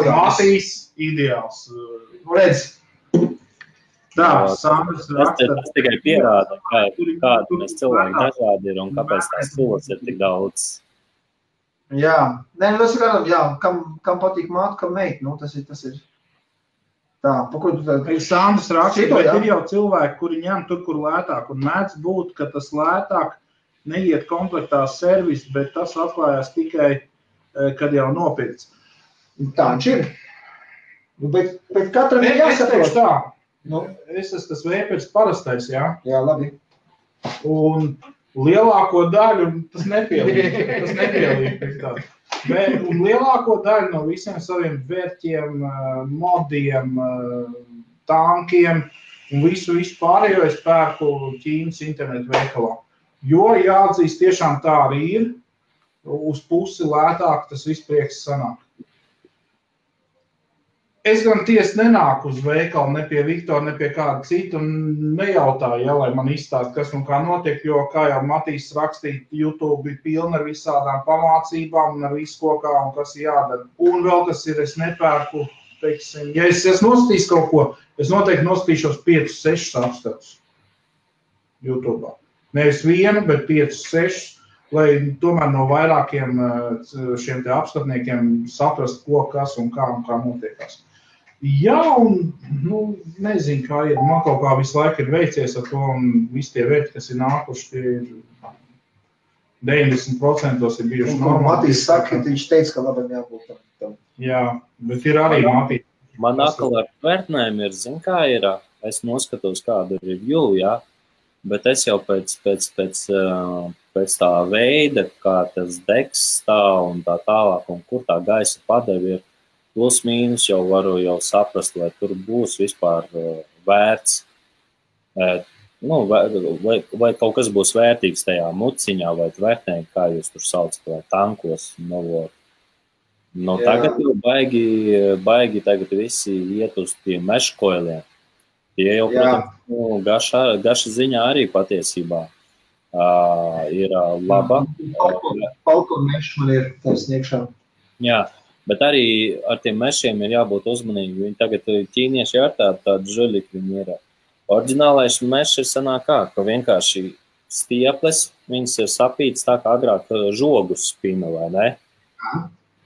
Matīs ideāls. Redz. Tā, Sandrs raksta. Tas tikai pierāda, kāda mēs cilvēki dažādi ir un kāpēc tās tulas ir tik daudz. Jā, nē, tas ir kādam, jā, kam patīk māte, kam meit, nu, tas ir. Tā, pa ko tu tad... Sandrs raksta, bet ir jau cilvēki, kuri ņem tur, kur lētāk, un mēdz būt, ka tas lētāk neiet komplektā servis, bet tas atklājās tikai, kad jau nopirts. Tā viņš ir. Bet katram ir jāsaprot. Tā. Nu, es esmu tas vēpers parastais, jā? Jā, labi. Un lielāko daļu tas nepielīk. Un lielāko daļu no visiem saviem vērķiem, modiem, tankiem un visu pārējo es pērku Ķīnas internetu veikalā. Jo jāatzīst, tiešām tā arī ir, uz pusi lētāk tas viss prieks sanāk. Es gan tiesi nenāku uz veikalu, ne pie Viktora, ne pie kāda cita, un nejautāju, ja, lai man izstāst, kas un kā notiek, jo, kā jau Matīs rakstīja, YouTube ir pilna ar visādām pamācībām un ar visu kokā un kas jādara. Un vēl kas ir, es nepērku, teiksim, ja es nostīs kaut ko, es noteikti nostīšos 5-6 apskatus YouTube. Nevis vienu, bet 5-6, lai tomēr no vairākiem šiem te apskatniekiem saprast, ko, kas un kā notiekās. Jā, un, nezinu, kā ir, man kaut kā visu laiku ir veicies ar to, un visi tie vērti, kas ir nākuši, tie ir 90% ir bijuši normāli. Matīs saka, viņš teica, ka labam jābūt tam. Jā, bet ir arī Matīs. Man atkal ar vērtnēm ir, zin kā ir, es noskatos kādu review, jā, bet es jau pēc tā veida, kā tas degs stāv un tā tālāk, un kur tā gaisa padevi ir, plus mīnus jau varu saprast, vai tur būs vispār vērts, vai kaut kas būs vērtīgs tajā muciņā, vai vērtnē, kā jūs tur saucat, vai tankos. Tagad jau baigi tagad visi iet uz tiem meškoiliem. Tie jau, protams, gaša ziņā arī patiesībā ir laba. Falcon mešs man ir taisniekšā. Jā. Bet arī ar tiem mešiem ir jābūt uzmanīgi. Viņi tagad ķīnieši ar tādu žuļiku viņi ir. Oriģinālais mešs ir sanāk ka vienkārši stieples, viņas ir sapītas tā kā agrāk žogus spina, vai ne?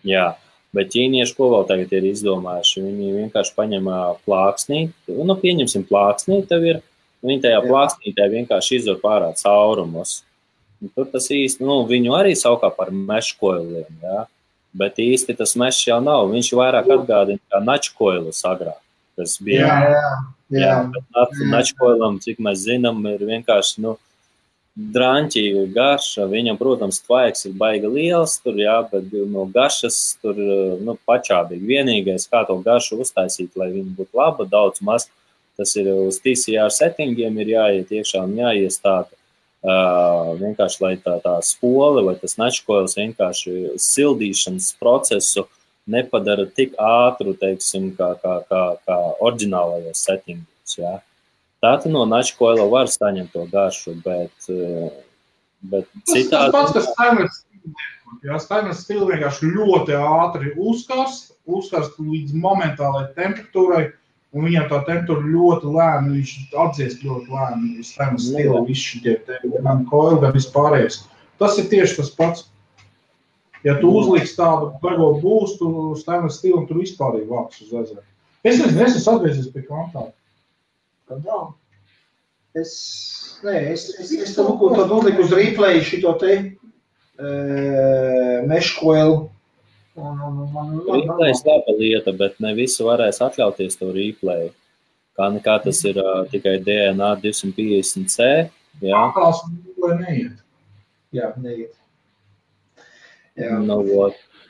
Jā, bet ķīnieši ko vēl tagad ir izdomājuši? Viņi vienkārši paņem plāksnī, pieņemsim plāksnī, tev ir, viņi tajā plāksnītē vienkārši izvar pārā caurumus. Un tur tas īsti, viņu arī saukā par meškoiliem, jā. Bet īsti tas mešs jau nav. Viņš vairāk atgādina kā načkoilus agrāk. Tas bija. Jā. Bet načkoilam, cik mēs zinām, ir vienkārši, draņķīga garša. Viņam, protams, tvaiks ir baigi liels tur, jā, bet no garšas tur, pačābīgi. Vienīgais, kā to garšu uztaisīt, lai viņa būtu laba, daudz maz, tas ir uz TCR settingiem ir jāiet iekšā un jāiestāta. Vienkārši, lai tā spole vai tas načkoils vienkārši sildīšanas procesu nepadara tik ātru, teiksim, kā oriģinālajos settingos, jā. Tātad no načkoila var saņemt to garšu, bet citādi... Tas pats, kas stainless stili. Jā, stainless stili vienkārši ļoti ātri uzkarst līdz momentālai temperatūrai, un viņam tā temperatūra ļoti lēna, viņš atdziest ļoti lēna, stainless stili, visi šitie gan koili, gan vispārējais. Tas ir tieši tas pats. Ja tu uzliks tādu bego būstu stainless stili, un tur vispārīgi vāks uz ezera. Es esmu atgriezies pie kvantāla. Kādā? Es tad uzliku uz replay šito te meškoilu. Replay laba lieta, bet ne visi varēs atļauties to replay. Kā tas ir tikai DNA 250C. Jā. Tās neiet. Jā, neiet. Jā.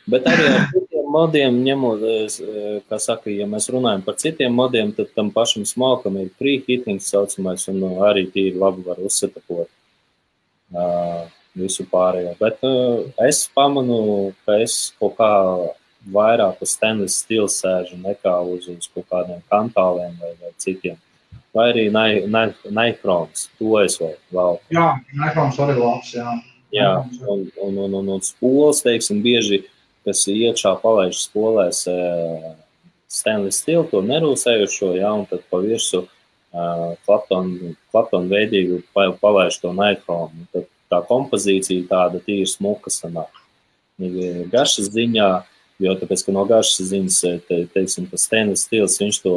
Bet arī ar citiem modiem ņemot, kā saka, ja mēs runājam par citiem modiem, tad tam pašam smalkam ir preheating saucamais, un arī tīri labi var uzsetapot visu pārējo. Bet es pamanu, ka es kaut kā vairāk uz stainless steel sēžu nekā uz kaut kādiem kantāliem vai citiem. Vai arī Nichroms, to es vēl. Jā, Nichroms arī labs, jā. Jā, un spoles, teiksim, bieži, kas iekšā palaiž spolēs stainless steel, to nerūsējušo, jā, un tad pa virsu Clapton veidīgu palaiž to Nichromu. Tad tā kompozīcija tāda tīri smuka sanāk. Garšas ziņā, jo tāpēc, ka no garšas ziņas, teiksim, ka stainless steels, viņš to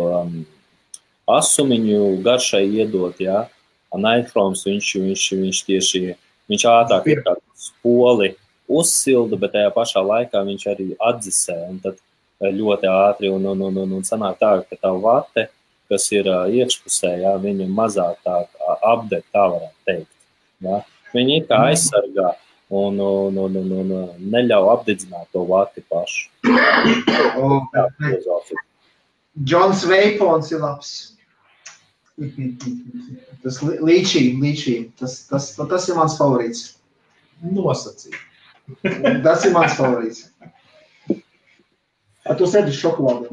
asumiņu garšai iedot, jā, a Nichroms viņš tieši, viņš ātrāk ir kā spoli uzsilda, bet tajā pašā laikā viņš arī atdzisē, un tad ļoti ātri, un sanāk tā, ka tā vate, kas ir iekšpusē, jā, viņa mazāk tā apdeg, tā varētu teikt, jā. Viņa ir kā aizsargā, un neļauj apdedzināt to vati pašu. Džons Veipons ir labs. Tas līčī. Tas ir mans favorīts. Nosacīt. Tas ir mans favorīts. Tu sēdi šokolādi.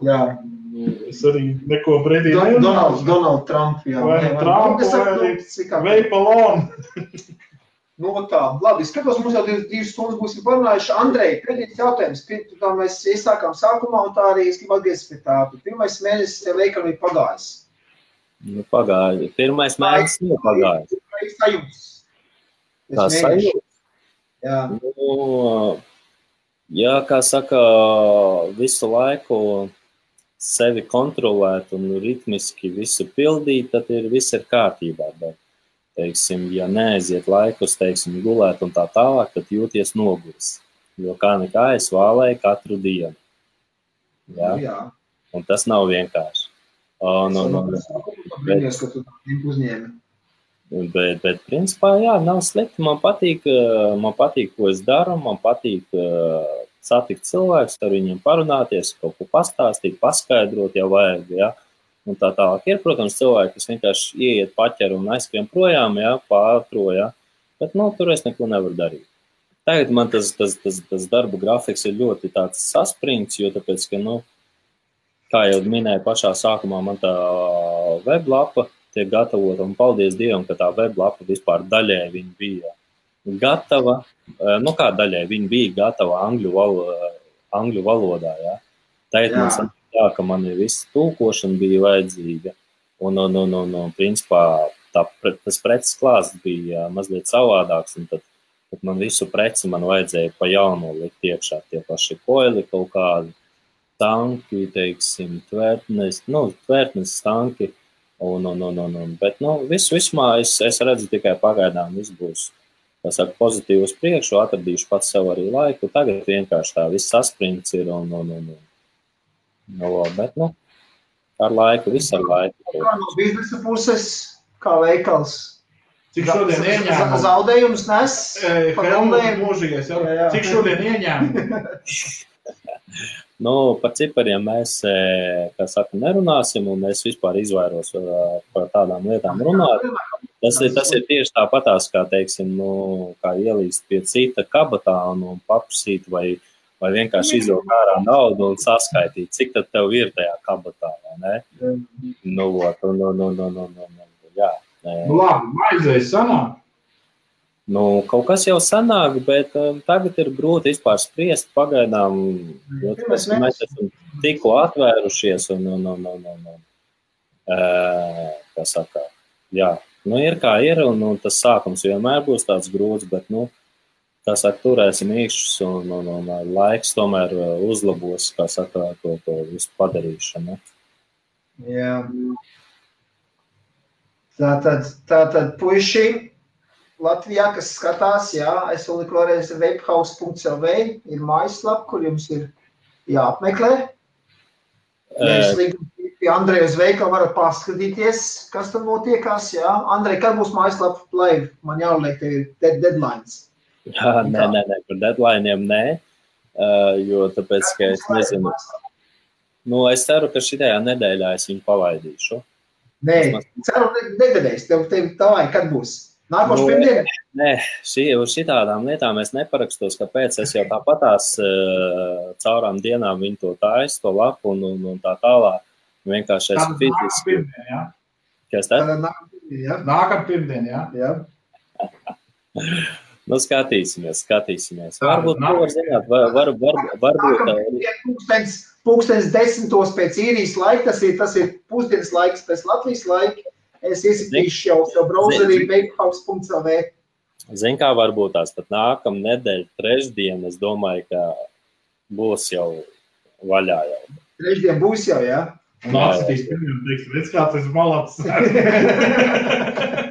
Jā. Es arī neko brīdī nejūtu. Donald Trump, jā. Vai Trump, vai Veipalon. Nu, tā, labi, skatos, mums jau 2 stundas būsim parunājuši. Andrej, pēdējais jautājums, tā mēs iesākām sākumā, un tā arī es gribu atgriezties pie tā. Pirmais mēnesis tev veikam ir pagājis. Nu, pagāja. Pirmais mēnesis nav pagājis. Tā sajūta? Jā. Nu, jā, kā saka, visu laiku sevi kontrolēt un ritmiski visu pildīt, tad viss ir kārtībā, bet teiksim, ja neaiziet laikus, teiksim, gulēt un tā tālāk, tad jūties noguris. Jo kā nekā es vālēju katru dienu. Jā? Un tas nav vienkārši. Bet principā, jā, nav slikti. Man patīk, ko es daru, man patīk satikt cilvēkus, ar viņiem parunāties, kaut ko pastāstīt, paskaidrot, ja vajag, jā. Un tā tālāk ir, protams, cilvēki, kas vienkārši ieiet paķer un aizskrien projām, jā, pārtro, jā, bet, tur es neko nevaru darīt. Tagad man tas darba grafiks ir ļoti tāds saspringts, jo tāpēc, ka, kā jau minēju pašā sākumā, man tā weblapa tiek gatavota, un paldies Dievam, ka tā weblapa vispār daļēji viņa bija gatava, kā daļēji viņa bija gatava angļu valodā, jā. Tagad man sanāk tā, ka man viss tulkošana bija vajadzīga, un principā tas preces klāsts bija mazliet savādāks, un tad man visu preci man vajadzēja pa jaunu likt iekšā, tie paši koili kaut kādi, tanki, teiksim, tvērtnes tanki, bet, vismā es redzu tikai pagaidām, viss būs, tā saka, pozitīvi uz priekšu, atradīšu pats sev arī laiku, tagad vienkārši tā viss saspringts ir, bet, ar laiku, viss ar laiku. Kā no biznesa puses, kā veikals? Cik šodien ieņēmumu? Zaudējumus nes? Helmut mūžīgais, jā. Cik šodien ieņēmumu? Par cipariem mēs, kā saka, nerunāsim, un es vispār izvairos par tādām lietām runāt. Tas ir tieši tāpatās, kā, teiksim, kā ielīst pie cita kabatā un paprasīt vai vienkārši izvilkt ārā naudu un saskaitīt, cik tad tev ir tajā kabatā, vai ne? Jā. Labi, maizēs sanāk? Kaut kas jau sanāk, bet tagad ir grūti vispār spriest pagaidām, jo mēs esam tikko atvērušies kā saka, jā, ir kā ir, un tas sākums vienmēr būs tāds grūts, bet, kā saka, turēsim īkšķus un laiks tomēr uzlabos, kā saka, to visu padarīšanu. Jā. Tātad puiši Latvijā, kas skatās, jā, es vēl vēlreiz webhouse.lv ir mājaslapa, kur jums ir jāapmeklē. Mēs pie Andreja uz veikalu varat paskatīties, kas tam notiekās, jā. Andrej, kad būs mājaslapa live? Man jāliek, tev ir deadlines. Jā, nē, par deadlineiem nē, jo tāpēc, ka es nezinu. Es ceru, ka šitajā nedēļā es viņu palaidīšu. Nē, ceru nedēļais, tev tā vai, kad būs? Nākošu pirmdienu? Nē, uz šitādām lietām es neparakstos, kāpēc es jau tāpatās caurām dienām viņu to taisu, to lapu un tā tālāk. Vienkārši es fiziski. Kas tad? Nākam pirmdien, jā. Nu, skatīsimies. Varbūt, to var zināt, varbūt. Pūkstens 10. pēc īrijas laika, tas ir pusdienas laiks pēc Latvijas laika. Es iesitīšu jau savu browserī bakehouse.lv. Zin kā varbūt tās pat nākam nedēļa trešdien, es domāju, ka būs jau vaļā jau. Trešdien būs jau, jā? Nācitīs pirmiem, teiks, redz kā tas malats.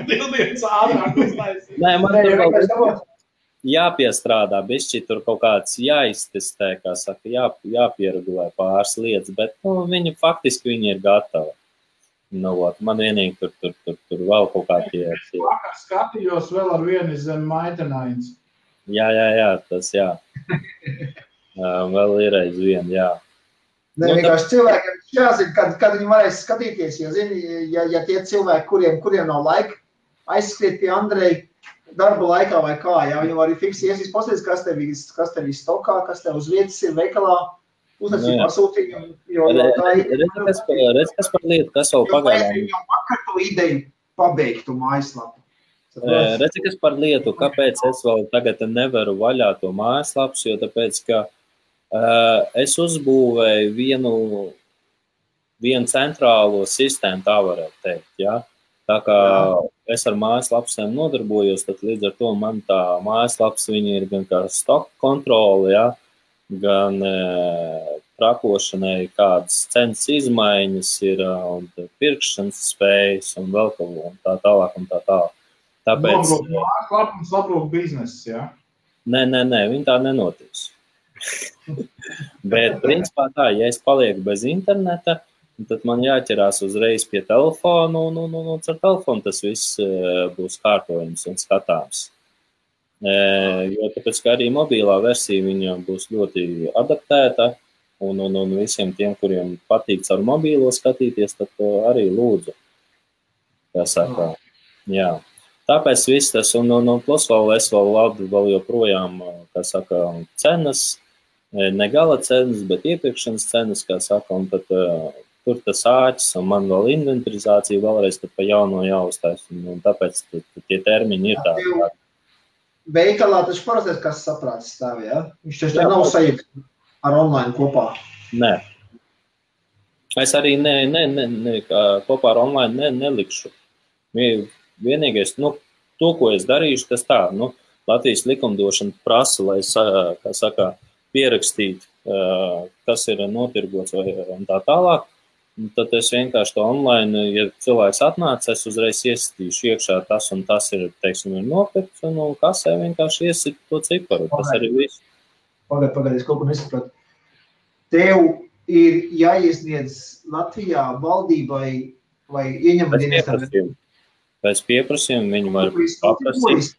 Dildienas ātrāk uztaisīt. Nē, man tur vēl jāpiestrādā, bišķi tur kaut kāds jāiztestē, kā saka, jāpieregulē pāris lietas, bet viņi faktiski viņi ir gatavi. Man vienīgi tur vēl kaut kā tie. Vakar skatījos vēl ar vienu zem maitenains. Jā, tas jā. Vēl ir aiz vienu, jā. Nē, vienkārši cilvēkiem jāzina, kad viņi varēs skatīties, jo zini, ja tie cilvēki, kuriem nav laika aizskriet pie Andreja darba laikā vai kā, jā, viņi var arī fiksi iesīs pasties, kas tev ir stokā, kas tev uz vietas ir veikalā, uznesīt pasūtījumu, jo tā ir... Redz, kas par lietu, kas vēl pagaidām. Jo vakar to ideju pabeigtu mājaslapu. Redz, kas par lietu, kāpēc es vēl tagad nevaru vaļā to mājaslapus, jo tāpēc, ka es uzbūvēju vienu centrālo sistēmu, tā varētu teikt, jā. Tā kā es ar mājaslapsiem nodarbojos, tad līdz ar to man tā mājaslaps, viņi ir gan kā stock kontrole, jā, gan trakošanai kādas cenas izmaiņas ir, un pirkšanas spējas, un vēl kaut ko, un tā tālāk, un tā tālāk. Tāpēc... Mājaslap un sabrūk biznesis, jā? Nē, viņi tā nenotiks. Bet, principā tā, ja es palieku bez interneta, tad man jāķerās uzreiz pie telefonu, un ar telefonu tas viss būs kārtojums un skatāms. Jo tāpēc, ka arī mobilā versija viņa būs ļoti adaptēta, un visiem tiem, kuriem patīk ar mobīlo skatīties, tad arī lūdzu. Tā saka, jā. Tāpēc viss tas, un plus vēl es vēl joprojām, kā saka, cenas, ne gala cenas, bet iepirkšanas cenas, kā saka, un tad tur tas āķis, un man vēl inventarizācija vēlreiz tad pa jauno jāuztais, un tāpēc tie termiņi ir tādi. Veikalā taču parastais, kas saprāts stāv, jā? Viņš taču nav sajūta ar online kopā. Nē. Es arī kopā ar online nelikšu. Vienīgais, to, ko es darīšu, tas tā, Latvijas likumdošana prasa, lai, kā saka, pierakstīt, kas ir notirgots un tā tālāk. Tad es vienkārši to online, ja cilvēks atnāc, es uzreiz iestīšu iekšā tas un tas ir, teiksim, ir nopirkts, un kasē vienkārši iesīt to ciparu. Tas arī viss. Pagaid, es kaut ko nesapratu. Tev ir jāiesniedz Latvijā valdībai vai ieņemuma dienestam? Pēc pieprasījuma viņi var paprasīt.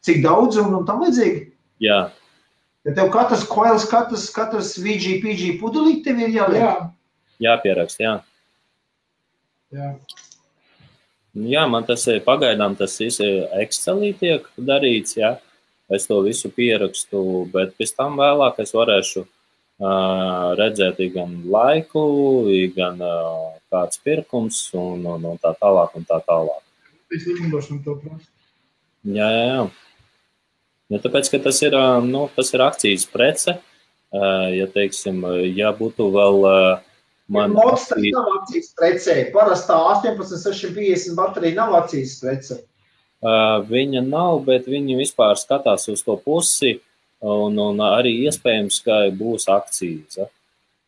Cik daudz un tam līdzīgi? Jā. Ja tev katrs koils, katrs VG pudelīt tev ir jāliek? Jā. Jāpierakst, jā. Jā. Jā, man tas ir pagaidām, tas Excelī tiek darīts, jā. Es to visu pierakstu, bet pēc tam vēlāk es varēšu redzēt gan laiku, gan kāds pirkums un tā tālāk un tā tālāk. Es likumdošanu to prasu. Jā. Ja tāpēc, ka tas ir akcijas prece, ja teiksim, ja būtu vēl Mods tas nav akcijas precē. Parastā 18650 baterija nav akcijas prece. Viņa nav, bet viņi vispār skatās uz to pusi un arī iespējams, ka būs akcijas. Ja?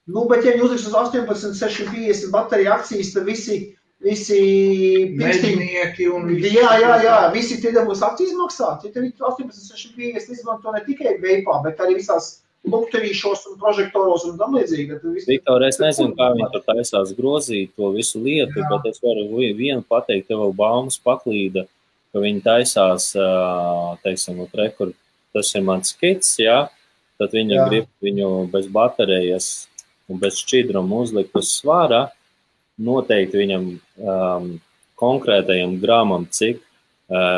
Bet ja viņi uzliks uz 18650 baterija akcijas, tad visi mežnieki un visi. Jā, visi tie būs akcijas maksāt. Ja tev 18650 izmanto ne tikai veipā, bet arī visās lukterīšos un prožektoros un tam līdzīgi. Viktor, es nezinu, kā viņi tur taisās grozīt to visu lietu, bet es varu vienu pateikt, tev vēl baumas paklīda, ka viņi taisās, teiksim, kur tas ir mans skits, jā, tad viņi grib viņu bez baterijas un bez šķidruma uzlikt uz svārā, noteikti viņam konkrētajam gramam, cik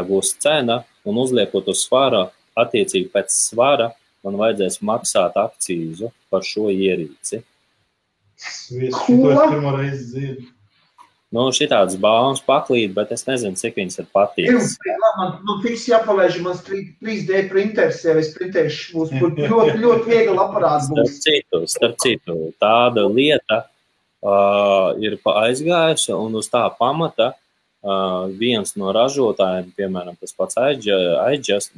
būs cena, un uzliekot uz svara, attiecīgi pēc svara, man vajadzēs maksāt akcīzu par šo ierīci. Šito es pirmo reizi dzirdu. Nu, šitāds baumas paklīt, bet es nezinu, cik viņas ir patīks. Man fiks jāpalaiž, mans 3D printers, ja es printēšu, būs ļoti viegli aparāts būs. Starp citu, tāda lieta ir aizgājusi, un uz tā pamata viens no ražotājiem, piemēram, tas pats Aegis,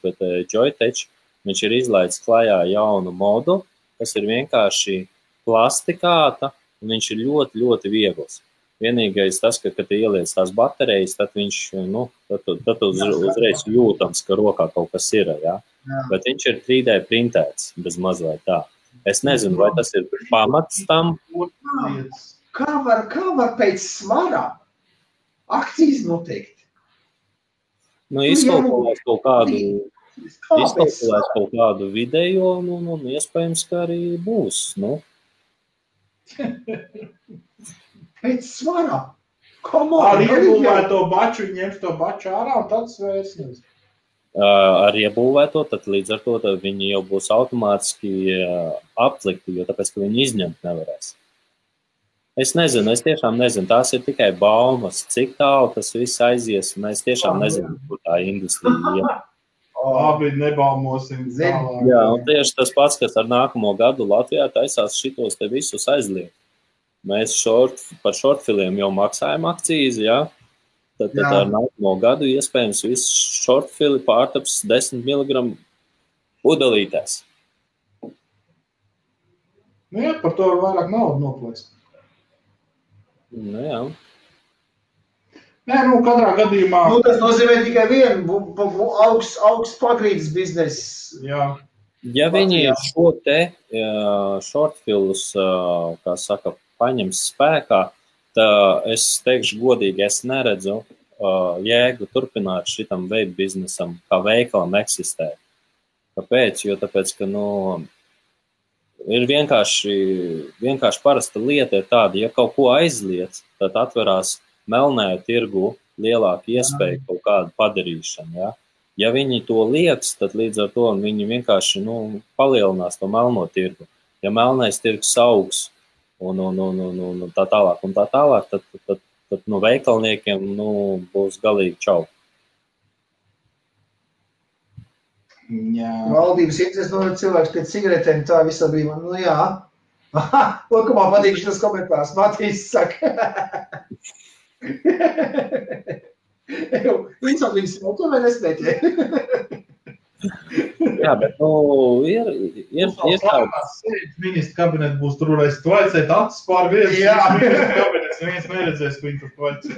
bet Joytech, viņš ir izlaidis klajā jaunu modu, kas ir vienkārši plastikāta, un viņš ir ļoti, ļoti viegls. Vienīgais tas, ka, kad ieliec tās baterijas, tad viņš, tad uzreiz jūtams, ka rokā kaut kas ir, ja? Bet viņš ir 3D printēts, bez mazliet tā. Es nezinu, vai tas ir pamats tam. Kā var pēc svara akcijas noteikt? Izkalkulēs kaut kādu video, iespējams, ka arī būs, Pēc svara. Ar iebūvēto baču, ņems to baču ārā un tad svērsnes. Ar iebūvēto, tad līdz ar to viņi jau būs automātiski aplikti, jo tāpēc, ka viņi izņemt nevarēs. Es tiešām nezinu, tās ir tikai baumas, cik tālu tas viss aizies, un es tiešām nezinu, kur tā industrija ir. Labi, nebaumosim. Jā, un tieši tas pats, kas ar nākamo gadu Latvijā taisās šitos te visus aizliegt. Mēs par shortfiliem jau maksājam akcīzi, ja? Tad ar nākamo gadu iespējams viss shortfili pārtaps 10 mg pudelītēs. Jā, par to vairāk naudu noplēst. Jā. Nē, katrā gadījumā... Tas nozīmē tikai vienu augsts pagrīdes biznesu. Jā. Ja viņi šo te shortfilus, kā saka, paņems spēkā, tad es teikšu godīgi, es neredzu jēgu turpināt šitam vape biznesam, kā veikalam eksistē. Kāpēc? Jo tāpēc, ka, ir vienkārši parasta lieta ir tāda, ja kaut ko aizliec, tad atverās melnēju tirgu lielāka iespēja kaut kādu padarīšanu, ja? Ja viņi to lieks, tad līdz ar to viņi vienkārši, palielinās to melno tirgu. Ja melnais tirgus augs, un tā tālāk, tad veikalniekiem būs galīgi čau. Jā. Valdības interesi noved cilvēks pēc cigaretēm, tā visā brīvā, jā. Ko man patīk šitas komentārs, Matīs saka. Viņš smūto vai nesmēķē? Jā, bet, ir tāds ministra kabinets būs tur, lai tvaicēt acis pār viens ministra kabinets, viens neredzēs, ko viņi tur tvaicē.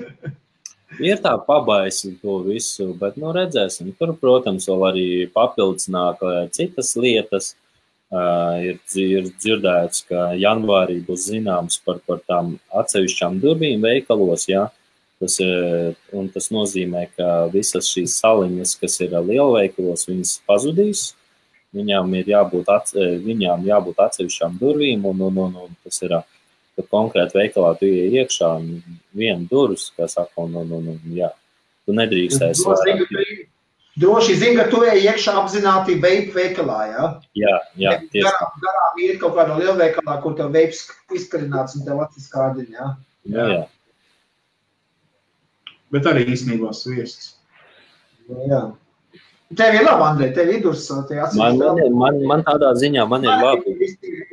Ir tā pabaisi to visu, bet, redzēsim. Tur, protams, vēl arī papildus nāk citas lietas. Ir dzirdēts, ka janvārī būs zināms par tām atsevišķām durvīm veikalos, jā. Tas nozīmē, ka visas šīs saliņas, kas ir lielveikalos, viņas pazudīs. Viņām jābūt atsevišķām durvīm, un tas ir, ka konkrēti veikalā tu iej iekšā viena durvis, kā saka, jā. Tu nedrīkstēs. Droši zini, ka tu ej iekšā apzināti vape veikalā, jā? Jā, tieši. Garām iet kaut kādā lielveikalā, kur tev vapes izkarināts un tev acis kārdiņ, jā? Jā. Bet arī īstenībā sviests. Jā. Tev ir labi, Andrej, tev ir durs. Man tādā ziņā man ir labi.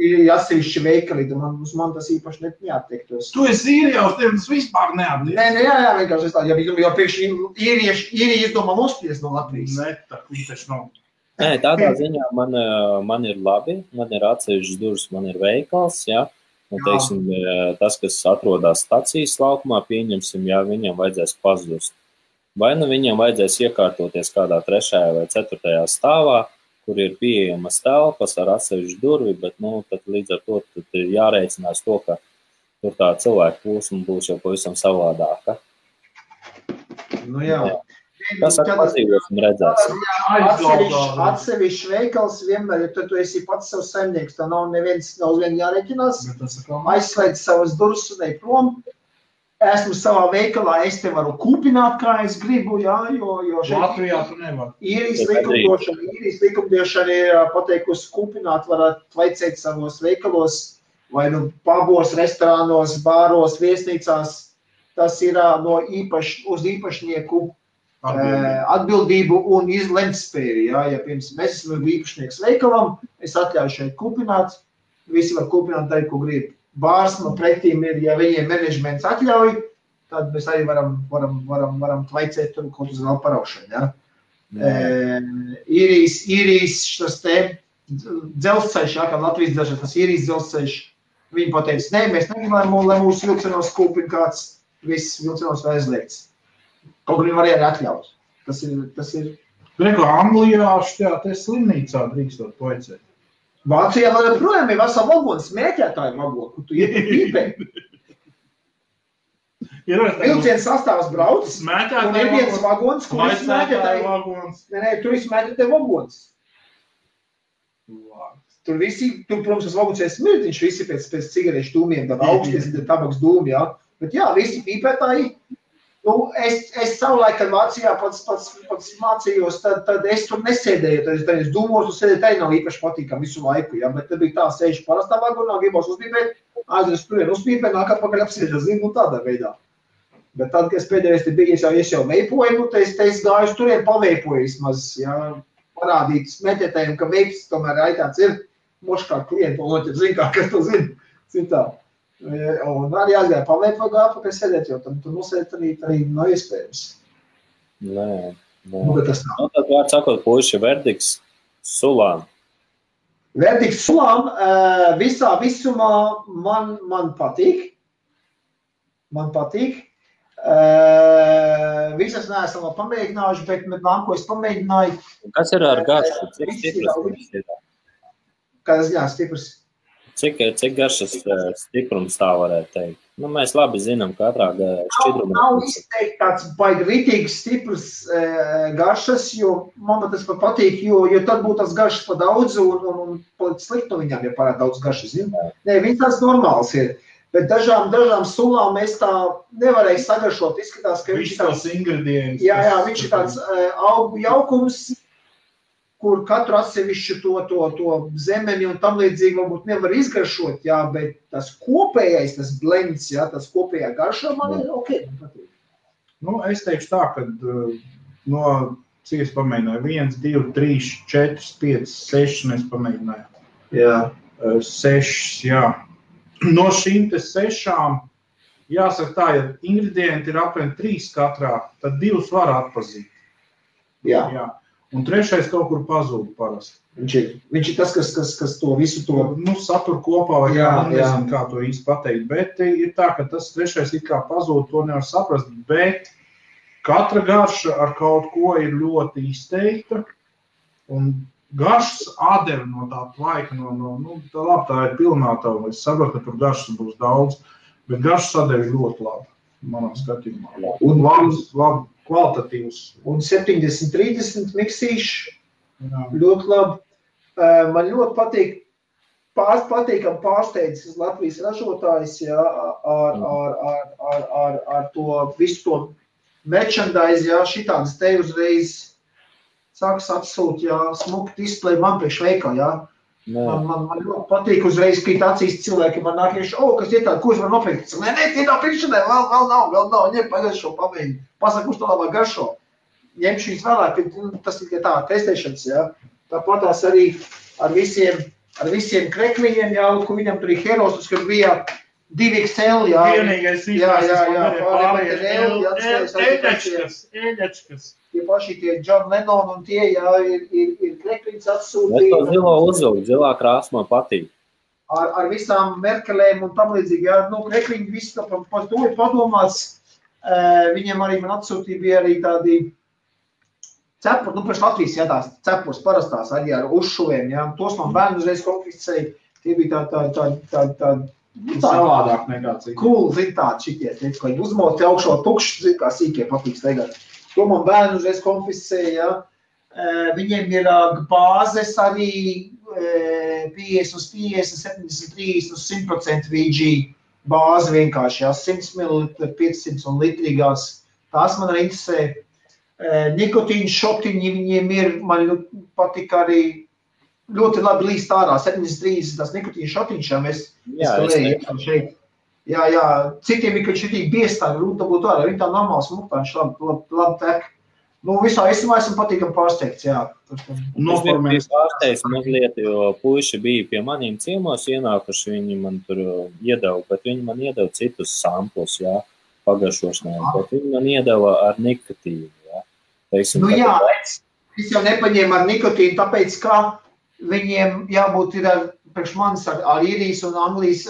Ir atsevišķi veikali, man tas īpaši neattiektos. Tu esi īrijās, tev tas vispār neatliek. Nē, jā, vienkārši es tā, jo priekš īrija izdomā nospies no Latvijas. Nē, tā taču nav. Nē, tādā ziņā man ir labi, man ir atsevišķas durvis, man ir veikals, jā. Un, teiksim, tas, kas atrodas stacijas laukumā, pieņemsim, ja viņam vajadzēs pazust. Vai viņam vajadzēs iekārtoties kādā 3. vai 4. stāvā, kur ir pieejamas telpas ar atsevišķu durvi, bet, tad līdz ar to ir jārēķinās to, ka tur tā cilvēku plūsma būs jau pavisam savādāka. Jā. Kas ar pazīvosim redzēs? Atsevišķi veikals vienmēr, ja tu esi pats savs saimnieks, tā nav neviens jāreķinās, aizslēdz savas durvis un ej prom. esmu savā veikalā, es te varu kūpināt, kā es gribu, jā, jo šeit Latvijā tu nevar. īrijas likumdošana ir pateikusi kūpināt, varat vaicēt savos veikalos, vai nu pabos, restorānos, bāros, viesnīcās, tas ir no uz īpašnieku atbildību un izlemtspēju, jā, ja piemēram es esmu īpašnieks veikalam, es atļauju šeit kūpināt, visi var kūpināt darīt, ko grib. Bārs man pretīm ir, ja viņiem menedžments atļauj, tad mēs arī varam tvaicēt tur kaut uz vēl paraušanu, ja? Īrijas tas te dzelzceļš, ja, kā Latvijas dzelzceļš, tas Īrijas dzelzceļš, viņi pateica, ne, mēs negribam, lai mūsu vilcenos kūpina kāds, viss vilcenos vai aizliegts. Kaut kur viņi var arī atļaut. Tas ir. Reko, Anglijā šajā te slimnīcā drīkstot tvaicēt. Vācijā vēl joprojām ir vesela vagona, smēķētāju vagona, kur tu iet pīpē. Vilciens sastāvs brauc, un ir viens vagons, kur ir smēķētāju vagons. Nē, tur ir smēķētāju vagons. Tur, protams, tas vagons ir smirtiņš, visi pēc cigarešu dūmiem, tad augsties ir tabaks dūmi, jā. Bet jā, visi pīpētāji. Nu, es savulaik, kad Vācijā pats mācījos, tad es tur nesēdēju, tad es dūmos, un sēdēju, tā nav īpaši patīkam visu laiku, ja, bet tad bija tā sēžu parastā vagonā, gribos uzpīpēt, aizries turien uzpīpēt, nāk atpakaļ apsēžas, zinu, tādā veidā. Bet tad, kad es pēdējais te biju, es jau veipoju, nu, es gāju uz turien paveipoju vismaz, ja, parādīt smēķētājiem, ka veips tomēr aitāts ir moškā klientu, un noķer, zin kā, kas to zin, citā. Un arī aizgāja paveikt vai gāja pakaļ sēdēt, jo tur nosēdēt arī nav iespējams. Nē. Nu, bet tas nav. Nu, tad vārds sakot, puiši, verdikts sulām. Verdikts sulām visā visumā man patīk. Man patīk. Visas neesam vēl pamēģinājuši, bet nāko es pamēģināju. Kas ir ar garšu? Cik stiprs ir? Kādas jā, stiprs? Cik garšas stiprums tā varētu teikt? Nu, mēs labi zinām katrā šķidrumā. Nav izteikt tāds baigi ritīgs stiprs garšas, jo man tas patīk, jo tad būtu tas garšas pa daudz un sliktu viņām, ja parāda daudz garšas. Nē, viņi tāds normāls ir. Bet dažām sulām mēs tā nevarēja sagaršot. Izskatās, ka viņš ir tāds ingredients. Jā, viņš ir tāds augu jaukums, kur katru atsevišķu to zemeni un tam līdzīgi varbūt nevar izgaršot, jā, bet tas kopējais, tas blends, jā, tas kopējā garšā man ir ok, man patīk. Nu, es teikšu tā, ka no, cik es pamēģināju, 1, 2, 3, 4, 5, 6 mēs pamēģinājām. Jā. 6, jā. No šīm te 6, jāsaka tā, ja ingredienti ir apmēram 3 katrā, tad 2 var atpazīt. Jā. Un 3 kaut kur pazūd parasti. Viņš ir tas, kas to visu to... Nu, satur kopā, vai nezinu, kā to īsti pateikt. Bet ir tā, ka tas 3 it kā pazūd, to nevar saprast. Bet katra garša ar kaut ko ir ļoti izteikta. Un garšas atdeve no tā tvaika, tā labi, tā ir pilnātava. Es saprotu, ka tur garšas būs daudz. Bet garšas atdeve ir ļoti labi, manā skatījumā. Un labi. Kvalitatīvs. Un 70-30 miksīši, ļoti labi. Man ļoti patīkam pārsteidzis Latvijas ražotājs, jā, ar to visu to merchandise, jā, šitādas te uzreiz sāks atsūt, jā, smuki display man priekš veikā, jā. Man ļoti patīk uzreiz krīt acīs cilvēki, man nāk iekšā, kas ir tāda, ko es varu nopirkt? Nē, tie nav pirkšanai, vēl nav, ņem pagaršo, pamēģi. Pasaka, kurš to labāk garšo. Ņemšu viņas vēlāk, tas ir tā testēšanas, jā. Tāpatās arī ar visiem krekliņiem, jā, kur viņam tur ir herosus, kad bija 2XL, jā. Vienīgais ēļačkas. Tie paši tie John Lennon un tie, jā, ir krekliņas atsūtīja. Es to zilo uzvilku, zilā krāsma patīk. Ar visām Merkelēm un tam līdzīgi, jā, krekliņi viss par to ir padomāts. Viņiem arī man atsūtīja bija arī tādi cepuri, pēc Latvijas, jā, tās cepurs parastās arī ar uzšuvēm, jā. Tos man bērni uzreiz konfiscēja, tie bija tā savādāk nekā cik. Cool, zin tādi šitie, ka viņi uzmoti augšā tukšs, zin kā sīkie patīk staigāt. To man bērni uzreiz konfiscēja, jā. Viņiem ir bāzes arī 50 uz 50, 70, 30 uz 100% VG. bāzi vienkārši, jā, 100 ml, 500 un litrīgās. Tās man arī interesē. Nikotīna šotiņi viņiem ir, man patīk arī ļoti labi līst ārā, 7,30 tās nikotīna šotiņš, jā, mēs skalējam šeit. Jā, citiem ir, ka šitī biestā, grūti dabūt ārā, viņi tā normāls muktāņš, labi tek. Nu, visā esmā esam patīkam pārsteigts, jā. Es biju pārsteigts mazliet, jo puiši bija pie maniem ciemos ienākuši, viņi man tur iedeva, bet viņi man iedeva citus samplus, jā, pagaršošanai, bet viņi man iedeva ar nikotīnu, jā. Teiksim, nu jā, es jau nepaņēmu ar nikotīnu, tāpēc, ka viņiem jābūt ir priekš manis ar īrijas un Anglijas,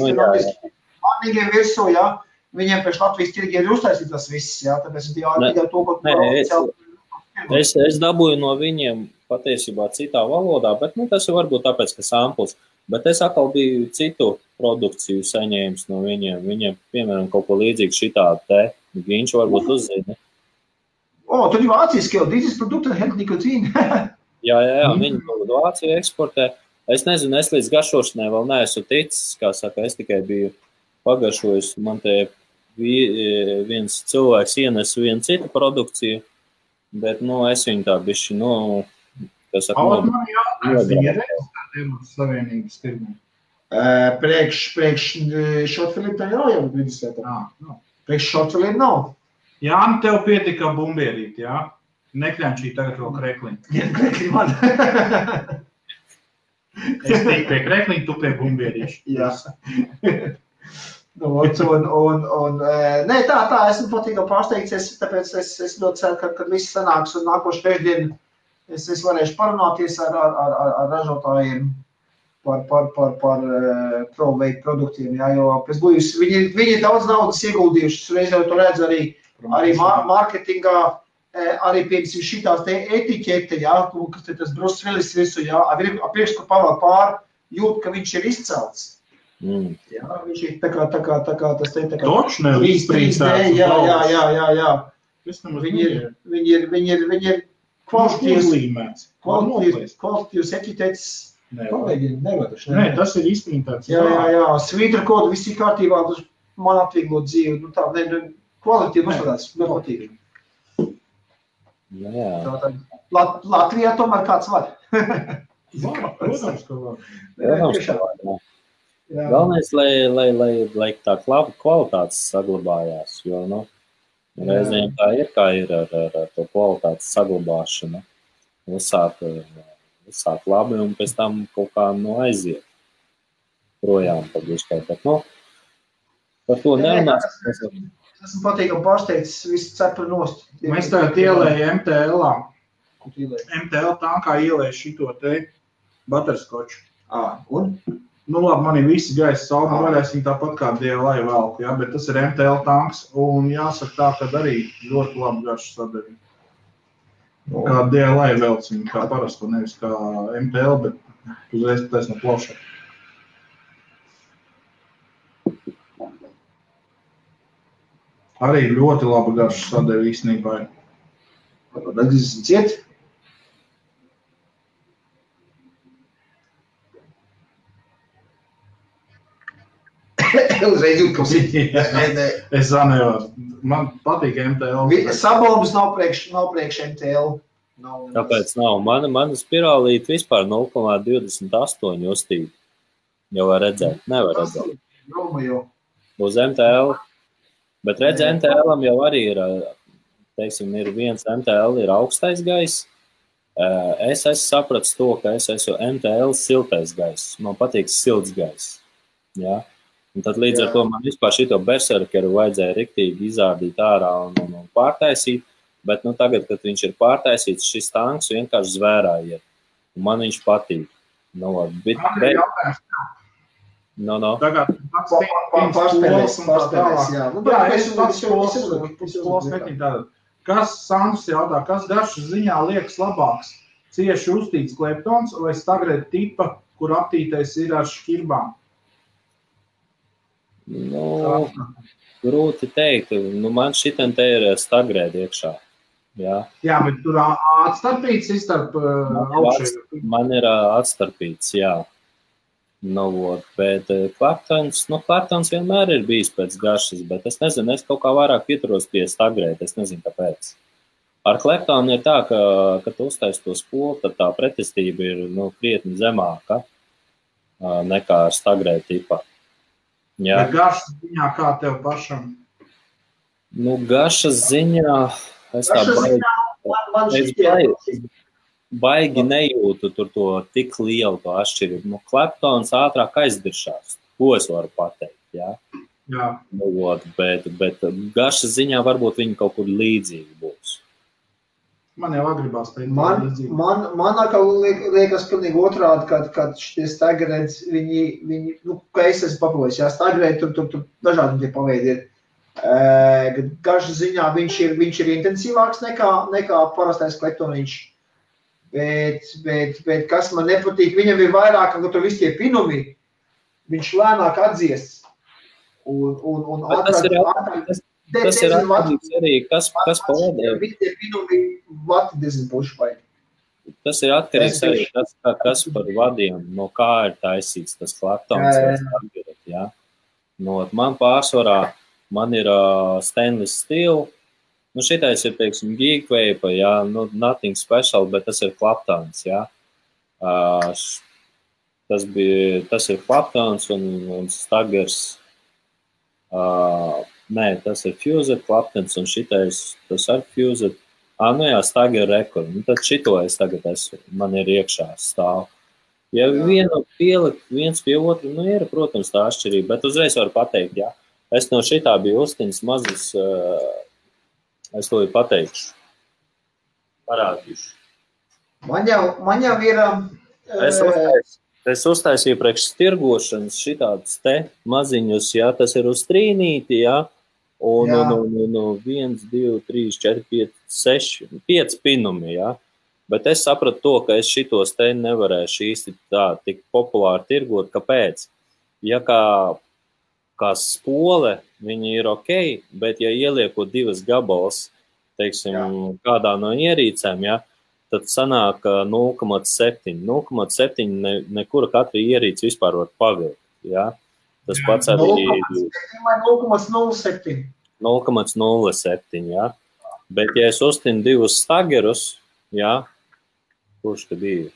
manīgiem virsū, jā. Viņiem pēc Latvijas tirgi ir uztaisīt tas viss, jā, tāpēc tikai to, ko es dabūju no viņiem patiesībā citā valodā, bet tas ir varbūt tāpēc, ka samples, bet es atkal biju citu produkciju saņēmis no viņiem. Viņiem, piemēram, kaut ko līdzīgu šitādu te, viņš varbūt uzzina. Tur ir vāciski jau, dieses produkta hat nikotīna. Jā, viņi Vāciju eksportē. Es nezinu, es līdz garšošanai vēl neesmu ticis, kā saka, es tikai biju pagaršojis, man te viens cilvēks ienes vienu citu produkciju, bet, es viņu tā bišķi, kas saka, man jātājums, viņi reģistrēti Savienības tirgu. Priekš šotfilību tā jau vidusvietā. Priekš šotfilību nav. Jā, tev pietika bumbierīt, jā? Nekļančī tagad vēl krekliņu. Jā, krekliņu man. Es teiktu pie krekliņu, tu pie bumbierīšu. Jā. Nē, tā, esmu patīkam pārsteigts, tāpēc es ļoti ceru, kad viss sanāks un nākošu pēcdien es varēšu parunāties ar ražotājiem par ProVeik produktiem, jā, jo pēc būjus viņi daudz naudas ieguldījuši, reiz jau to redz arī mārketingā, arī piemēram šitās te etiķete, jā, kas tas Bruce Willis visu, jā, priekš, ka pavēl pār, jūt, ka viņš ir izcelts. Jā, viņš ir tā kā tas te, tā kā Točne, 3D, jā. Viņi ir kvalitatīvs etiķetes. Nē, tas ir izprintēts. Jā, svītra kodu, viss ir kārtībā, tas man atvieglot dzīvi, kvalitīvi uzstādāts, ļoti patīk. Jā. Latvijā tomēr kāds var. Protams, ka var. Galvenais, lai tā kvalitātes saglabājās, jo, reizēm tā ir, kā ir ar to kvalitātes saglabāšanu. Uzsāk labi un pēc tam kaut kā aiziet projām pagiškai, bet, par to nerunās. Esmu patīkam pārsteigts, visu cepru nost. Mēs tagad ielēju MTL-ā. MTL tankā ielēju šito te butterskoču. Un? Labi, man ir visi gaisa sauma, varēsim tāpat kā DLI velku, jā, bet tas ir MTL tanks, un jāsaka tā, ka arī ļoti labi garšu sadarīt. Kā DLI velc, kā parasto, nevis kā MTL, bet uzreiz pateic no plavšā. Arī ļoti labi garšu sadarīt īstenībā. Atgriezīsim ciet? Uzreiz jūt, ka Es nevaru. Man patīk MTL. Sabombas nav priekš MTL. Tāpēc nav. Mana spirālīte vispār 0,28 uztība. Jau var redzēt. Nevar redzēt. Uz MTL. Bet redz, MTL-am jau arī ir, teiksim, ir viens MTL ir augstais gaiss. Es esmu sapratis to, ka es esmu MTL siltais gaiss. Man patīk silts gaiss. Jā. Un tad līdz ar to man vispār šito berserkeru vajadzēja riktīgi izārdīt ārā un pārtaisīt, bet tagad, kad viņš ir pārtaisīts, šis tanks vienkārši zvērā iet. Un man viņš patīk. Tagad pārspēlēs, jā. Es skolas metīju tātad. Kas, Sandrs jautā, kas garšas ziņā liekas labāks? Cieši uztīts kleptons vai stagrēta tipa, kur aptītais ir ar šķirbām? Grūti teikt. Man šitam te ir stagrēta iekšā. Jā, bet tur atstarpīts starp augšēju. Man ir atstarpīts, jā. Bet Claptons vienmēr ir bijis pēc garšas, bet es nezinu, es kaut kā vairāk pieturos pie stagrēt, es nezinu, kāpēc. Ar Claptonu ir tā, ka, kad tu uztaisi to spolu, tad tā pretestība ir krietni zemāka nekā ar stagrēt tipā. Jā. Bet garšas ziņā kā tev pašam? Garšas ziņā es tā baigi nejūtu tur to tik lielu to atšķirību. Claptons ātrāk aizdiršās, ko es varu pateikt, jā? Jā. Bet garšas ziņā varbūt viņi kaut kur līdzīgi būs. Man jau agribās teikt. Man atkal liekas pilnīgi otrādi, kad šitie stagrēds, viņi ka es esmu papavojis, jā, stagrēd, tur dažādi tie paveidi ir. Garšas ziņā viņš ir intensīvāks nekā parastais Claptoniņš. Bet kas man nepatīk, viņam ir vairāk, ka tur visi tie pinumi, viņš lēnāk atdzies. Un tas ir atkarīgs arī, kas pavadē. Visi tie pinumi vati diezgan puši vajag. Tas ir atkarīgs arī, kas par vadiem, no kā ir taisīts tas Claptons vai stagrēt, jā. Man pārsvarā, man ir stainless steel. Šitais ir, teiksim, Geekvape, jā, nothing special, bet tas ir Claptons, jā. Tas ir Claptons un Stagers. Nē, tas ir Fused, Claptons un šitais, tas ar Fused. Stager Record. Tad šito es tagad man ir iekšā stāv. Ja vienu pielikt viens pie otru, ir, protams, tā atšķirība, bet uzreiz varu pateikt, jā. Es no šitā biju uztiņas mazas, es to pateikšu. Parādīšu. Man jau ir... Es uztaisīju priekš stirgošanas šitādus te maziņus, jā, tas ir uz trīnīti, jā, un 1, 2, 3, 4, 5, 6, 5 pinumi, jā. Bet es sapratu to, ka es šitos te nevarēšu īsti tā tik populāri tirgot. Kāpēc? Ja kā spole, viņi ir ok, bet ja ieliekot 2 gabals, teiksim, kādā no ierīcēm, ja, tad sanāk 0,7. 0,7 nekura katra ierīce vispār var pavilkt. Ja. Tas pats arī 0,07. 0,07, ja. Bet ja es uztinu 2 stagerus, ja, kurš tad bija?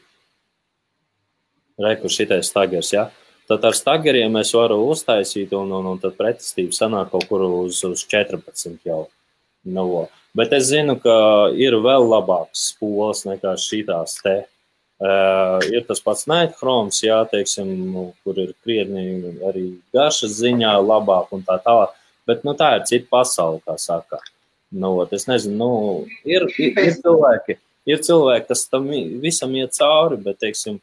Kur šitais stagers, ja. Tad ar stageriem es varu uztaisīt un tad pretestība sanāk kaut kur uz 14 jau. Bet es zinu, ka ir vēl labāks spoles nekā šitās te. Ir tas pats Nightchromes, jā, teiksim, kur ir krietni arī garšas ziņā labāk un tā tālāk. Bet tā ir cita pasaule, kā saka. Es nezinu, ir cilvēki, kas tam visam iet cauri, bet, teiksim,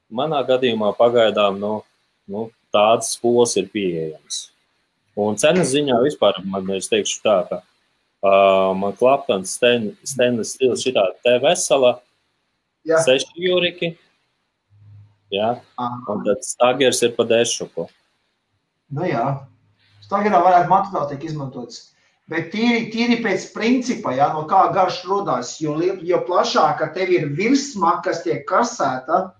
manā gadījumā pagaidām, tādas spoles ir pieejams. Un cenas ziņā vispār, es teikšu tā, ka man Claptons stainless steel šitā te vesela, 6 jūriki, jā, un tad stagers ir pa dešuku. Jā, stagerā varētu materiāli tiek izmantots. Bet tīri pēc principa, jā, no kā garš rodās, jo plašāka tev ir virsma, kas tiek karsēta,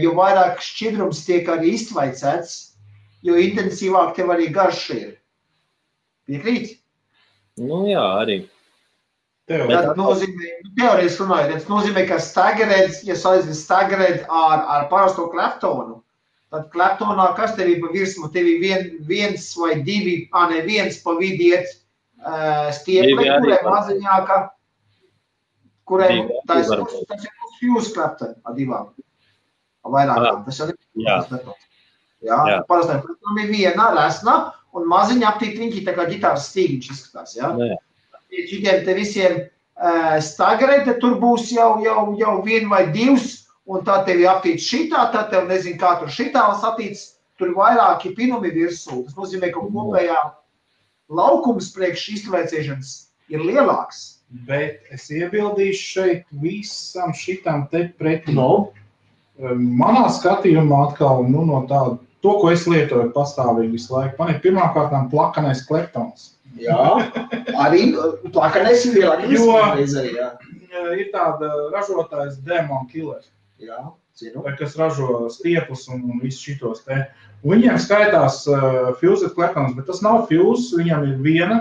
jo vairāk šķidrums tiek arī iztvaicēts, jo intensīvāk tev arī garš ir. Piekrīt? Jā, arī. Tas nozīmē, teorijas runājot, tas nozīmē, ka stagerēds, ja salīdzina stagerēd ar parasto Claptonu, tad Claptonā kas tev ir pa virsmu? Tev ir viens vai divi, viens pa vidi iet stiepli, kurai maziņāka, kurai tas ir Fuse Clapton ar divām. Vairākām. Tas jau ir Jā, parastai Claptonam ir viena resna un maziņa aptītriņķi, tā kā ģitāras stīgiņš izskatās. Jā. Šitiem te visiem stagerēt, tad tur būs jau 1 vai 2, un tā tev ir aptīts šitā, tad tev nezinu, kā tur šitā satīts, tur vairāki pinumi virsū. Tas nozīmē, ka kopējā laukums priekš iztvaicēšanas ir lielāks. Bet es iebildīšu šeit visam šitam te pretī. Manā skatījumā atkal, no tāda, to, ko es lietoju pastāvīgi visu laiku, man ir pirmkārtām plakanais Claptons. Jā, arī plakanais ir lielākais. Ir tāda ražotājs Demon Killer. Jā. kas ražo stiepus un visus šitos te. Un viņiem skaitās Fused Kleptons, bet tas nav Fuse, viņam ir viena,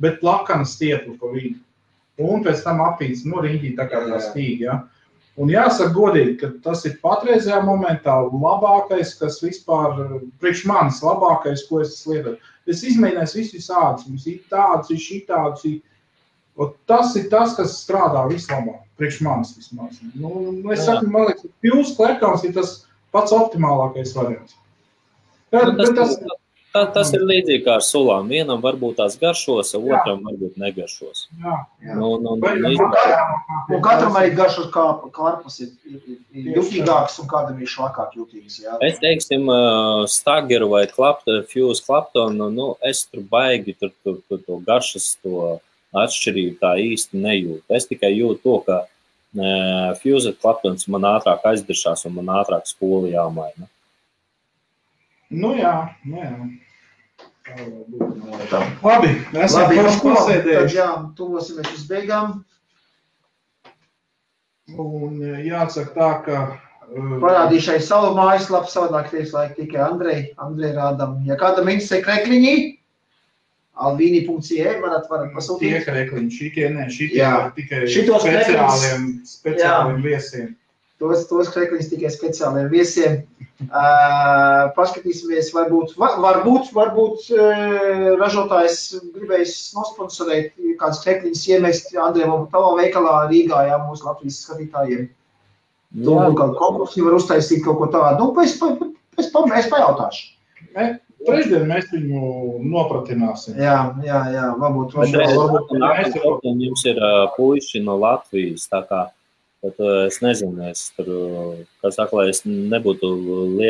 bet plakana stiepla pa vidu. Un pēc tam aptīts, riņķī tā kā tā stīga, ja. Un jāsaka godīgi, ka tas ir patreizajā momentā labākais, kas vispār, priekš manis labākais, ko es lietoju. Es izmēģināju visādus, mums ir tādus, ir šitādus, tas ir tas, kas strādā vislabāk, priekš manis vismaz. Es saku, man liekas, Fused Kleptons ir tas pats optimālākais variants. Tas ir līdzīgi kā ar sulām. Vienam varbūt tās garšos, otram varbūt negaršos. Un katram arī garšos karpus ir jutīgāks un kādam ir šlakāk jutīgs. Jā. Es teiksim, Stageru vai Fuse Kleptonu, es tur baigi to garšas, to atšķirību tā īsti nejūtu. Es tikai jūtu to, ka Fuse Kleptons man ātrāk aizdiršās un man ātrāk spoli jāmaina. Jā. Labi, esam pasēdējuši. Jā, tuvosimies uz beigām. Un jāsaka tā, ka... Parādīšai savu mājaslapu, savādāk tieslāk tikai Andrei rādam. Ja kādam interesē krekliņi, alvini.ie varat pasūtīt. Tie krekliņi, šitie ir tikai speciāliem viesiem. Tos krekliņus tikai speciāliem viesiem. Paskatīsimies, varbūt ražotājs gribējis nosponsorēt kāds krekliņus iemest Andrejam tavā veikalā Rīgā, mūsu Latvijas skatītājiem. Kādu konkursu var uztaisīt kaut ko tādu. Es pajautāšu. Trešdien mēs viņu nopratināsim. Jā, varbūt. Jums ir puiši no Latvijas, tā kā. Bet es nezinu, lai es nebūtu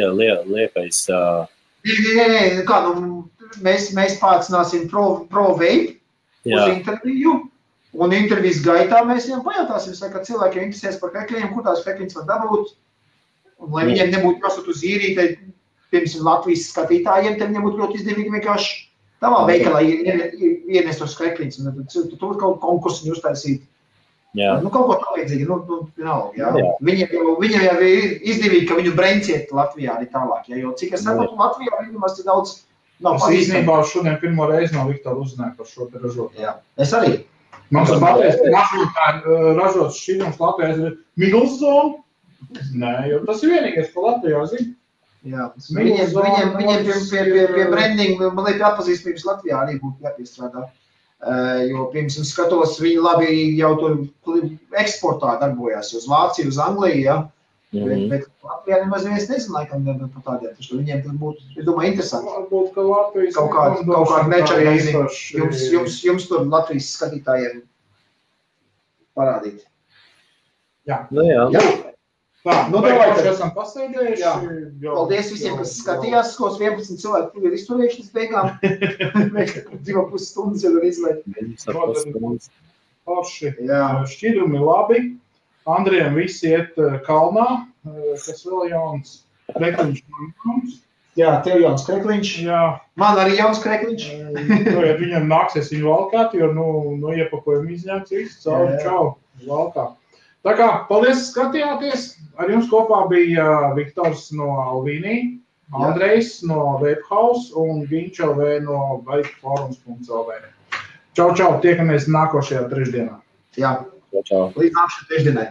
liekais. Mēs pārcināsim ProVape uz interviju, un intervijas gaitā mēs viņam pajautāsim, ka cilvēkiem interesēs par krekliņiem, kur tās krekliņas var dabūt, un lai viņiem nebūtu prasot uz īrīti, piemēram, Latvijas skatītājiem, tad viņiem būtu ļoti izdevīgi vienkārši tavā veikalā ienest tos krekliņus, un tad tur kaut konkursu viņi uztaisīt. Kaut ko tā līdzīgi, Viņiem jau ir izdevīgi, ka viņu brenciet Latvijā arī tālāk, jo cik es saprotu, Latvijā viņumās ir daudz nav pazīstami. Es īstenībā šodien pirmo reizi no Viktora uzzināju par šo te ražotāju. Jā, es arī. Man tas pateicis, ražots šķidrums Latvijā ir Miglzone. Nē, jo tas ir vienīgais, ko Latvijā zina. Jā, viņiem pie brandinga, man liekas, atpazīstamības Latvijā arī būtu jāpiestrādā. Jo, piemēram, skatos, viņi labi jau tur eksportā darbojās uz Vāciju, uz Angliju, bet Latvijā nemaz neviens nezina, laikam, par tādiem, taču viņiem tur būtu, es domāju, interesanti. Varbūt, ka Latvijas kaut kādu nečarīgi jums tur Latvijas skatītājiem parādīt. Jā. Tā, mēs esam pasēdējuši. Paldies visiem, kas skatījās, skos 11 cilvēki tur ir izturējuši līdz beigām. Mēs 2,5 stundas jau ir izlaid. Forši. Šķidrumi labi. Andrejam visi iet kalnā, kas vēl jauns krekliņš. Jā, tev jauns krekliņš. Jā. Man arī jauns krekliņš. Viņam nāksies viņu valkāt, jo iepakojam izņāks visu. Čau, valkā. Tā kā, paldies, skatījāties. Ar jums kopā bija Viktors no Alvini, Andrejs no Webhouse un Viņš LV no bikeforums.lv. Čau, tiekamies nākošajā trešdienā. Jā, līdz nākošajā trešdienai.